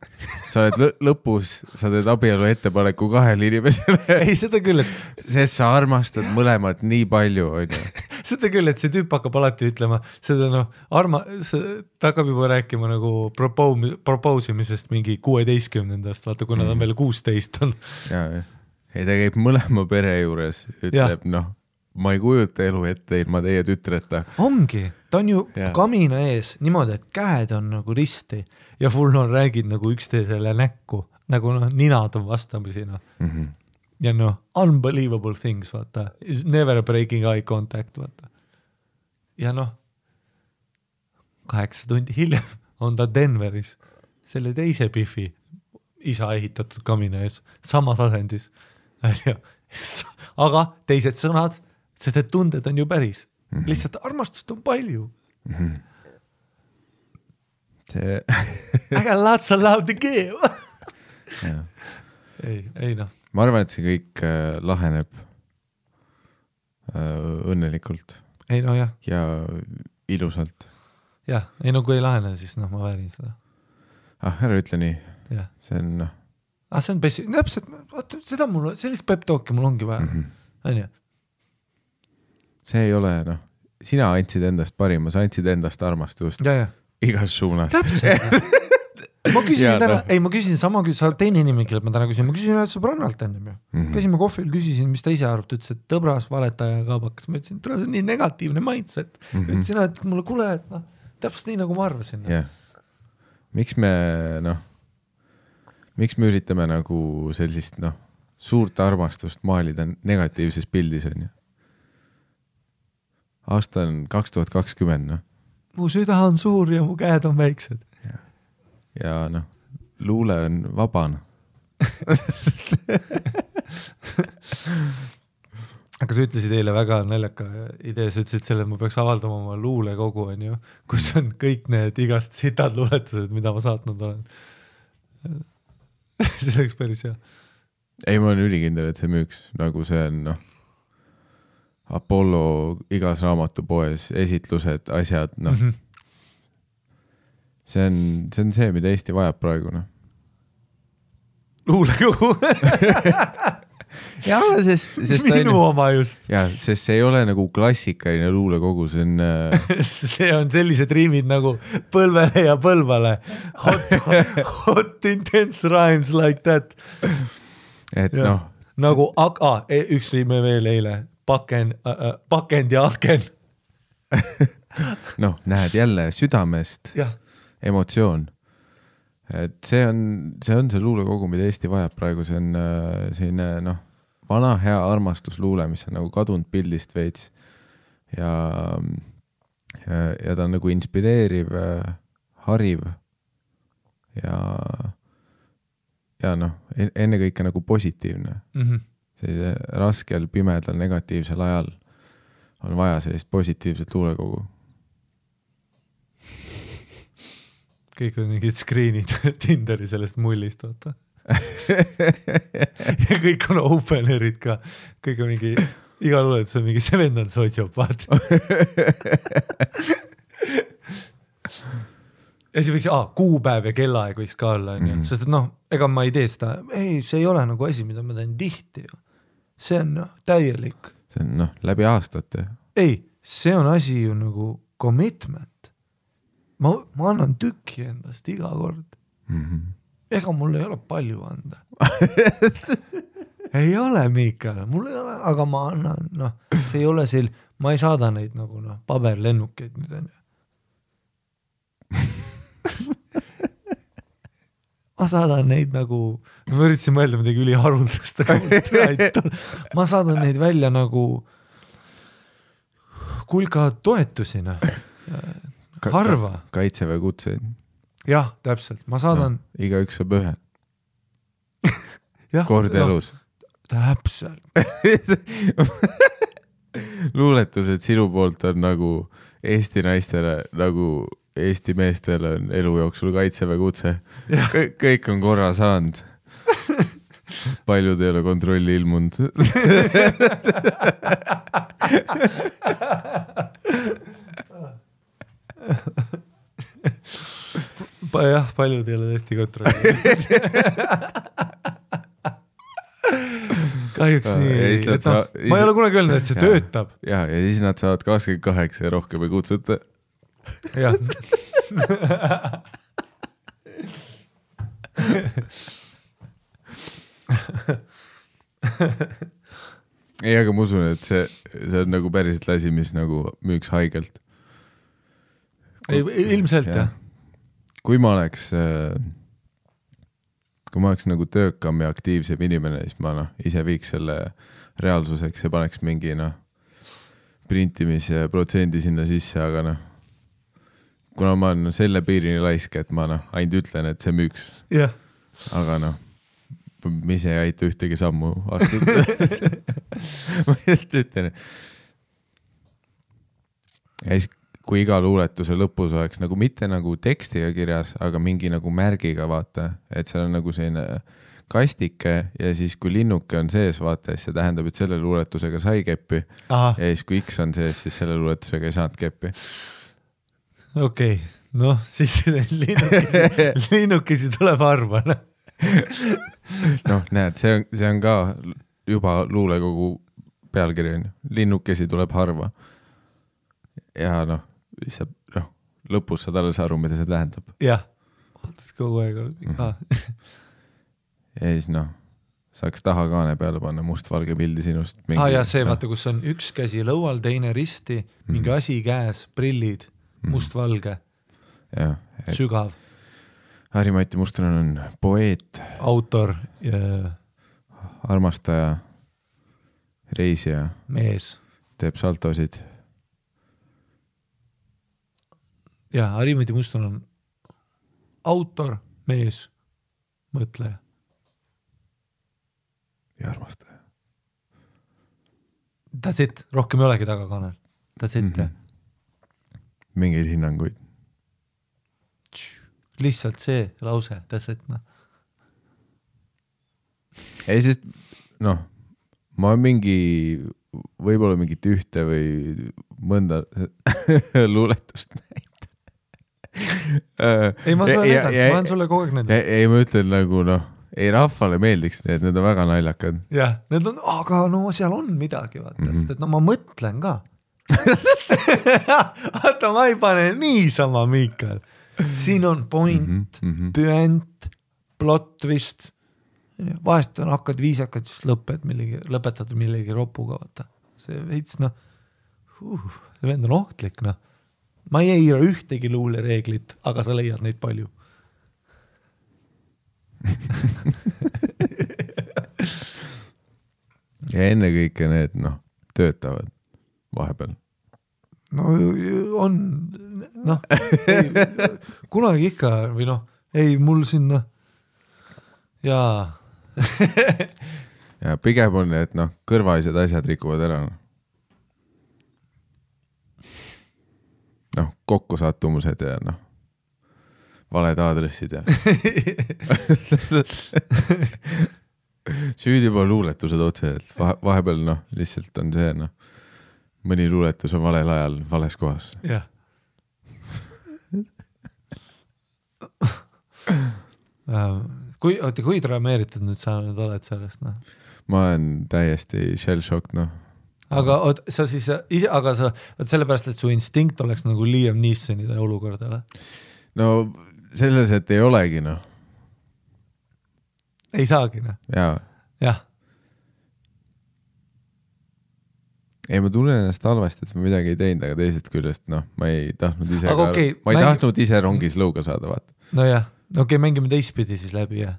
sa oled lõpus, sa teed abielu ettepaneku 2 inimesele. Ei, seda küll, et sest sa armastad mõlemad nii palju, on ju. Seda küll, et see tüüp hakkab alati ütlema, seda noh, ta hakkab juba rääkima nagu propousimisest mingi 16-ndast, vaata, kuna ta on veel 16 on. Ei, ta käib mõlema pere juures, ütleb, noh, ma ei kujuta elu ette ilma teie tütreta. Ongi, ta on ju kamina ees niimoodi, et käed on nagu risti ja full on räägid nagu üksteisele näkku, nagu noh, ninad on vastamisi noh. Ja noh, unbelievable things, vaata, is never breaking eye contact, vaata. Ja noh, 8 tundi hiljem on ta Denveris, selle teise Biffi isa ehitatud kamina ees, samas asendis. Aga teised sõnad, sest et tunded on ju päris. Lihtsalt armastust on palju. See... I got lots of love to give. ei noh. Ma arvan, et see kõik laheneb õnnelikult. Ei no jah. Ja ilusalt. Jah, ei no kui ei lahene, siis noh, ma väärin seda. Ära ütle nii. Ja. See on noh. See on täpselt, seda mul, sellist pep talki mul ongi vaja. On ju? See ei ole, noh, sina andsid endast parima, sa andsid endast armastust igas suunas. Täpselt. ma küsisin täna, ma küsisin sama, sa teine inimene, kellelt ma täna küsin, ma küsisin ühed sõbrannalt ennem ju. Käsime kohvil, küsisin, mis ta ise arvab, ta ütles, et tõbras, valetaja ja kaabakas. Ma ütlesin, see on nii negatiivne mindset. Ütlesin, et mulle kuule, et noh, täpselt nii, nagu ma arvasin. Miks me üritame nagu sellist, noh, suurt armastust maalida negatiivses pildis, on ju? Aasta on 2020, noh. Mu süda on suur ja mu käed on väiksed. Ja noh, luule on vabana. Aga sa ütlesid eile väga naljaka idee, sa ütlesid selle, et ma peaks avaldama oma luulekogu, on ju, kus on kõik need igast sitad luuletused, mida ma saatnud olen. See oleks päris hea. Ei, ma olen ülikindel, et see müüks, nagu see on, noh, Apollo igas raamatupoes, esitlused, asjad, noh. See on see, mida Eesti vajab praegu, noh. Luulekogu. Jaa, sest minu oma just. Jaa, sest see ei ole nagu klassikaline luulekogu, see on... see on sellised riimid nagu põlvele ja põlvale. Hot intense rhymes like that. Et ja. Noh. Nagu, üks riime veel eile. Pakend ja aken. Noh, näed jälle südamest emotsioon. Et see on see luulekogu, mida Eesti vajab praegu, see on selline, noh, vana hea armastusluule, mis on nagu kadunud pildist veits ja ta on nagu inspireeriv, hariv ja noh, ennekõike nagu positiivne. Sellise raskel, pimedal, negatiivsel ajal on vaja sellist positiivset luulekogu. Kõik on mingid screenid Tinderi sellest mullist, vaata. Ja kõik on openerid ka. Kõik on mingi, iga luuletus on mingi vend on sotsiopaat. Ja siis võiks, kuupäev ja kellaaeg võiks ka olla, sest et noh, ega ma ei tee seda, see ei ole nagu asi, mida ma teen tihti ju. See on täielik. See on läbi aastate. Ei, see on asi ju nagu commitment. Ma annan tükki endast iga kord. Ega mul ei ole palju anda. Ei ole, Miikal, mul ei ole, aga ma annan, noh, see ei ole ma ei saada neid nagu paberlennukeid nüüd on ju. Ma saadan neid nagu, ma üritasin mõelda midagi üliharuldast, aga ma saadan neid välja nagu kulka toetusina. Harva. Kaitseväe kutseid. Jah, täpselt. Ma saadan... No, iga üks saab ühe. Kord elus. Täpselt. Luuletused sinu poolt on nagu Eesti naistele, nagu Eesti meestele on elu jooksul kaitseväe kutse. Kõik on korra saanud. Paljud ei ole kontrolli ilmunud. jah, paljud ei ole tõesti kontrolli. Kahjuks nii. Ma ei ole kunagi öelnud, et see töötab. Ja siis nad saavad 28 ja rohkem ei kutsuta. Jah. Ei, aga ma usun, et see on nagu päriselt lasi, mis nagu müüks haigelt. Ilmselt, jah. Kui ma oleks nagu töökam ja aktiivsem inimene, siis ma ise viiks selle reaalsuseks ja paneks mingi printimise protsendi sinna sisse, aga kuna ma olen selle piirini laisk, et ma ainult ütlen, et see müüks. Yeah. Aga ma ise ei aita ühtegi sammu astuda. Ma just ütlen. Ja siis, kui iga luuletuse lõpus oleks nagu mitte nagu tekstiga kirjas, aga mingi nagu märgiga vaata, et seal on nagu selline kastike ja siis kui linnuke on sees vaata, siis see tähendab, et selle luuletusega sai keppi. Aha. Ja siis kui X on sees, siis selle luuletusega ei saanud keppi. Okei, siis linnukesi tuleb harva. Näed, see on ka juba luulekogu pealkiri. Linnukesi tuleb harva. Ja lõpus saad alles aru, mida see tähendab. Jah, kogu aeg. Ja siis saaks taha kaane peale panna mustvalge pildi sinust. Ja see vaata, kus on üks käsi lõual, teine risti, mingi asi käes, prillid, mustvalge, sügav. Harri-Mati Mustonen on poeet, autor, armastaja, reisija, mees, teeb saltosid. Ja Harri-Mati Mustonen on autor, mees, mõtleja. Ja armastaja. That's it, rohkem ei olegi tagakanal. That's it. Mingeid hinnanguid. Lihtsalt see lause, that's it. Ei, sest ma võib-olla mingit ühte või mõnda luuletust näitan. Ei, ma olen sulle kogu aeg näidanud. Ei, ma ütlen nagu ei rahvale meeldiks need on väga naljakad. Jah, need on, aga seal on midagi, vaata, sest et ma mõtlen ka. Vaata, ma ei pane niisama, Miikal. Siin on point, püent, plot vist. Vahest on hakkad viisakad, siis lõpetad millegi ropuga, vaata. See veits, see vend on ohtlik, Ma ei eira ühtegi luulereeglit, aga sa leiad neid palju. Ja enne kõike need, töötavad vahepeal. On, kunagi ikka, või ei, mul sinna, ja pigem on, et kõrvaised asjad rikuvad ära. Kokkusattumused ja valed aadressid ja süüdi juba luuletused otse, et vahepeal lihtsalt on see, mõni luuletus on valel ajal vales kohas. Jah. Kui drameeritud nüüd sa nüüd oled sellest? Ma olen täiesti shell-shocked, Aga sa siis ise, aga sa sellepärast, et su instinkt oleks nagu Liam Neesonide olukorda, või? Selles, et ei olegi, Ei saagi, Jaa. Jah. Ei, ma tunnen ennast halvasti, et ma midagi ei teinud, aga teisest küljest, ma ei tahtnud ise tahtnud ise rongis lõuga saada, vaata. Jah, mängime teistpidi siis läbi, jah.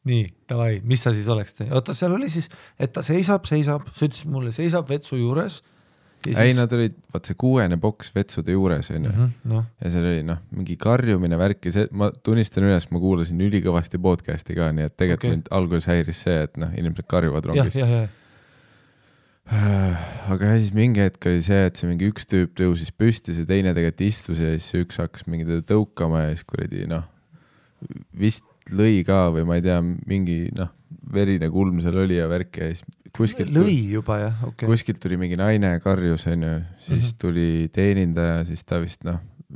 Nii, davai, mis sa siis oleks teinud? Oota, seal oli siis, et ta seisab, sa ütlesid mulle, seisab vetsu juures. Ei, nad olid, vaat see 6. boks vetsude juures, on ju. Ja seal oli, mingi karjumine värki, ma tunnistan üles, ma kuulasin ülikõvasti podcasti ka, nii et tegelikult mind alguses häiris see, et inimesed karjuvad rongis. Aga siis mingi hetk oli see, et see mingi üks tüüp tõusis püsti, see teine tegelikult istus ja siis üks hakkas mingi teda tõukama ja siis kuradi, vist lõi ka või ma ei tea, mingi verine kulm seal oli ja värk ja siis kuskilt juba, jah, kuskilt tuli mingi naine karjus, on ju, siis tuli teenindaja, siis ta vist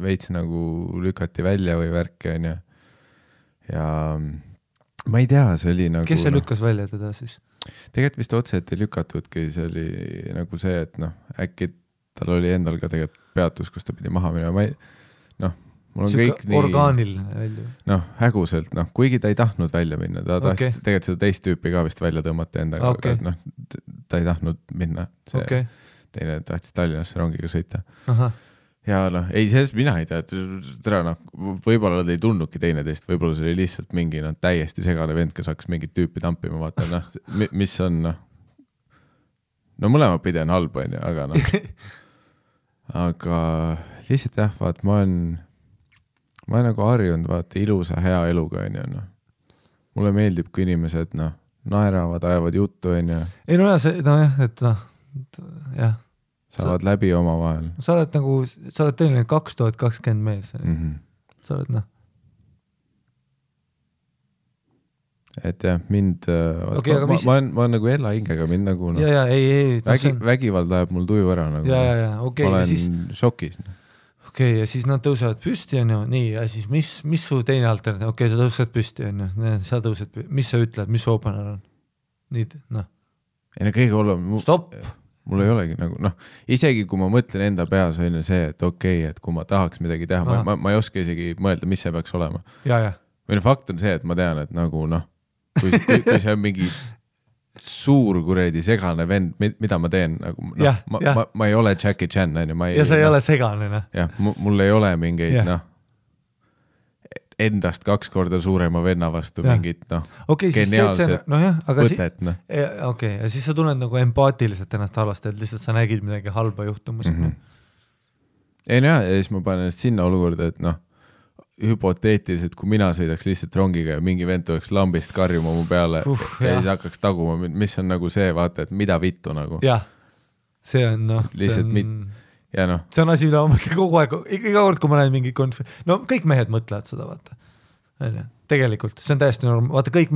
veits nagu lükati välja või värki, onju. Ja ma ei tea, see oli nagu... Kes see lükkas välja teda siis? Tegelikult vist otse, et ei lükatudki, see oli nagu see, et äkki tal oli endal ka tegelikult peatus, kus ta pidi maha minema. Ma ei, mul on kõik nii... Orgaaniline välja. Häguselt, kuigi ta ei tahtnud välja minna, ta tahtis tegelikult seda teist tüüpi ka vist välja tõmmata endaga, aga ta ei tahtnud minna. See teine tahtis Tallinnasse rongiga sõita. Aha. Ja ei, sellest mina ei tea, võib-olla nad ei tundnudki teineteist, võib-olla see oli lihtsalt mingi täiesti segane vend, kes hakkas mingit tüüpi tampima, vaata, mis on, mõlema pidi on halb, aga aga lihtsalt jah, vaat, ma olen nagu harjunud, vaata, ilusa, hea eluga, mulle meeldib, kui inimesed, naeravad, ajavad juttu, Ei, jah, saavad läbi oma vahel. Sa oled tõeline 2020 mees. Sa oled, Et jah, mind, ma olen nagu Ella hingega, mind nagu vägivald ajab mul tuju ära. Nagu, ma olen šokis. Ja siis nad tõusevad püsti, nii, ja siis mis su teine alternatiiv? Sa tõused püsti, sa tõused püsti. Mis sa ütled, mis su opener on? Nii, Ei, kõige olem... Stopp! Mul ei olegi nagu, isegi kui ma mõtlen enda peas on see, et et kui ma tahaks midagi teha, ma ei oska isegi mõelda, mis see peaks olema. Või fakt on see, et ma tean, et nagu kui see on mingi suur kuredi segane vend, mida ma teen, nagu, ma ei ole Jackie Chan, ja sa ei ole segane. Jah, mul ei ole mingeid, endast 2 korda suurema venna vastu mingit, geniaalset võtet. Ja siis sa tunned nagu empaatiliselt ennast halvasti, et lihtsalt sa nägid midagi halba juhtumus. Ei, ja siis ma panen ennast sinna olukorda, et hüpoteetiliselt, kui mina sõidaks lihtsalt rongiga ja mingi vend tuleks lambist karjuma mu peale ja siis hakkaks taguma, mis on nagu see, vaata, et mida vittu nagu. Jah, see on, lihtsalt ja see on asi, mida ma mõtlen kogu aeg, iga kord, kui ma näen mingi kõik mehed mõtlevad seda, vaata. Tegelikult, see on täiesti norm, vaata kõik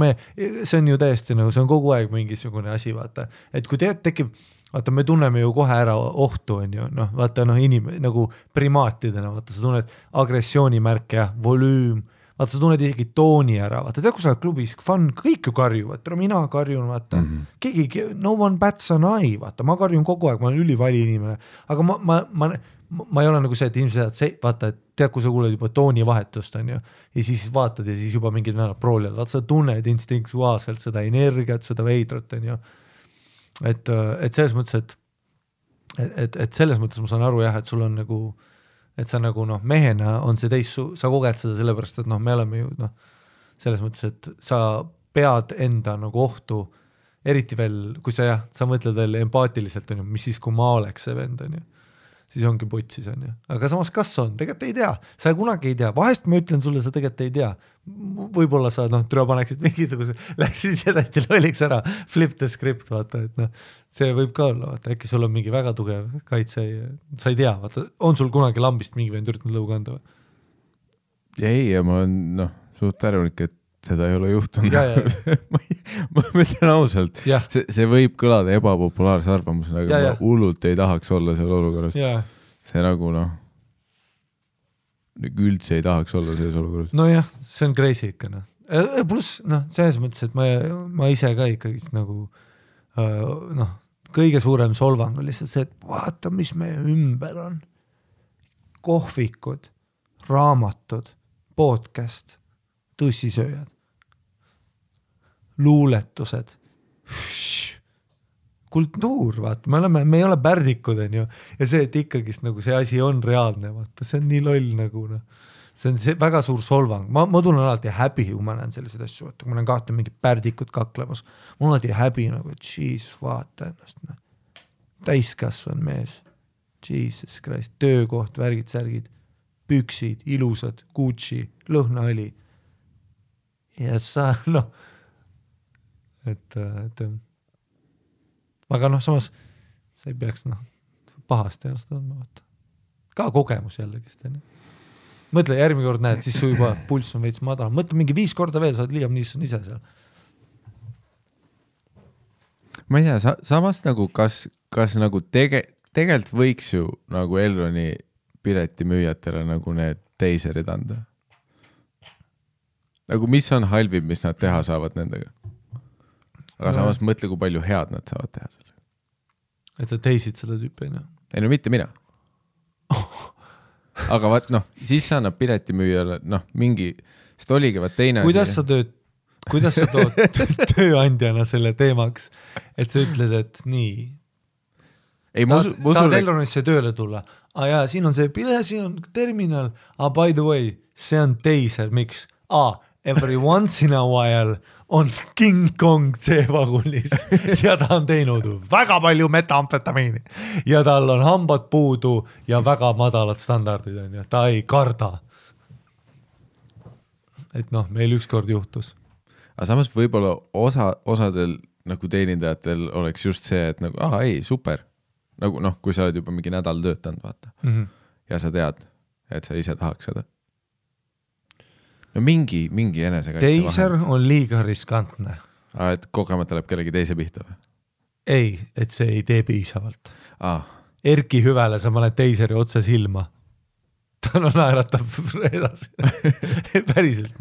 see on ju täiesti see on kogu aeg mingisugune asi, vaata. Et kui tekib, vaata, me tunneme ju kohe ära ohtu, on ju, vaata, nagu primaatidena, vaata, sa tunned agressioonimärke ja volüüm, vaata, sa tunned isegi tooni ära, vaata, kui sa oled klubis, kõik ju karjuvad, mina karjun, vaata, keegi, no one bats an eye, vaata, ma karjun kogu aeg, ma olen ülivali inimene, aga ma ei ole nagu see, et inimesed, vaata, et tead, kui sa kuuled juba tooni vahetust, on ju, ja siis vaatad ja siis juba mingid venad proolivad, vaata, sa tunned instinktuaalselt seda energiat, seda veidrat, on ju, et selles mõttes, et selles mõttes ma saan aru jah, et sul on nagu, et sa nagu mehena on see sa koged seda sellepärast, et me oleme ju selles mõttes, et sa pead enda nagu ohtu, eriti veel, kui sa mõtled veel empaatiliselt, on ju, mis siis, kui ma oleks see vend, on ju, siis ongi putsis, on ju. Aga samas kas on? Tegelikult ei tea. Sa kunagi ei tea. Vahest ma ütlen sulle, sa tegelikult ei tea. Võib-olla sa türa paneksid mingisuguse, läksid sedasti lolliks ära, flip the script, vaata, et see võib ka olla, vaata, äkki sul on mingi väga tugev kaitse, sa ei tea, vaata, on sul kunagi lambist mingi vend üritanud lõu kanda või? Ja ma olen suht tärulik, et seda ei ole juhtunud. ma mõtlen ausalt, see võib kõlada ebapopulaarse arvamusena, aga ma hullult ei tahaks olla seal olukorras. See nagu üldse ei tahaks olla selles olukorras. No jah, see on crazy ikka. Plus, selles mõttes, et ma ise ka ikkagi nagu kõige suurem solvang on lihtsalt see, et vaata, mis meie ümber on. Kohvikud, raamatud, podcast, tussisööjad, luuletused, kultuur, vaata, me ei ole pärdikud, on ju, ja see, et ikkagist nagu see asi on reaalne, vaata, see on nii loll nagu, see on väga suur solvang, ma tunnen alati häbi, kui ma näen selliseid asju, vaata, kui ma näen kahte mingit pärdikud kaklemas, mul on alati häbi nagu, et Jesus, vaata ennast, täiskasvan mees, Jesus Christ, töökoht, värgid, särgid, püksid, ilusad, Gucci, lõhnaõli. Ja sa, et aga samas sa ei peaks pahasti ennast tundma, vaata. Ka kogemus jällegi. Mõtle, järgmine kord näed, siis su juba pulss on veits madal. Mõtle mingi 5 korda veel, sa oled liiam ise seal. Ma ei tea, samas nagu kas nagu tegelikult võiks ju nagu Elroni piletimüüjatele nagu need teiserid anda? Nagu mis on halvim, mis nad teha saavad nendega? Aga samas mõtle, kui palju head nad saavad teha selle. Et sa teisid seda tüüpi, no? Ei no mitte mina. Aga vaat siis sa annab piletimüüjale mingi, sest oligi vaat teine kuidas sa tood tööandjana selle teemaks, et sa ütled, et nii ei, tahad Elronisse tööle tulla, jaa, siin on see pile, siin on terminal, by the way, see on teiser, miks? Every once in a while on King Kong C-vagunis ja ta on teinud väga palju metamfetamiini ja tal on hambad puudu ja väga madalad standardid on ja ta ei karda. Et meil ükskord juhtus. Aga samas võib-olla osadel nagu teenindajatel oleks just see, et nagu, ei, super. Nagu kui sa oled juba mingi nädal töötanud, vaata. Ja sa tead, et sa ise tahaks seda. No mingi enesekaitse teiser vahend. On liiga riskantne. Et kogemata läheb kellegi teise pihta või? Ei, et see ei tee piisavalt. Erki Hüvele sa paned teiseri otse silma. Ta naeratab edasi. Päriselt,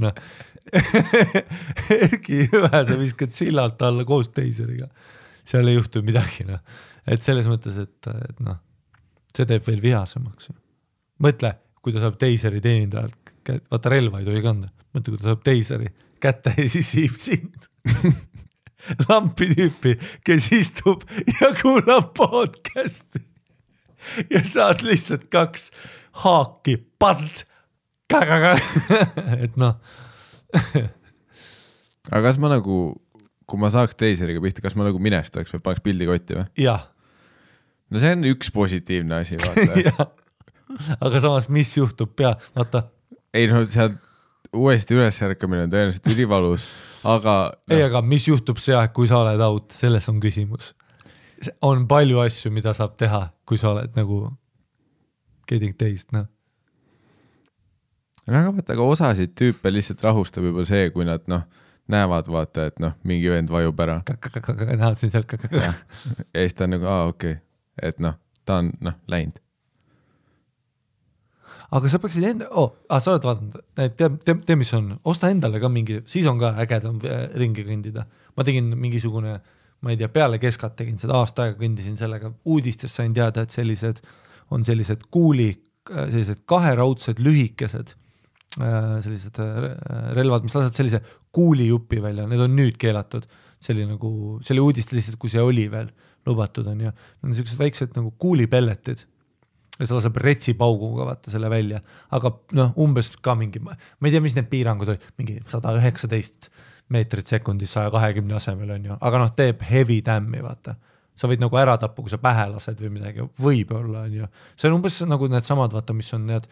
Erki Hüve sa viskad sillalt alla koos teiseriga. Seal ei juhtu midagi, Et selles mõttes, et see teeb veel vihasemaks. Mõtle, kui ta saab teiseri teenindajalt, vaata relva ei tohi kanda, mõtle, kui ta saab teiseri kätte ja siis siib sind. Lampi tüüpi, kes istub ja kuulab podcasti ja saad lihtsalt 2 haaki, past, et Aga kas ma nagu, kui ma saaks teiseriga pihta, kas ma nagu minestaks või paneks pildi kotti või? Jah. No see on üks positiivne asi, vaata. Aga samas, mis juhtub vaata? Ei seal uuesti ülesärkamine on tõenäoliselt ülivalus, aga... Ei, aga mis juhtub see aeg, kui sa oled out, selles on küsimus. On palju asju, mida saab teha, kui sa oled nagu getting teist, Aga osasid tüüpe lihtsalt rahustab juba see, kui nad näevad, vaata, et mingi vend vajub ära. Näed siin sealt ja siis ta on nagu, okei. Et ta on läinud. Aga sa peaksid sa oled vaadanud, tee mis on, osta endale ka mingi, siis on ka ägedam ringi kõndida. Ma tegin mingisugune, ma ei tea, peale keskat tegin seda aasta aega, kõndisin sellega, uudistes sain teada, et sellised kaheraudsed lühikesed, sellised relvad, mis lased sellise kuulijupi välja, need on nüüd keelatud, see oli uudiste lihtsalt, kui see oli veel lubatud on ja need on sellised väiksed nagu kuulipelletid ja sa laseb retsipauguga vaata selle välja, aga umbes ka mingi, ma ei tea, mis need piirangud oli, mingi 119 meetrit sekundis 120 asemel on ju, aga teeb heavy tämmi vaata. Sa võid nagu ära tappu, kui sa pähe lased või midagi, võib-olla on ju. See on umbes nagu need samad, vaata, mis on need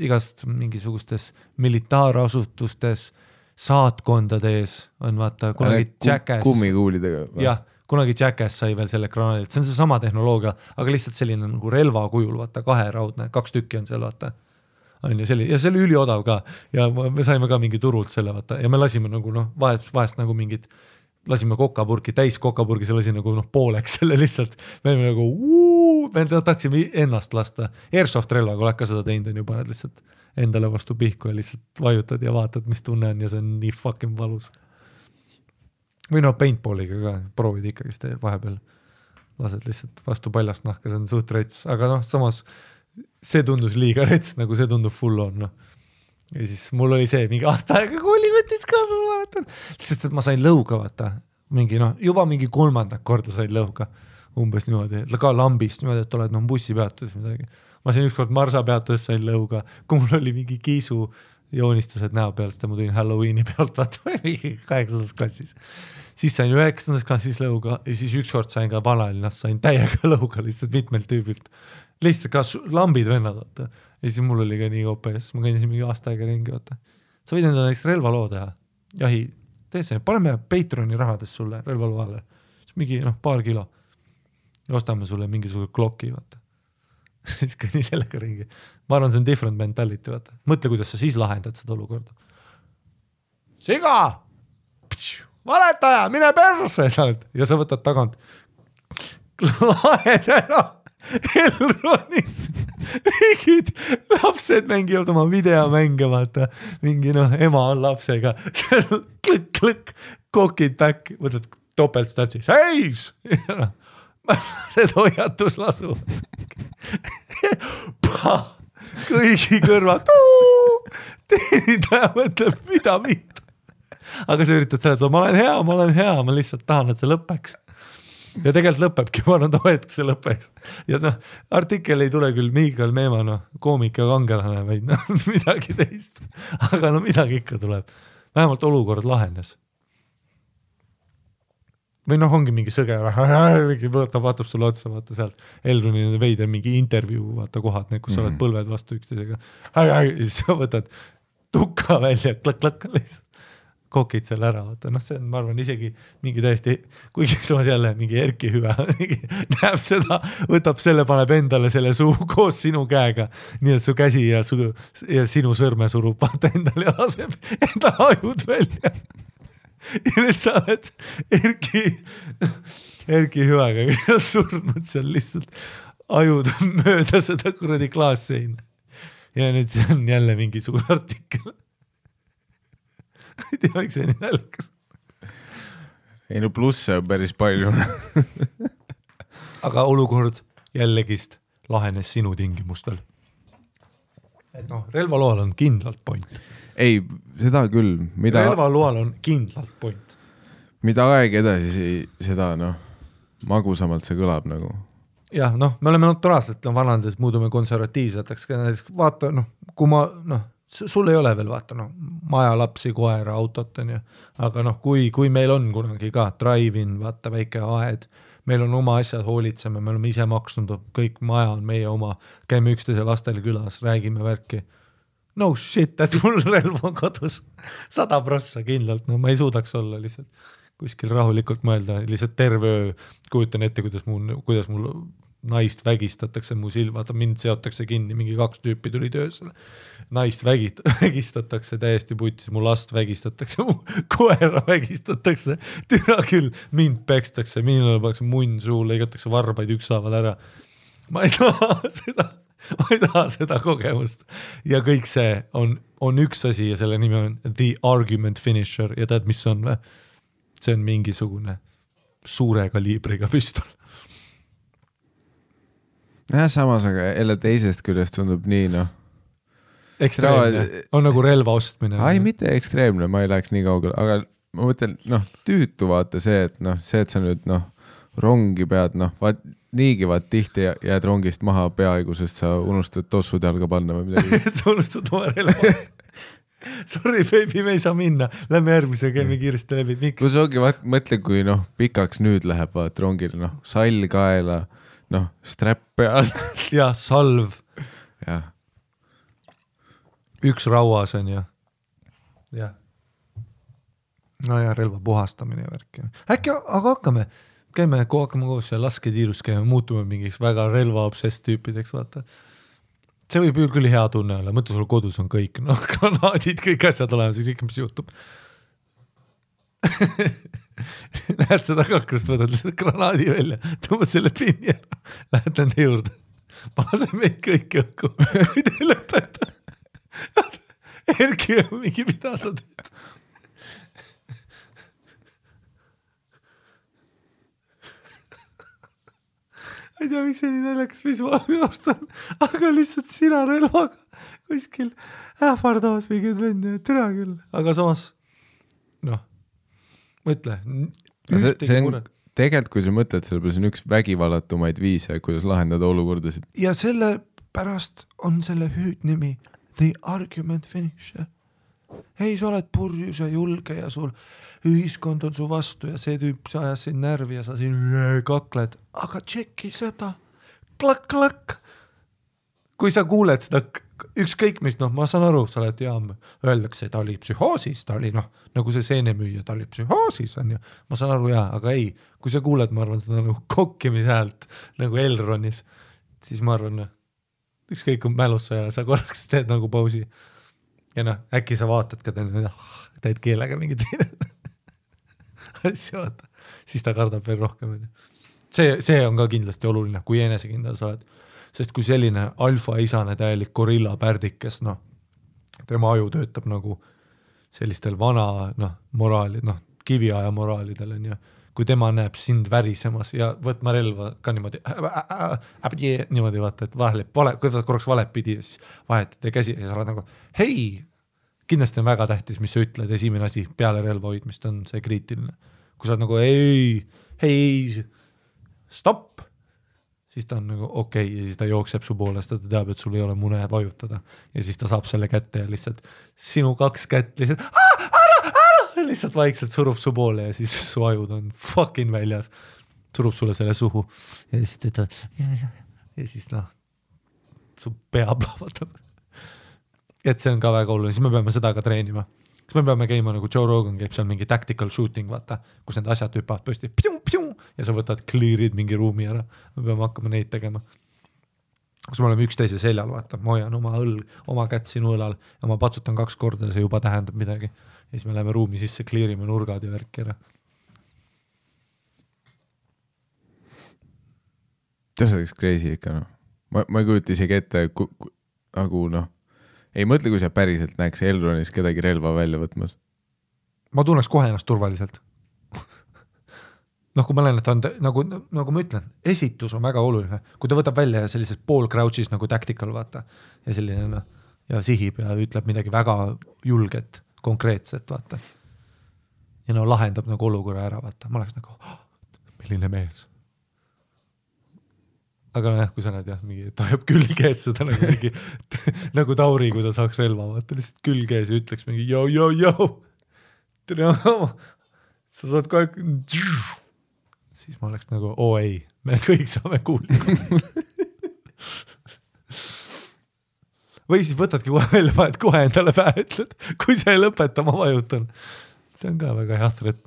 igast mingisugustes militaarasutustes, saatkondades on vaata, kunagi Jackass. Kummikuulidega. Jah, kunagi Jackass sai veel selle granaalilt, see on see sama tehnoloogia, aga lihtsalt selline nagu relva kujul, vaata, 2 raudne, 2 tükki on seal, vaata. On ju, ja see oli üliodav ka ja me saime ka mingi turult selle, vaata, ja me lasime nagu vahest nagu mingid lasime täis kokapurgi, see lasi nagu pooleks selle lihtsalt, me olime nagu me tahtsime ennast lasta, airsoft relvaga oled ka seda teinud on ju, paned lihtsalt endale vastu pihku ja lihtsalt vajutad ja vaatad, mis tunne on ja see on nii fucking valus. Või paintballiga ka, proovid ikkagi seda vahepeal, lased lihtsalt vastu paljast nahka, see on suht rets, aga samas see tundus liiga rets, nagu see tundub full on, Ja siis mul oli see mingi aasta aega kooli võttis kaasa, sest et ma sain lõuga, vaata, juba mingi 3. korda sain lõuga, umbes niimoodi, ka lambist niimoodi, et oled bussipeatuses midagi. Ma sain ükskord Marsa peatuses sain lõuga, kui mul oli mingi kiisu joonistused näo peal, sest ma tulin Halloweeni pealt, vaata, 8. klassis. Siis sain 9. klassis lõuga ja siis ükskord sain ka Vanalinnas, sain täiega lõuga lihtsalt mitmelt tüübilt. Lihtsalt ka lambid vennad, vaata. Ja siis mul oli ka nii OPS, ma kõndisin mingi aasta aega ringi, vaata. Sa võid enda näiteks relvaloo teha. Jahi, tee see, paneme Patreoni rahadest sulle relvaloo alla. Siis mingi paar kilo. Ja ostame sulle mingisugune klokki, vaata. Siis kõnni sellega ringi. Ma arvan, see on different mentality, vaata. Mõtle, kuidas sa siis lahendad seda olukorda. Siga! Valetaja, mine perse! Ja sa võtad tagant. Lahed ära! Elronis mingid lapsed mängivad oma videomänge, vaata, mingi ema on lapsega, klõkk, kokid back, võtad topeltstatsi, seis! Seda hoiatus lasuvad. Kõigi kõrvad, teenindaja mõtleb, mida mitte. Aga sa üritad seletada, ma olen hea, ma lihtsalt tahan, et see lõpeks. Ja tegelikult lõpebki, ma arvan, et see lõpeks. Ja artikkel ei tule küll Miikael Meemaa, koomik ja kangelane, vaid midagi teist. Aga midagi ikka tuleb. Vähemalt olukord lahenes. Või ongi mingi sõge, vaatab sulle otsa, vaata sealt Elroni veider mingi intervjuu, vaata kohad, kus sa oled põlved vastu üksteisega. Siis sa võtad tukka välja, klõkk, kokid selle ära, vaata, see on, ma arvan, isegi mingi täiesti, kuigi samas jälle mingi Erki hüve, näeb seda, võtab selle, paneb endale selle suu koos sinu käega, nii et su käsi ja sinu sõrme surub vaata endale ja laseb enda ajud välja. Ja nüüd sa oled Erki hüvega, kes surnud seal lihtsalt ajud mööda seda kuradi klaasseina. Ja nüüd see on jälle mingisugune artikkel. Ei tea, miks see nii nälgas. Ei plusse on päris palju. Aga olukord jällegist lahenes sinu tingimustel. Et relvaloal on kindlalt point. Ei, seda küll. Relvaloal on kindlalt point. Mida aeg edasi, seda magusamalt see kõlab nagu. Jah, me oleme naturaalselt vanandades muudume konservatiivseteks. Vaata, kui ma, sul ei ole veel vaata, maja, lapsi, koera, autot, aga kui meil on kunagi ka drive-in, vaata väike aed, meil on oma asjad, hoolitseme, me oleme ise maksnud, kõik maja on meie oma, käime üksteise lastele külas, räägime värki. No shit, et mul relv on kodus 100% kindlalt, ma ei suudaks olla lihtsalt kuskil rahulikult mõelda, lihtsalt terve öö kujutan ette, kuidas mul naist vägistatakse, mu vaata mind seotakse kinni, mingi 2 tüüpi tuli töösele, naist vägistatakse täiesti putsis, mu last vägistatakse, mu koera vägistatakse, türa küll, mind pekstakse, minul pannakse munn suu, lõigatakse varbaid ükshaaval ära. Ma ei taha seda kogemust ja kõik see on üks asi ja selle nimi on The Argument Finisher ja tead, mis on või? See on mingisugune suure kaliibriga püstol. Ja samas, aga jälle teisest küljest tundub nii, ekstreemne, on nagu relva ostmine. Ai, mitte ekstreemne, ma ei läheks nii kaugele, aga ma mõtlen, tüütu vaata see, et see, et sa nüüd rongi pead, niigi vaat tihti jääd rongist maha peaaegu, sest sa unustad tossud jalga panna või midagi. Sa unustad oma relva. Sorry, baby, me ei saa minna. Lähme järgmise, käime kiiresti läbi. Miks? Kus ongi, mõtle, kui pikaks nüüd läheb vaat rongil, sall kaela, strap peal. Ja salv. Ja. Üks rauas on ja. Ja. No ja relva puhastamine ja värk. Äkki, aga käime koos ja lasketiirus käime, muutume mingiks väga relvaobsess tüüpideks, vaata. See võib küll hea tunne olla, mõtle sul kodus on kõik, granaadid, kõik asjad olemas, kõik mis juhtub. Lähed seda kaklust, võtad lihtsalt granaadi välja, tõmbad selle pinni ära, lähed nende juurde, ma lasen meid kõik õhku, kui te ei lõpeta. Erki on mingi, mida sa teed? Ei tea, miks see nii näljakas visuaalne ostan, aga lihtsalt sina relvaga kuskil ähvardamas mingid lende, türa küll, aga samas, mõtle. See on tegelikult, kui sa mõtled, selle on üks vägivallatumaid viise, kuidas lahendada olukordasid. Ja selle pärast on selle hüüdnimi The Argument Finisher. Hei, sa oled purjus ja julge ja sul ühiskond on su vastu ja see tüüp sa ajas siin närvi ja sa siin kakled, aga tšeki seda, klak. Kui sa kuuled seda ükskõik mis, ma saan aru, sa oled öeldakse, ta oli psühhoosis, ta oli nagu see seenemüüja, ta oli psühhoosis on ju, ma saan aru aga ei, kui sa kuuled, ma arvan, seda nagu kokkimishäält nagu Elronis, siis ma arvan, ükskõik kui mälus sa ja sa korraks teed nagu pausi. Ja äkki sa vaatad ka teed keelega mingid asja vaata, siis ta kardab veel rohkem. see on ka kindlasti oluline, kui enesekindel sa oled. Sest kui selline alfa-isane täielik gorilla pärdikes, noh, tema aju töötab nagu sellistel vana, noh, moraali, noh, kiviaja moraalidel on ju, kui tema näeb sind värisemas ja võtma relva ka niimoodi, niimoodi vaata, et vahele, kui ta korraks valet pidi, siis vahetate käsi ja sa oled nagu, hei, kindlasti on väga tähtis, mis sa ütled, esimene asi peale relva hoidmist on see kriitiline. Kui sa oled nagu, hei, stopp, siis ta on nagu okei, ja siis ta jookseb su poolest, ta teab, et sul ei ole mune vajutada ja siis ta saab selle kätte ja lihtsalt sinu 2 kätt lihtsalt ära, lihtsalt vaikselt surub su poole ja siis su ajud on fucking väljas, surub sulle selle suhu ja siis ta ütleb ja siis noh, su pea plahvatab. Et see on ka väga oluline, siis me peame seda ka treenima. Siis me peame käima nagu Joe Rogan käib seal mingi tactical shooting, vaata, kus need asjad hüppavad pöösti ja sa võtad clear'id mingi ruumi ära. Me peame hakkama neid tegema. Kus me oleme üksteise seljal, vaata, ma hoian oma kätt sinu õlal ja ma patsutan 2 korda ja see juba tähendab midagi. Ja siis me läheme ruumi sisse, clearime nurgad ja värki ära. See oleks crazy ikka, noh. Ma ei kujuta isegi ette, nagu noh, ei mõtle, kui sa päriselt näeks Elronis kedagi relva välja võtmas. Ma tunneks kohe ennast turvaliselt. Noh, kui ma olen, et on nagu ma ütlen, esitus on väga oluline. Kui ta võtab välja sellises pool crouch'is nagu tactical, vaata, ja selline, noh, ja sihib ja ütleb midagi väga julget, konkreetset, vaata. Ja no lahendab nagu olukorra ära, vaata. Ma oleks nagu, milline mees. Aga noh, kui sa näed jah, mingi, ta jääb külgees seda nagu mingi, nagu Tauri, kui ta saaks relva, vaata, lihtsalt külgees ja ütleks mingi, joo, sa saad kohe, siis ma oleks nagu, ei, me kõik saame kuulda. Või siis võtadki kohe välja, vahet kohe endale pähe ütled, kui sa ei lõpeta, ma vajutan. See on ka väga hea threat.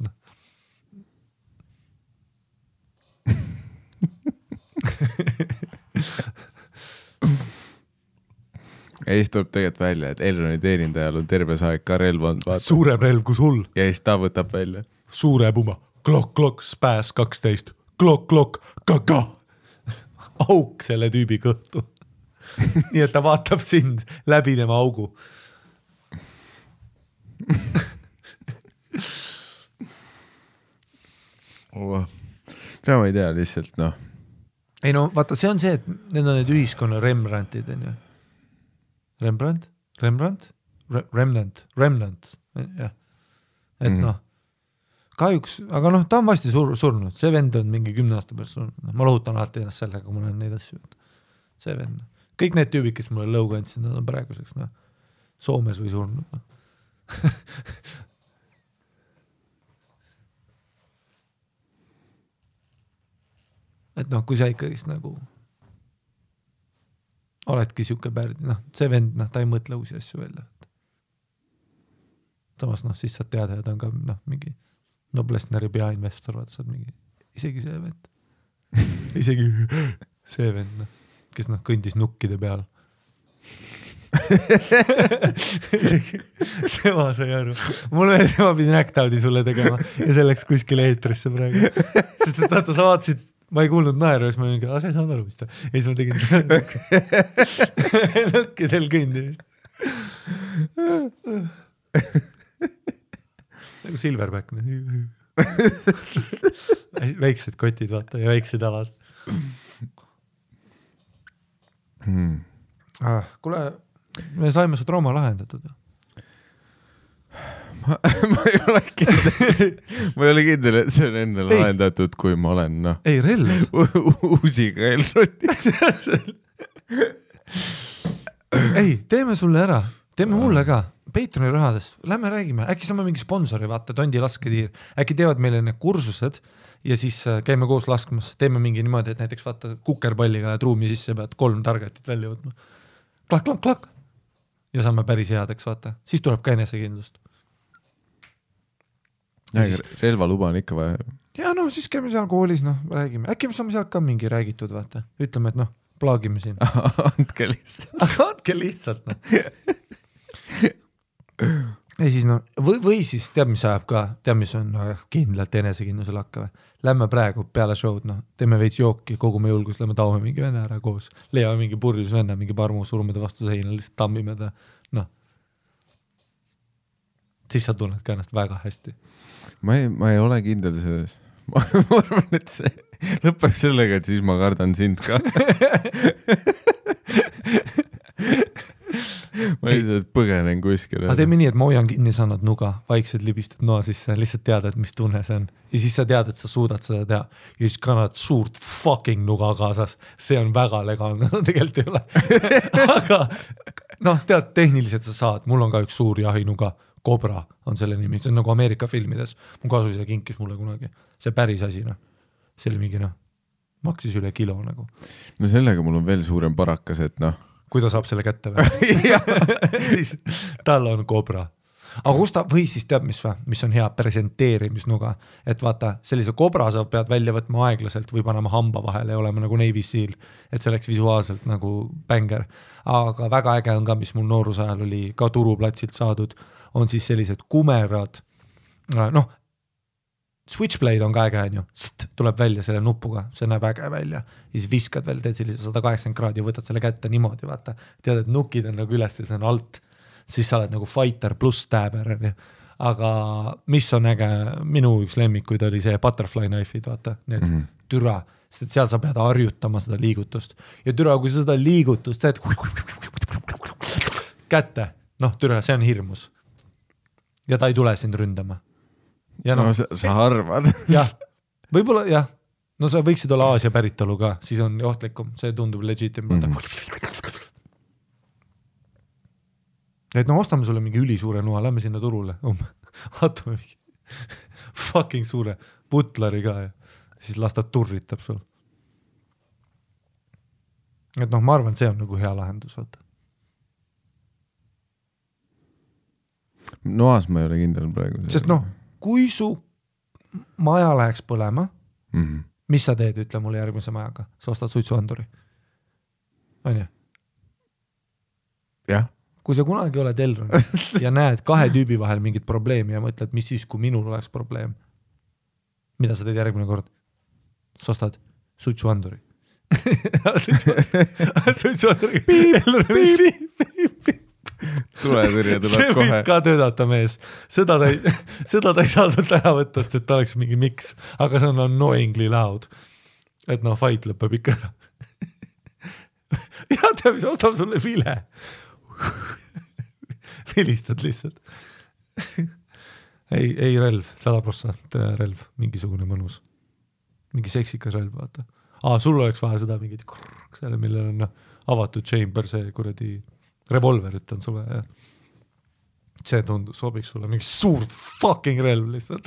Ja siis tuleb tegelikult välja, et Elroni teenindajal on terve aeg ka relv on, vaata. Suurem relv kui sul. Ja siis ta võtab välja. Suure puma, klok, spääs 12, klok, kaka. Auk selle tüübi kõhtu. Nii et ta vaatab sind läbi tema augu. Ma ei tea lihtsalt, noh. Ei no, vaata, see on see, et need on need ühiskonna Rembrandtid, on ju. Remnant, jah. Et noh, kahjuks, aga noh, ta on vasti surnud, see vend on mingi 10 aasta pärast surnud. Ma lohutan alati ennast sellega, kui ma olen neid asju. See vend. Kõik need tüübid, kes mulle lõuga andsid, nad on praeguseks, noh, Soomes või surnud. No. Et noh, kui sa ikkagist nagu oledki siuke pärdi, noh, see vend, noh, ta ei mõtle uusi asju välja. Samas, noh, siis saad teada, et on ka, noh, mingi Noblessneri peainvestor, vaata, saad mingi, isegi see vend. Isegi see vend, noh, kes noh, kõndis nukkide peal. Tema sai aru. Mulle tema pidi näktaudi sulle tegema ja selleks kuskile eetrisse praegu. Sest et vaata, sa vaatasid, ma ei kuulnud naeru, siis ma mingi, sa ei saanud aru vist. Ja siis ma tegin seda nukkidel kõndimist. Nagu Silverback. Väiksed kotid, vaata, ja väiksed alad. Kuule, me saime su trauma lahendatud. Ma ei ole kindel, et see on enne lahendatud, kui ma olen, noh. Ei, relv. Uusiga Elroni. Ei, teeme sulle ära. Teeme mulle ka. Patreoni rahadest. Lähme räägime. Äkki saame mingi sponsori, vaata, Tondi lasketiir. Äkki teevad meile need kursused ja siis käime koos laskmas. Teeme mingi niimoodi, et näiteks vaata kukerpalliga lähed ruumi sisse, pead 3 targetit välja võtma. Klak. Ja saame päris headeks, vaata. Siis tuleb ka enesekindlust. Relvaluba on ikka vaja. Ja no siis käime seal koolis, noh, räägime. Äkki me saame sealt ka mingi räägitud, vaata. Ütleme, et noh, plaagime siin. Andke lihtsalt. Andke lihtsalt, noh. ja siis no, või siis tead, mis ajab ka, tead, mis on kindlalt enesekindlusel hakka või? Lähme praegu peale show'd, noh, teeme veits jooki, kogume julgust, lähme taome mingi vene ära koos, leiame mingi purjus venne, mingi parmu, surume ta vastu seina, lihtsalt tammime ta, noh. Siis sa tunned ka ennast väga hästi. Ma ei ole kindel selles. Ma arvan, et see lõpeb sellega, et siis ma kardan sind ka. Ma lihtsalt põgenen kuskile. Aga teeme nii, et ma hoian kinni, sa annad nuga, vaikselt libistad noa sisse, lihtsalt teada, et mis tunne see on. Ja siis sa tead, et sa suudad seda teha. Ja siis kannad suurt fucking nuga kaasas. See on väga legaalne, no tegelikult ei ole. Aga noh, tead, tehniliselt sa saad. Mul on ka üks suur jahinuga. Cobra on selle nimi, see on nagu Ameerika filmides. Mu kasuisa kinkis mulle kunagi. See päris asi, noh. See oli mingi, noh, maksis üle kilo nagu. No sellega mul on veel suurem parakas, et noh. Kui ta saab selle kätte või? Siis tal on Cobra. Aga kus ta, või siis teab, mis on hea presenteerimisnuga, et vaata, sellise Cobra sa pead välja võtma aeglaselt või panema hamba vahele ja olema nagu Navy Seal, et see oleks visuaalselt nagu bänger. Aga väga äge on ka, mis mul nooruse ajal oli ka turuplatsilt saadud, on siis sellised kumerad, noh, switchblade on ka äge, on ju, tuleb välja selle nupuga, see näeb äge välja, ja siis viskad veel, teed sellise 180 kraadi ja võtad selle kätte niimoodi, vaata, tead, et nukid on nagu üles ja see on alt, siis sa oled nagu fighter pluss stabber, aga mis on äge, minu üks lemmikuid oli see butterfly knife'id, vaata, need türa, sest et seal sa pead harjutama seda liigutust ja türa, kui sa seda liigutust teed kätte, noh türa, see on hirmus. Ja ta ei tule sind ründama. Ja no sa arvad. Jah, võib-olla jah. No sa võiksid olla Aasia päritolu ka, siis on ohtlikum, see tundub legitim. Et no ostame sulle mingi ülisuure noa, lähme sinna turule. Vaatame mingi fucking suure butlari ka ja siis las ta turritab sul. Et noh, ma arvan, see on nagu hea lahendus, vaata. Noas ma ei ole kindel praegu. Sest noh, kui su maja läheks põlema, mis sa teed, ütle mulle järgmise majaga? Sa ostad suitsuanduri. On ju? Jah. Kui sa kunagi oled Elron ja näed kahe tüübi vahel mingit probleemi ja mõtled, mis siis, kui minul oleks probleem, mida sa teed järgmine kord? Sa ostad suitsuanduri. Suitsuanduri. Tuletõrje tuleb see kohe. See võib ka töödata mees. Seda ta ei saa sult ära võtta, et ta oleks mingi miks, aga see on annoyingly loud. Et noh, fight lõpeb ikka ära. Ja teab, mis ostab sulle vile. Vilistad lihtsalt. Ei relv, 100% relv, mingisugune mõnus. Mingi seksikas relv, vaata. Sul oleks vaja seda mingit selle, millel on avatud chamber, see kuradi revolverit on sulle ja see tundus, sobiks sulle mingi suur fucking relv lihtsalt.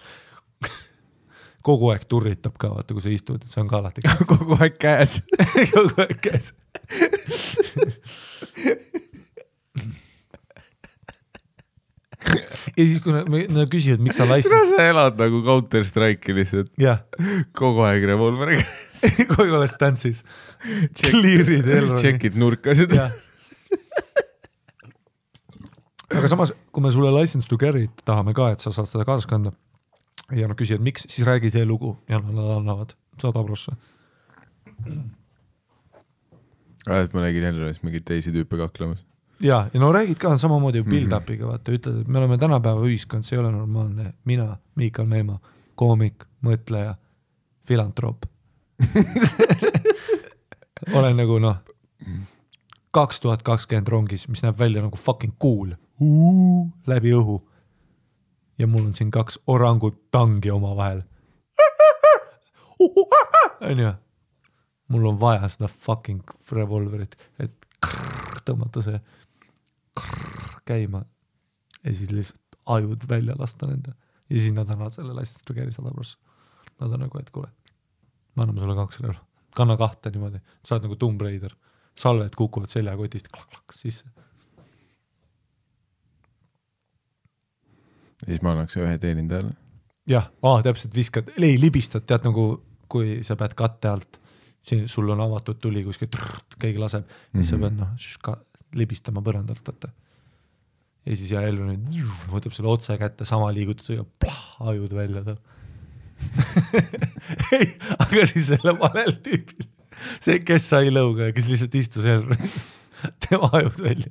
Kogu aeg turritab ka, vaata, kui sa istud, see on ka alati käes. Kogu aeg käes. Kogu aeg käes. Ja siis, kui nad küsivad, miks sa license... Sa elad nagu Counter-Strike'i lihtsalt. Jah. Kogu aeg revolveri käes. Kogu aeg stansis. Clearid Elroni. Checkid nurkasid. Jah. Aga samas, kui me sulle license to carry tahame ka, et sa saad seda kaasas kanda ja nad küsivad, miks, siis räägi see lugu ja nad annavad 100%. Et ma nägin Elronis mingid teisi tüüpe kaklemas. Ja no räägid ka samamoodi build-upiga, vaata, ütled, et me oleme tänapäeva ühiskond, see ei ole normaalne. Mina, Miikal Meemaa, koomik, mõtleja, filantroop. Olen nagu 2020 rongis, mis näeb välja nagu fucking cool. Läbi õhu. Ja mul on siin 2 orangut tangi oma vahel. Mul on vaja seda fucking revolverit, et tõmmata see käima ja siis lihtsalt ajud välja lasta nende. Ja siis nad annavad selle license to carry 100%. Nad on nagu, et kuule, ma anname sulle 2 relva. Kanna 2 niimoodi. Sa oled nagu Tomb Raider. Salved kukuvad seljakotist klak sisse. Ja siis ma annaks 1 teenindajale. Jah, täpselt viskad. Ei, libistad, tead nagu, kui sa pead katte alt, sul on avatud tuli kuskil, keegi laseb, siis sa pead libistama põrandalt. Võtta. ja siis Elvin võtab selle otse kätte, sama liigutusega, ajud välja tal. Ei, aga siis selle valel tüübil, see, kes sai lõuga ja kes lihtsalt istus Elvin, tema ajud välja.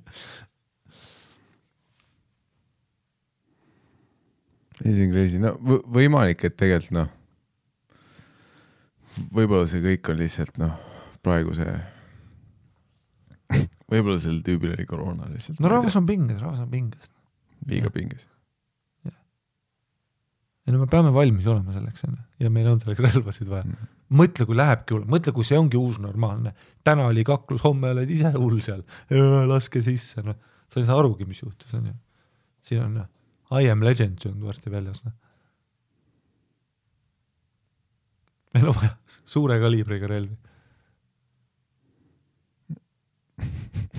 See on crazy, no võimalik, et tegelikult noh, võib-olla see kõik on lihtsalt noh, praegu see, võib-olla sellel tüübil oli koroona lihtsalt. No rahvas on pinges. Liiga pinges. Ja no me peame valmis olema selleks, ja meil on selleks relvasid vaja. Mõtle, kui lähebki hull, mõtle, kui see ongi uus normaalne. Täna oli kaklus, homme oled ise hull seal, laske sisse, no. Sa ei saa arugi, mis juhtus, on ju. Siin on I am legend, see on varsti väljas. No. Meil on vaja suure kaliibriga relvi.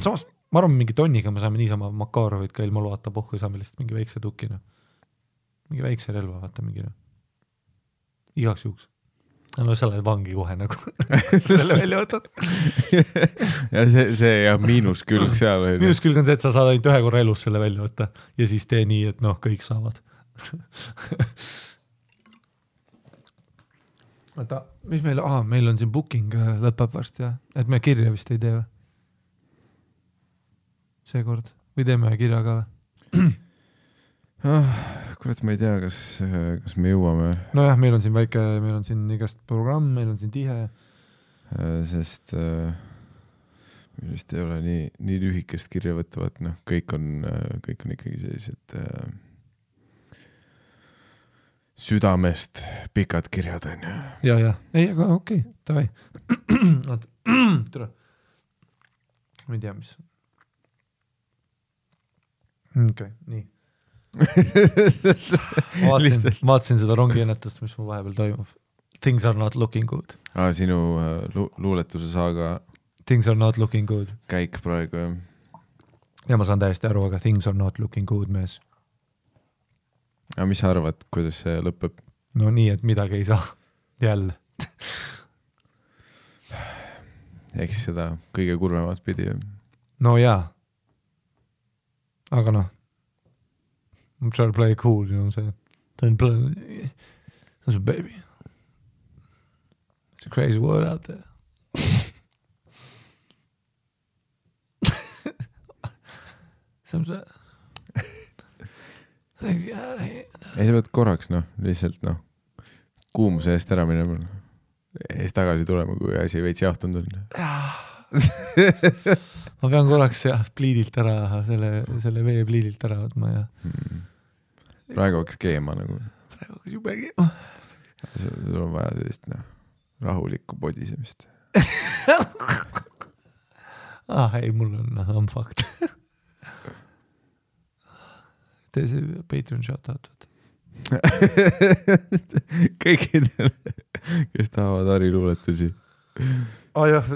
Samas, ma arvan, mingi tonniga me saame niisama Makarovit ka ilma loata pohku ja saame lihtsalt mingi väikse tukina. Mingi väikse relva, vaata mingi. Igaks juhuks. No sa oled vangi kohe nagu selle välja võtad. Ja see ja miinuskülg seal. Miinuskülg on see, et sa saad ainult ühe korra elus selle välja võtta ja siis tee nii, et noh, kõik saavad. Oota, mis meil, meil on siin booking lõpeb varsti, ja? Et me kirja vist ei tee või? Seekord. Või teeme kirja ka või? Kurat, ma ei tea, kas me jõuame. No jah, meil on siin väike, meil on siin igast programm, meil on siin tihe. Sest meil vist ei ole nii lühikest kirja võtavad, noh, kõik on ikkagi sellised südamest pikad kirjad on ju. Ja. Ei, aga okei, davai. Tere. Ma ei tea, mis. Okei, nii. Vaatasin seda rongiennetust, mis mu vahepeal toimub. Things are not looking good. Sinu luuletuse saaga Things are not looking good. Käik praegu, jah. Ja ma saan täiesti aru, aga things are not looking good, mees. Aga mis sa arvad, kuidas see lõpeb? No nii, et midagi ei saa. Jälle. Eks seda kõige kurvemat pidi. No jaa. Aga noh. I'm trying to play cool, you know what I'm saying? Don't play. That's a baby. It's a crazy world out there. Sometimes. Think out here. Ei, sa pead korraks, noh, lihtsalt, noh, kuumuse eest ära minema. Eest tagasi tulema, kui asi veits jahtunud on. Ma pean korraks pliidilt ära, selle vee pliidilt ära võtma ja... Praegu hakkas keema nagu. Praegu hakkas jube keema. Sul on vaja sellist rahulikku podisemist. Ei, mul on fakt. Tee see Patreon shoutout. Kõikidel, kes tahavad Harri luuletusi. Jah.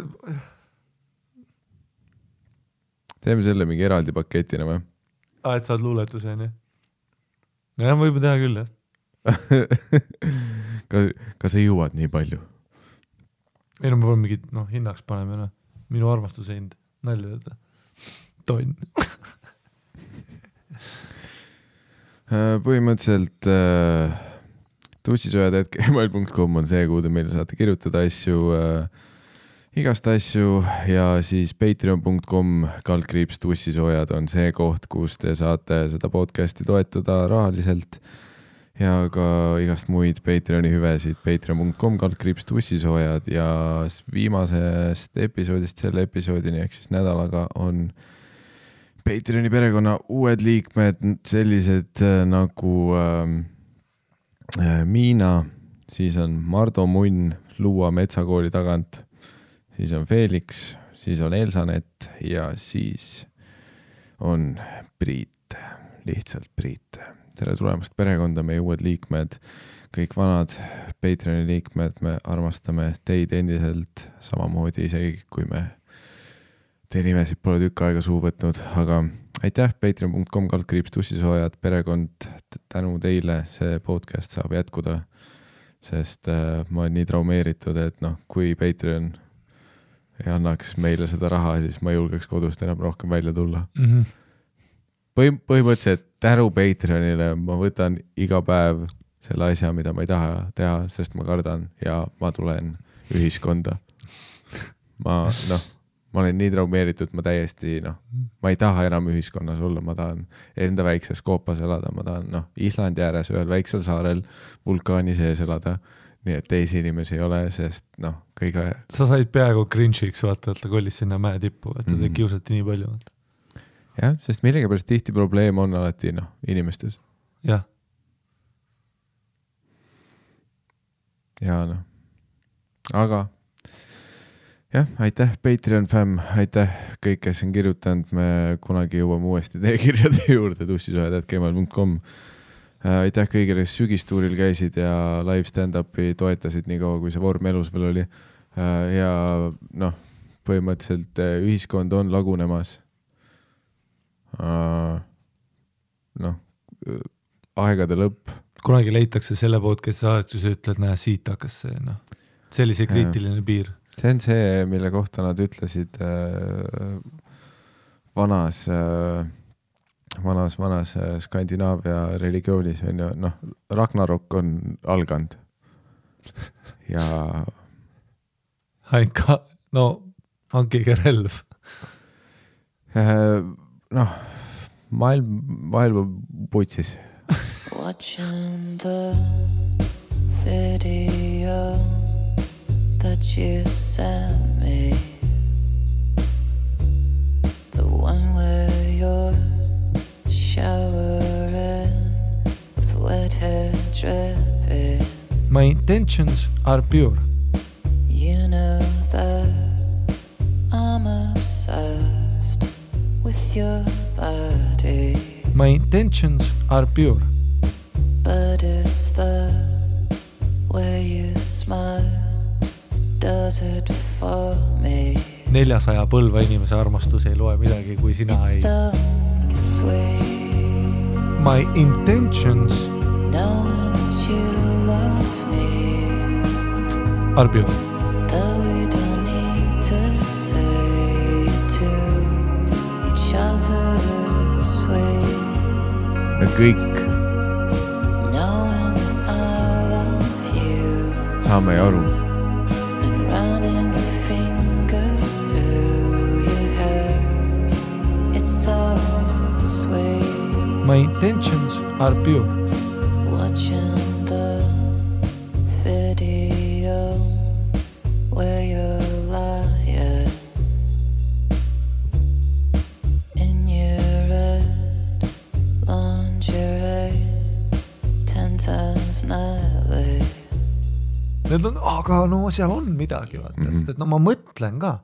Teeme selle mingi eraldi paketina või? Et saad luuletuse, on ju? Ja ma juba teha küll, jah. Kas sa jõuad nii palju? Ei, no ma pean mingid, hinnaks paneme, minu armastuse hind. Nalja teda. Tonn. Põhimõtteliselt tussisojad.gmail.com on see, kuhu te meile saate kirjutada asju, igast asju ja siis patreon.com/tussisojad on see koht, kus te saate seda podcasti toetada rahaliselt ja ka igast muid Patreoni hüvesid patreon.com/tussisojad ja viimasest episoodist selle episoodini ehk siis nädalaga on Patreoni perekonna uued liikmed, sellised nagu Miina, siis on Mardo Munn Luua metsakooli tagant, siis on Felix, siis on Elsanet ja siis on Priit, lihtsalt Priit. Tere tulemast perekonda, meie uued liikmed, kõik vanad Patreoni liikmed, me armastame teid endiselt samamoodi, isegi kui me teie nimesid pole tükk aega suu võtnud, aga aitäh, patreon.com/tussisojad, perekond, tänu teile see podcast saab jätkuda, sest ma olen nii traumeeritud, et kui Patreon ei annaks meile seda raha, siis ma julgeks kodust enam rohkem välja tulla. põhimõtteliselt tänu Patreonile ma võtan iga päev selle asja, mida ma ei taha teha, sest ma kardan ja ma tulen ühiskonda. Ma olen nii traumeeritud, ma täiesti, ma ei taha enam ühiskonnas olla, ma tahan enda väikses koopas elada, ma tahan, Islandi ääres ühel väiksel saarel vulkaani sees elada, nii et teisi inimesi ei ole, sest kõige... Sa said peaaegu cringe'iks, vaata, et ta kollis sinna mäe tippu, et ta kiusati nii palju. Jah, sest millegipärast tihti probleem on alati, inimestes. Jah. Ja aga jah, aitäh Patreon fam, aitäh kõik, kes on kirjutanud, me kunagi jõuame uuesti teie kirjade juurde tussisuhed@gmail.com. Aitäh kõigile, kes sügistuuril käisid ja live stand-upi toetasid nii kaua, kui see vorm elus veel oli. Ja põhimõtteliselt ühiskond on lagunemas. Aegade lõpp. Kunagi leitakse selle podcasti saastus ja ütled, näe, siit hakkas see, see oli see kriitiline piir. See on see, mille kohta nad ütlesid vanas Skandinaavia religioonis on ju, Ragnarok on alganud. Ja hankige relv. Maailma putsis. Watching the video that you sent me, the one where you're showering with wet hair dripping. My intentions are pure. You know that I'm obsessed with your body. My intentions are pure. But it's the way you smile that does it for me. 400 põlva inimese armastus ei loe midagi, kui sina It's ei... so sweet. My intentions Knowing that you love me. are pure. Though we don't need to say to each other sweet. Me kõik saame aru. And running the fingers through your hair. It's so sweet. My intentions are pure. Watching the video where you're lying in your red lingerie 10 times nightly. Need on, aga seal on midagi, vaata, sest et ma mõtlen ka.